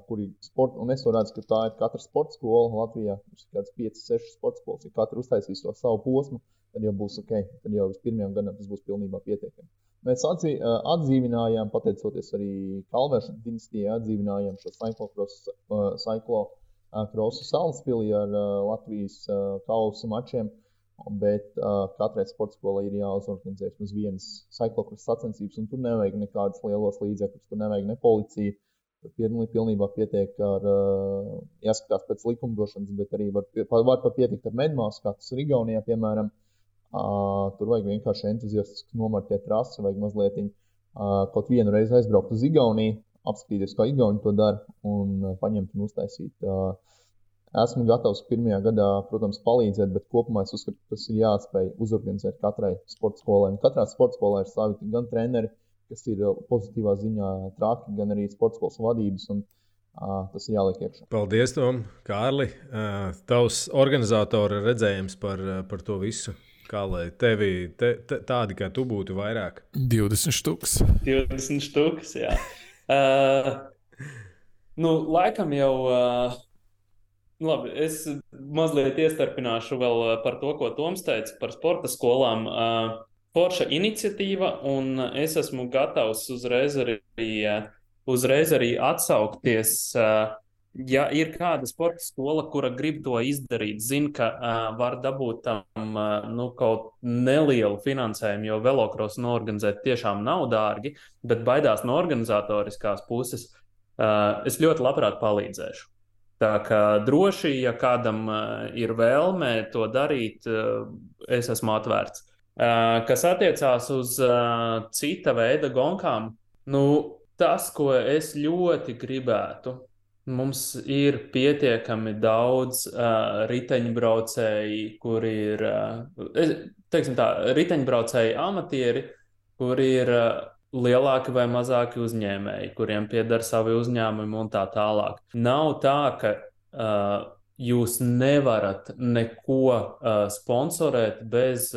kuri sporta, un es to redzu, ka tā ir katra sporta skola Latvijā, ir kāds 5-6 sporta skolas, ja katra uztaisīs to savu posmu, tad jau būs ok, tad jau vispirmajam gadam tas būs pilnībā pietiekami. Mēs atdzīvinājām, pateicoties arī Kalvēšanas dinastijai, atdzīvinājām šo cyclocrossu Salaspilī ar Latvijas kausa mačiem. Bet katrai sporta skolai ir jāuzorganizē uz vienas cyclocross sacensības, un tur nevajag nekādas lielos līdzekļus, tur nevajag ne policiju. Tur pilnībā pietiek ar, jāskatās pēc likumdošanas, bet arī var pat pietikt ar medmāsu, kā tas ir Igaunijā, piemēram. Tur vajag vienkārši entuziastiski nomarķēt trasi, vajag mazliet kaut vienu reizi aizbraukt uz Igauniju, apskatīties, kā Igauni to dara, un paņemt un uztaisīt. Esmu gatavs pirmajā gadā, protams, palīdzēt, bet kopumā es uzskatu, ka tas ir jāspēj uzorganizēt katrai sporta skolai. Un katrā sporta skolā ir savi gan treneri, kas ir pozitīvā ziņā traki, gan arī sporta skolas vadības, un tas ir jāliek iekšā. Paldies, Tom, Kārli. Tavs organizatora redzējums par to visu. Kā lai tevi tādi, kā tu būtu vairāk? 20 štuks. 20 štuks, jā. Laikam jau... Labi, es mazliet iestarpināšu vēl par to, ko Toms teica par sporta skolām. Forša iniciatīva, un es esmu gatavs uzreiz arī atsaukties, ja ir kāda sporta skola, kura grib to izdarīt, zina, ka var dabūt tam kaut nelielu finansējumu, jo velokrosu noorganizēt tiešām nav dārgi, bet baidās no organizatoriskās puses, es ļoti labprāt palīdzēšu. Tā kā droši, ja kādam ir vēlme to darīt, es esmu atvērts. Kas attiecās uz cita veida gonkām, tas, ko es ļoti gribētu, mums ir pietiekami daudz riteņbraucēji, kuri ir, riteņbraucēji amatieri, kuri ir lielāki vai mazāki uzņēmēji, kuriem pieder savi uzņēmumi un tā tālāk. Nav tā, ka jūs nevarat neko sponsorēt bez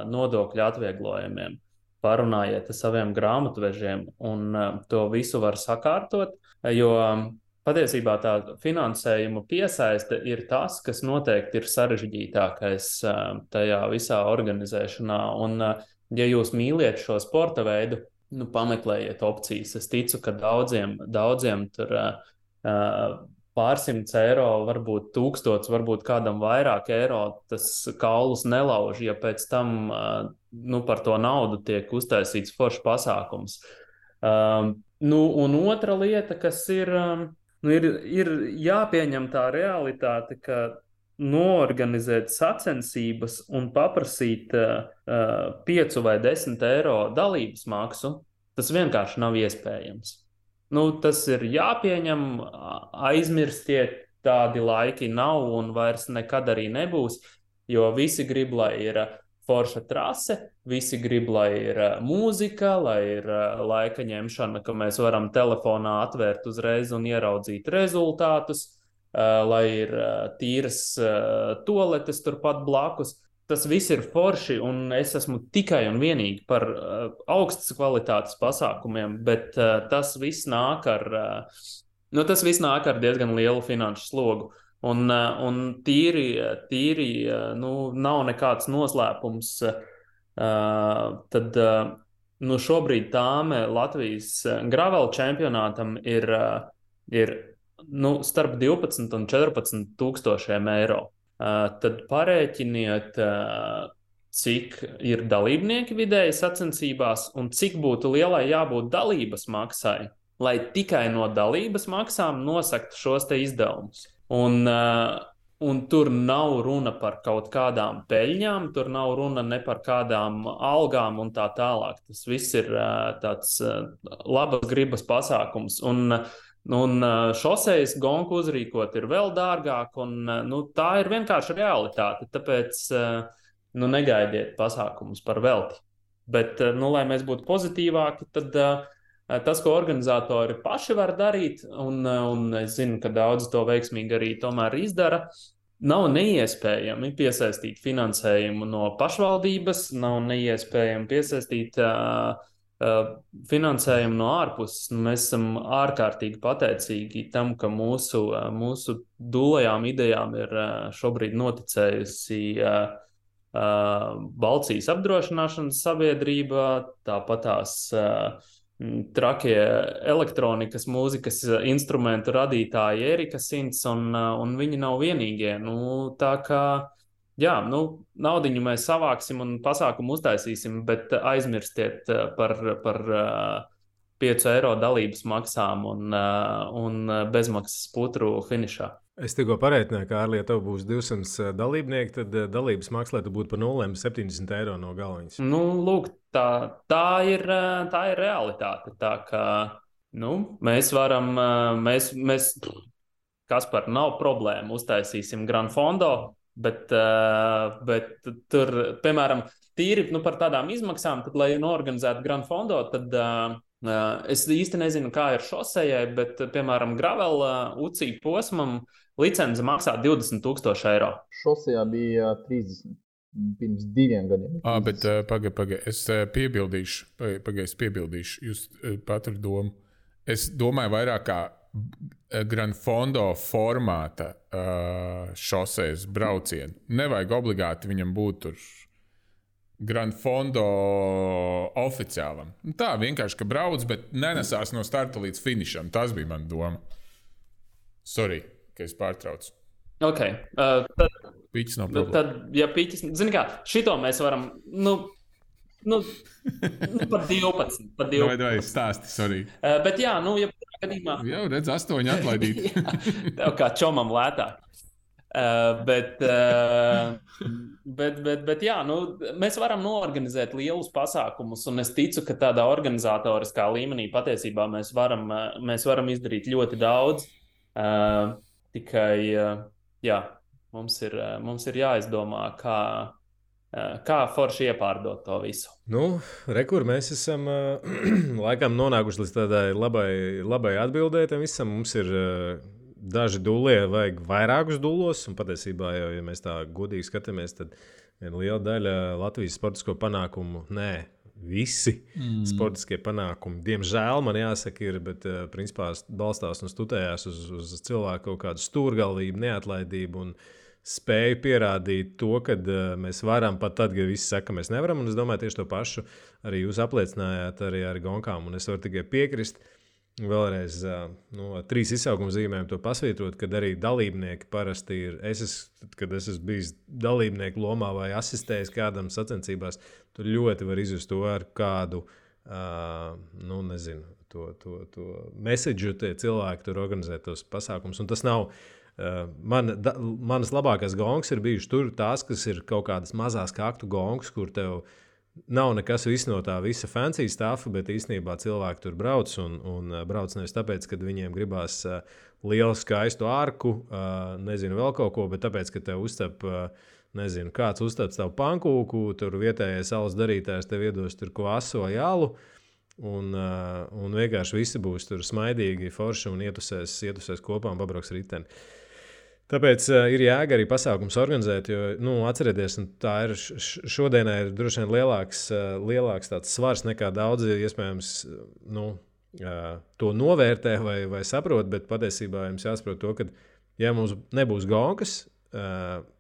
nodokļu atvieglojumiem. Parunājiet ar saviem grāmatvežiem un to visu var sakārtot, jo patiesībā tā finansējuma piesaiste ir tas, kas noteikti ir sarežģītākais tajā visā organizēšanā. Un, ja jūs mīliet šo sporta veidu, pameklējiet opcijas. Es ticu, ka daudziem tur pārsimts eiro, varbūt 1000, varbūt kādam vairāk eiro, tas kaulus nelauž, ja pēc tam par to naudu tiek uztaisīts foršs pasākums. Un otra lieta, kas ir jāpieņem tā realitāte, ka noorganizēt sacensības un paprasīt 5 vai 10 eiro dalības maksu, tas vienkārši nav iespējams. Tas ir jāpieņem, aizmirstiet, tādi laiki nav un vairs nekad arī nebūs, jo visi grib, lai ir forša trase, visi grib, lai ir mūzika, lai ir laika ņemšana, ka mēs varam telefonā atvērt uzreiz un ieraudzīt rezultātus, lai ir tīras toaletes turpat blakus. Tas viss ir forši, un es esmu tikai un vienīgi par augstas kvalitātes pasākumiem, bet tas viss nāk ar diezgan lielu finanšu slogu. Un tīri nav nekāds noslēpums. Tad šobrīd tāme Latvijas gravel čempionātam ir starp 12 un 14 tūkstošiem eiro. Tad parēķiniet, cik ir dalībnieki vidēji sacensībās un cik būtu lielai jābūt dalības maksai, lai tikai no dalības maksām nosaktu šos te izdevumus. Un tur nav runa par kaut kādām peļņām, tur nav runa ne par kādām algām un tā tālāk. Tas viss ir tāds labas gribas pasākums. Un šosejas gonku uzrīkot ir vēl dārgāk, un tā ir vienkārši realitāte. Tāpēc negaidiet pasākumus par velti. Bet, lai mēs būtu pozitīvāki, tad tas, ko organizatori paši var darīt, un es zinu, ka daudzi to veiksmīgi arī tomēr izdara, nav neiespējami piesaistīt finansējumu no pašvaldības, nav neiespējami piesaistīt finansējumu no ārpuses. Mēs esam ārkārtīgi pateicīgi tam, ka mūsu dūlajām idejām ir šobrīd noticējusi Balcijas apdrošināšanas sabiedrība, tāpat tās trakie elektronikas mūzikas instrumentu radītāji Erika Sints, un viņi nav vienīgie. Tā kā naudiņu mēs savāksim un pasākumu uztaisīsim, bet aizmirstiet par 5 eiro dalības maksām un bezmaksas putru finišā. Es tikko parēķināju, ka ārlietu tev būs 200 dalībnieki, tad dalības maksa, lai tu būtu par 0,70 eiro no galviņas. Lūk, tā ir realitāte. Tā kā mēs varam, Kaspar, nav problēma, uztaisīsim Grand Fondo, bet tur, piemēram, tīri par tādām izmaksām, tad, lai norganizētu Grand Fondo, tad es īsti nezinu, kā ir šosejai, bet, piemēram, gravel UCI posmam licence maksā 20,000 eiro. Šosejā bija 30 pirms 2 gadiem. Bet pagaidi, es piebildīšu, jūs patru domu. Es domāju vairāk kā Grand Fondo formāta šosejas braucienu. Nevajag obligāti viņam būt tur Grand Fondo oficiālam. Tā vienkārši, ka brauc, bet nenesās no starta līdz finišam. Tas bija mana doma. Sorry, ka es pārtraucu. Ok. Piķis nav problēma. Tad, ja piķis, zini kā, šito mēs varam, par 12. Vai stāsti, sorry. Bet jā, ja gadījumā... Jau redz, 8 atlaidīt. Tev kā čomam lētāk. Bet jā, mēs varam noorganizēt lielus pasākumus, un es ticu, ka tādā organizatoriskā līmenī patiesībā mēs varam izdarīt ļoti daudz. Tikai, mums ir jāizdomā, kā forši iepārdot to visu. Rekur mēs esam laikam nonākuši līdz tādai labai atbildēji tam visam. Mums ir daži dūlie, vajag vairākus dūlos, un patiesībā jau, ja mēs tā godīgi skatāmies, tad viena liela daļa Latvijas sportisko panākumu, visi sportiskie panākumi, diemžēl man jāsaka ir, bet principā balstās un studējās uz cilvēku kaut kādu stūrgalvību, neatlaidību un spēju pierādīt to, ka mēs varam pat tad, ja visi saka, mēs nevaram, un es domāju tieši to pašu arī jūs apliecinājāt arī ar gonkām, un es varu tikai piekrist. Vēlreiz 3 izsaukuma zīmēm to pasvītrot, kad arī dalībnieki parasti ir. Kad es esmu bijis dalībnieku lomā vai asistējis kādam sacensībās, tur ļoti var izjust to ar kādu, to message tie cilvēki tur organizē tos pasākumus. Un tas nav Manas labākās gongas ir bijušas tur, tās, kas ir kaut kādas mazās kaktu gongas, kur tev nav nekas no tā visa fancy stuff, bet īstenībā cilvēki tur brauc un brauc nevis tāpēc, ka viņiem gribās lielu skaistu arku, nezinu vēl kaut ko, bet tāpēc, ka tev uztap, nezinu, kāds uztap tavu pankūku, tur vietējais alus darītājs tev iedos tur kvasu vai alu, un vienkārši visi būs tur smaidīgi, forši un ietusēs kopā un pabrauks riteni. Tāpēc ir jēga arī pasākums organizēt, jo, atcerieties, tā ir šodienai ir droši vien lielāks tāds svars nekā daudzi, iespējams, to novērtē vai saprot, bet patiesībā jums jāsaprot to, ka, ja mums nebūs gonkas,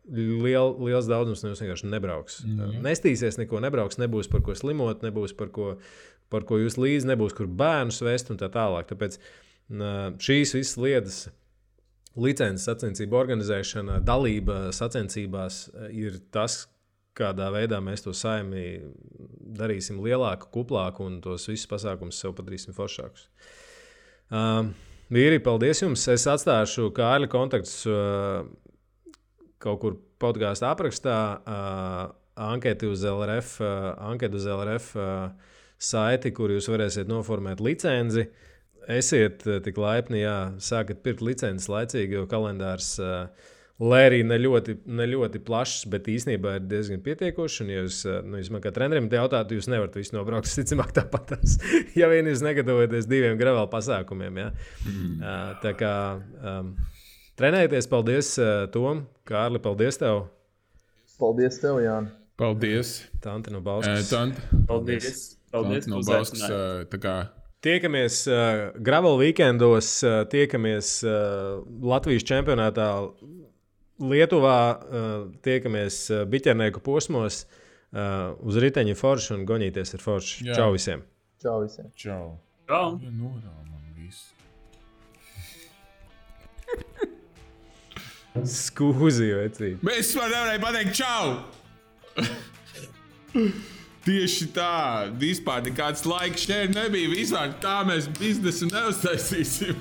liels daudzums vienkārši nebrauks. Nestīsies, neko nebrauks, nebūs par ko slimot, nebūs par ko jūs līdzi, nebūs kur bērnus vest un tā tālāk. Tāpēc šīs visas lietas, licences sacensību organizēšana, dalība sacensībās ir tas, kādā veidā mēs to saimi darīsim lielāku, kuplāku un tos visus pasākumus sev padarīsim foršākus. Vīri, paldies jums! Es atstāšu Kārļa kontaktus kaut kur podkāsta aprakstā, anketi uz LRF saiti, kur jūs varēsiet noformēt licenci. Esiet tik laipni, sākat pirkt licences laicīgi, jo kalendārs, lai arī ne ļoti plašs, bet īstenībā ir diezgan pietiekošs. Un, ja jūs man kā trenerim jautātu, jūs nevarat visu nobraukt, ticamāk tāpatās, ja vien jūs negatavojaties 2 gravel pasākumiem. Ja? Tā kā trenējieties, paldies Tom, Kārli, paldies tev. Paldies tev, Jāni. Paldies. Tanti no Bauskas. Paldies. Tanti no Bauskas. Tiekamies gravel weekendos, tiekamies Latvijas čempionātā Lietuvā, tiekamies biķernieku posmos, uz riteņa forši un goņīties ar forši. Jā. Čau visiem! Čau visiem! Čau! Čau! Ja norāmam visu. Skūzi, vecīt! Mēs nevarēju pateikt čau! Tieši tā, vispār nekāds laiks šeit nebija, vispār tā mēs biznesu neuztaisīsim.